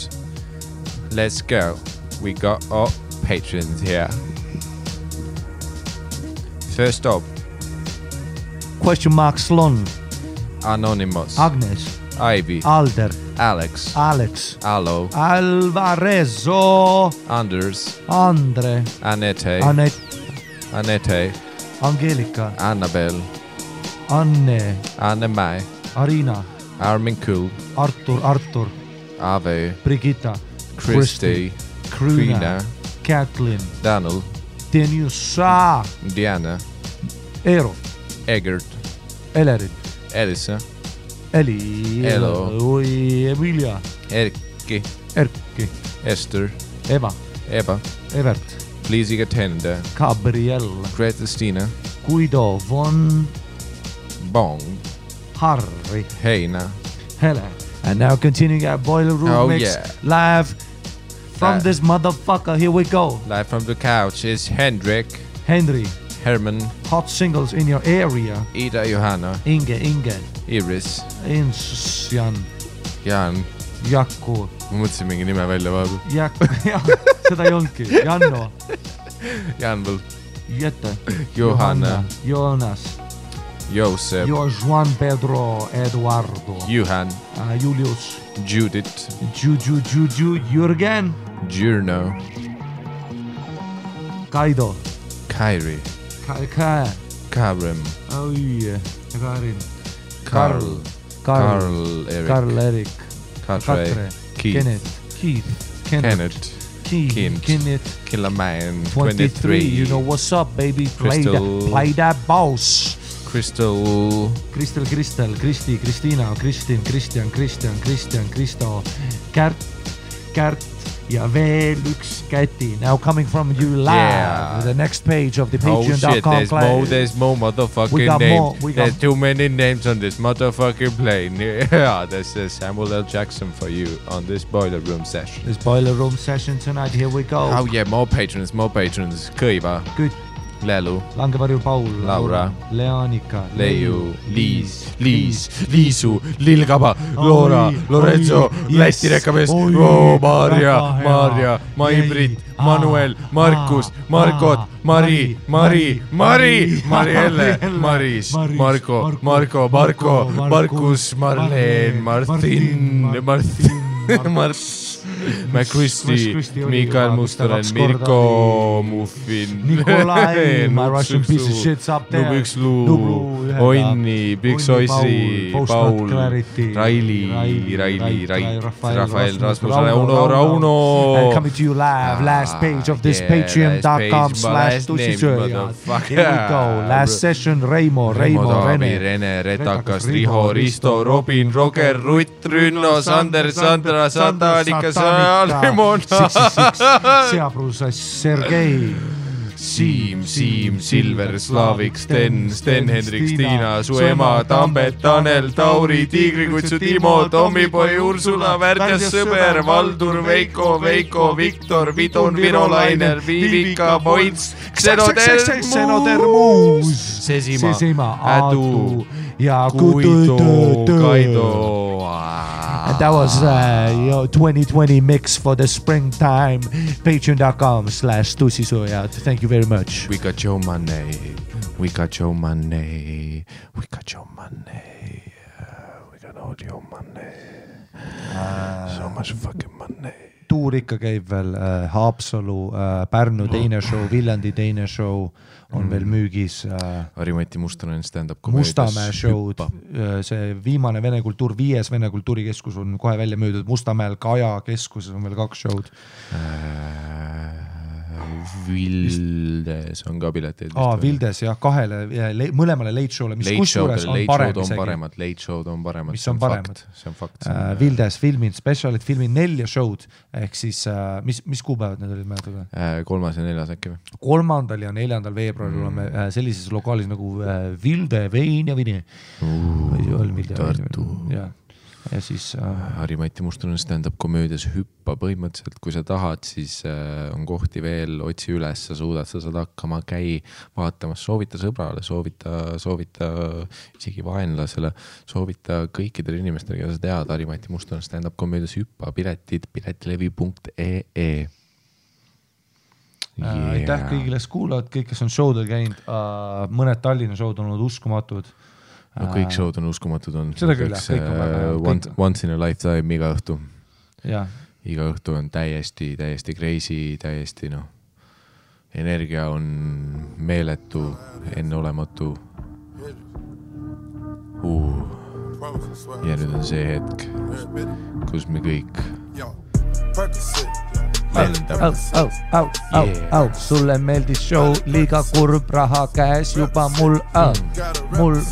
Speaker 2: Let's go. We got our patrons here. First up.
Speaker 1: Question mark Slon.
Speaker 2: Anonymous.
Speaker 1: Agnes.
Speaker 2: Ivy.
Speaker 1: Alder.
Speaker 2: Alex. Allo.
Speaker 1: Alvarezo.
Speaker 2: Anders.
Speaker 1: Andre.
Speaker 2: Anette.
Speaker 1: Angelika.
Speaker 2: Annabel.
Speaker 1: Anne.
Speaker 2: Anne-Mai.
Speaker 1: Arina.
Speaker 2: Armin Kul.
Speaker 1: Artur.
Speaker 2: Ave.
Speaker 1: Brigitta.
Speaker 2: Christy.
Speaker 1: Kruna. Kathleen.
Speaker 2: Daniel.
Speaker 1: Deniusa.
Speaker 2: Diana.
Speaker 1: Eero.
Speaker 2: Egert.
Speaker 1: Elerin.
Speaker 2: Elisa.
Speaker 1: Eli.
Speaker 2: Elo.
Speaker 1: Emilia.
Speaker 2: Erkki.
Speaker 1: Esther.
Speaker 2: Eba.
Speaker 1: Evert.
Speaker 2: Liisiga Tende.
Speaker 1: Gabriel.
Speaker 2: Gretastina.
Speaker 1: Guido. Von.
Speaker 2: Bong.
Speaker 1: Harry.
Speaker 2: Heina.
Speaker 1: Hele. And now continuing our boiler room mix live from this motherfucker. Here we go.
Speaker 2: Live from the couch is Henry. Herman.
Speaker 1: Hot singles in your area.
Speaker 2: Ida Johanna.
Speaker 1: Inge.
Speaker 2: Iris. Jan.
Speaker 1: Jakku.
Speaker 2: Ma mõtlesin mingi nime välja vaadu.
Speaker 1: Seda ei olnudki. Janno.
Speaker 2: Janvel.
Speaker 1: Jette.
Speaker 2: Johanna.
Speaker 1: Jonas.
Speaker 2: Josep.
Speaker 1: Juan Pedro Eduardo.
Speaker 2: Juhan.
Speaker 1: Julius.
Speaker 2: Judith.
Speaker 1: Jürgen.
Speaker 2: Jurno.
Speaker 1: Kaido.
Speaker 2: Kairi. Karim.
Speaker 1: Karin.
Speaker 2: Karl Erik.
Speaker 1: Katre. Keith.
Speaker 2: Kenneth. Killaman. 23.
Speaker 1: You know what's up, baby. Play that boss.
Speaker 2: Crystal.
Speaker 1: Kristi, Kristina, Kristin, Kristjan, Kristo, Kärt ja veel üks Käti. Now coming from you live, the next page of the patreon.com.
Speaker 2: There's more motherfucking names. There's too many names on this motherfucking plane. Yeah, there's Samuel L. Jackson for you on this boiler room session.
Speaker 1: This boiler room session tonight, here we go.
Speaker 2: Oh yeah, more patrons. Kõiva.
Speaker 1: Good.
Speaker 2: Lelu.
Speaker 1: Langevarju Paul.
Speaker 2: Laura.
Speaker 1: Leanika.
Speaker 2: Leiu. Liisu. Lilgaba. Loora. Lorenzo. Läti rekamees. Maarja. Mai-Brit. Manuel. Markus. Markot. Mari. Marielle. Maris. Marko. Markus. Marleen. Martin. McChristy, Mikael Mustonen, Mirko Muffin,
Speaker 1: Nikolai, my Russian piece of shit's up there,
Speaker 2: Nublu, Onni, Big Soisi, Paul, Raili, Rafael, Rasmus, Rauno.
Speaker 1: And coming to you live, last page of this patreon.com/tussisööjad. Here we go, last session, Reimo,
Speaker 2: Rene, Retakas, Riho, Risto, Robin, Roger, Rutt, Rünno, Sander, Sandra, Santa, Annika,
Speaker 1: Seaprus, Sergei,
Speaker 2: Siim, Silver, Slavik, Sten, Hendrik, Tiina, su ema, Tambet, Tanel, Tauri, Tiigrikutsu, Timo, Tommipoi, Ursula, Värdjas, Sõber, Valdur, Veiko, Viktor, Vidun, Virolainer, Viivika, Points, Xenodermus, Sesima, Adu ja Kaido.
Speaker 1: And that was your 2020 mix for the springtime. Patreon.com/tussisuja. Thank you very much.
Speaker 2: We got your money. We got all your money. So much fucking money.
Speaker 1: Tuur ikka käib veel, Haapsalu, Pärnu teine show, Viljandi teine show on veel müügis.
Speaker 2: Harimati Mustonen stand-up komöödias.
Speaker 1: Mustamäe show'd, see viimane Vene kultuur, 5. Vene kultuurikeskus on kohe välja müüdud. Mustamäel Kaja keskuses on veel 2 show'd.
Speaker 2: Vildes on ka pileteid.
Speaker 1: Vildes jah, 2 mõlemale late show'le, mis kusjuures on parem isegi.
Speaker 2: Late show'd on paremad,
Speaker 1: mis on paremad.
Speaker 2: See on fakt.
Speaker 1: Vildes filmin, specialit filmin 4 show'd, ehk siis mis kuupäevad need olid mäletada?
Speaker 2: 3. ja 4. äkki või?
Speaker 1: 3. ja 4. veebruaril oleme sellises lokaalis nagu Vilde Vein ja Vini.
Speaker 2: Tartu.
Speaker 1: Ja siis
Speaker 2: Harimati Mustonen stand-up komöödias hüppa põhimõtteliselt, kui sa tahad, siis on kohti veel, otsi üles, sa saad hakkama, käi vaatamas, soovita sõbrale, soovita isegi vaenlasele, soovita kõikidele inimestele, keda sa tead, Harimati Mustonen stand-up komöödias hüppa, piletid piletilevi.ee.
Speaker 1: Aitäh kõigile kuulavad, kõik, kes on showdel käinud, mõned Tallinna showd on olnud uskumatud.
Speaker 2: No kõik showd on uskumatud on.
Speaker 1: Seda küll, kõik on väga.
Speaker 2: Once in a lifetime iga õhtu.
Speaker 1: Ja.
Speaker 2: Iga õhtu on täiesti crazy, täiesti energia on meeletu, enneolematu. Ja nüüd on see hetk, kus me kõik
Speaker 1: Sulle meeldis show, liiga kurb, raha käes juba mul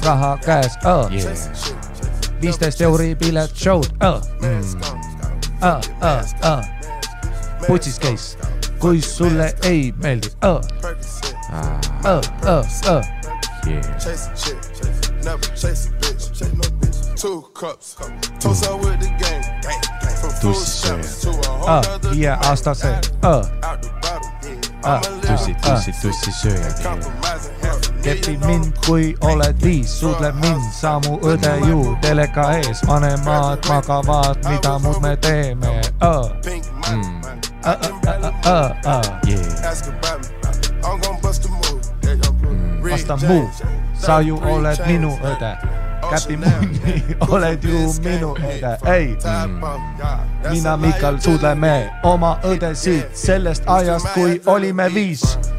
Speaker 1: raha käes 15 euri pilet show'd putsis käis, kui sulle ei meeldi aastase
Speaker 2: tussi sööja
Speaker 1: kepi mind, kui oled 5, suudle mind, sa mu õde ju teleka ees, vanemad magavad, mida muud me teeme vasta muu, sa ju oled minu õde käpi munni, oled ju minu õde, ei mina Mikal suudleme oma õdesid sellest ajast, kui olime 5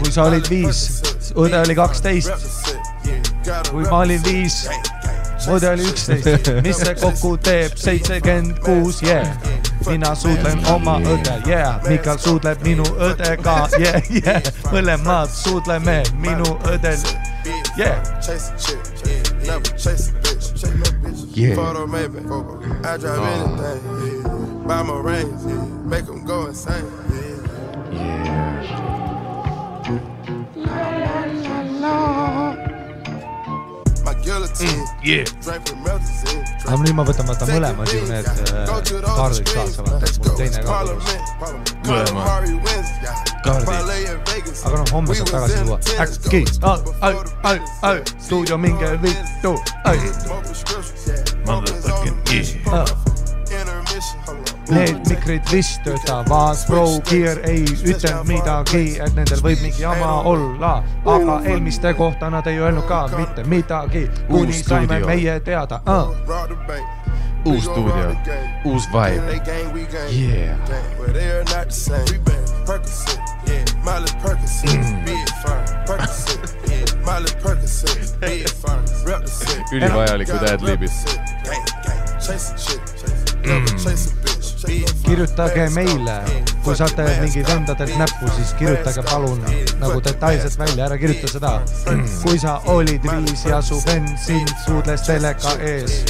Speaker 1: kui sa olid 5 õde oli 12 kui ma olin 5 õde oli 11 mis see kokku teeb 76 mina suudlen oma õde Mikal suudleb minu õdega mõlemad suudleme minu õdel
Speaker 3: Photo maybe I drive anything buy my rings make them go insane my guillotine drink from melted
Speaker 1: aga nüüd ma võtan mõlemad ju need kaardid kaasa, mul teine kaard kaardid aga homme saab tagasi tuua äkki stuudio minge vittu need mikrid vist töötavad Pro Gear ei ütelnud midagi, et nendel võib mingi jama olla, aga eelmiste kohta nad ei öelnud ka mitte midagi, kuni saime meie teada
Speaker 2: uus stuudio, uus vibe ülivajalikud ad-libid
Speaker 1: kirjutage meile, kui saate mingi vendadelt näppu, siis kirjutage palun nagu detailselt välja, ära kirjuta seda. Kui sa olid 5 ja su vend sind suudles teleka ees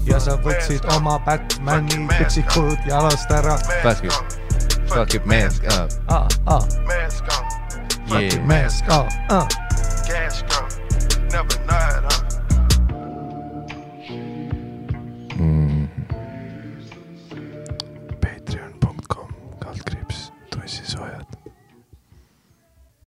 Speaker 1: ja sa võtsid oma Batmani piksikud jalast ära.
Speaker 4: Fuck it, mask up.
Speaker 3: Mask on.
Speaker 1: Fuck it, mask up.
Speaker 3: Cash gone. Never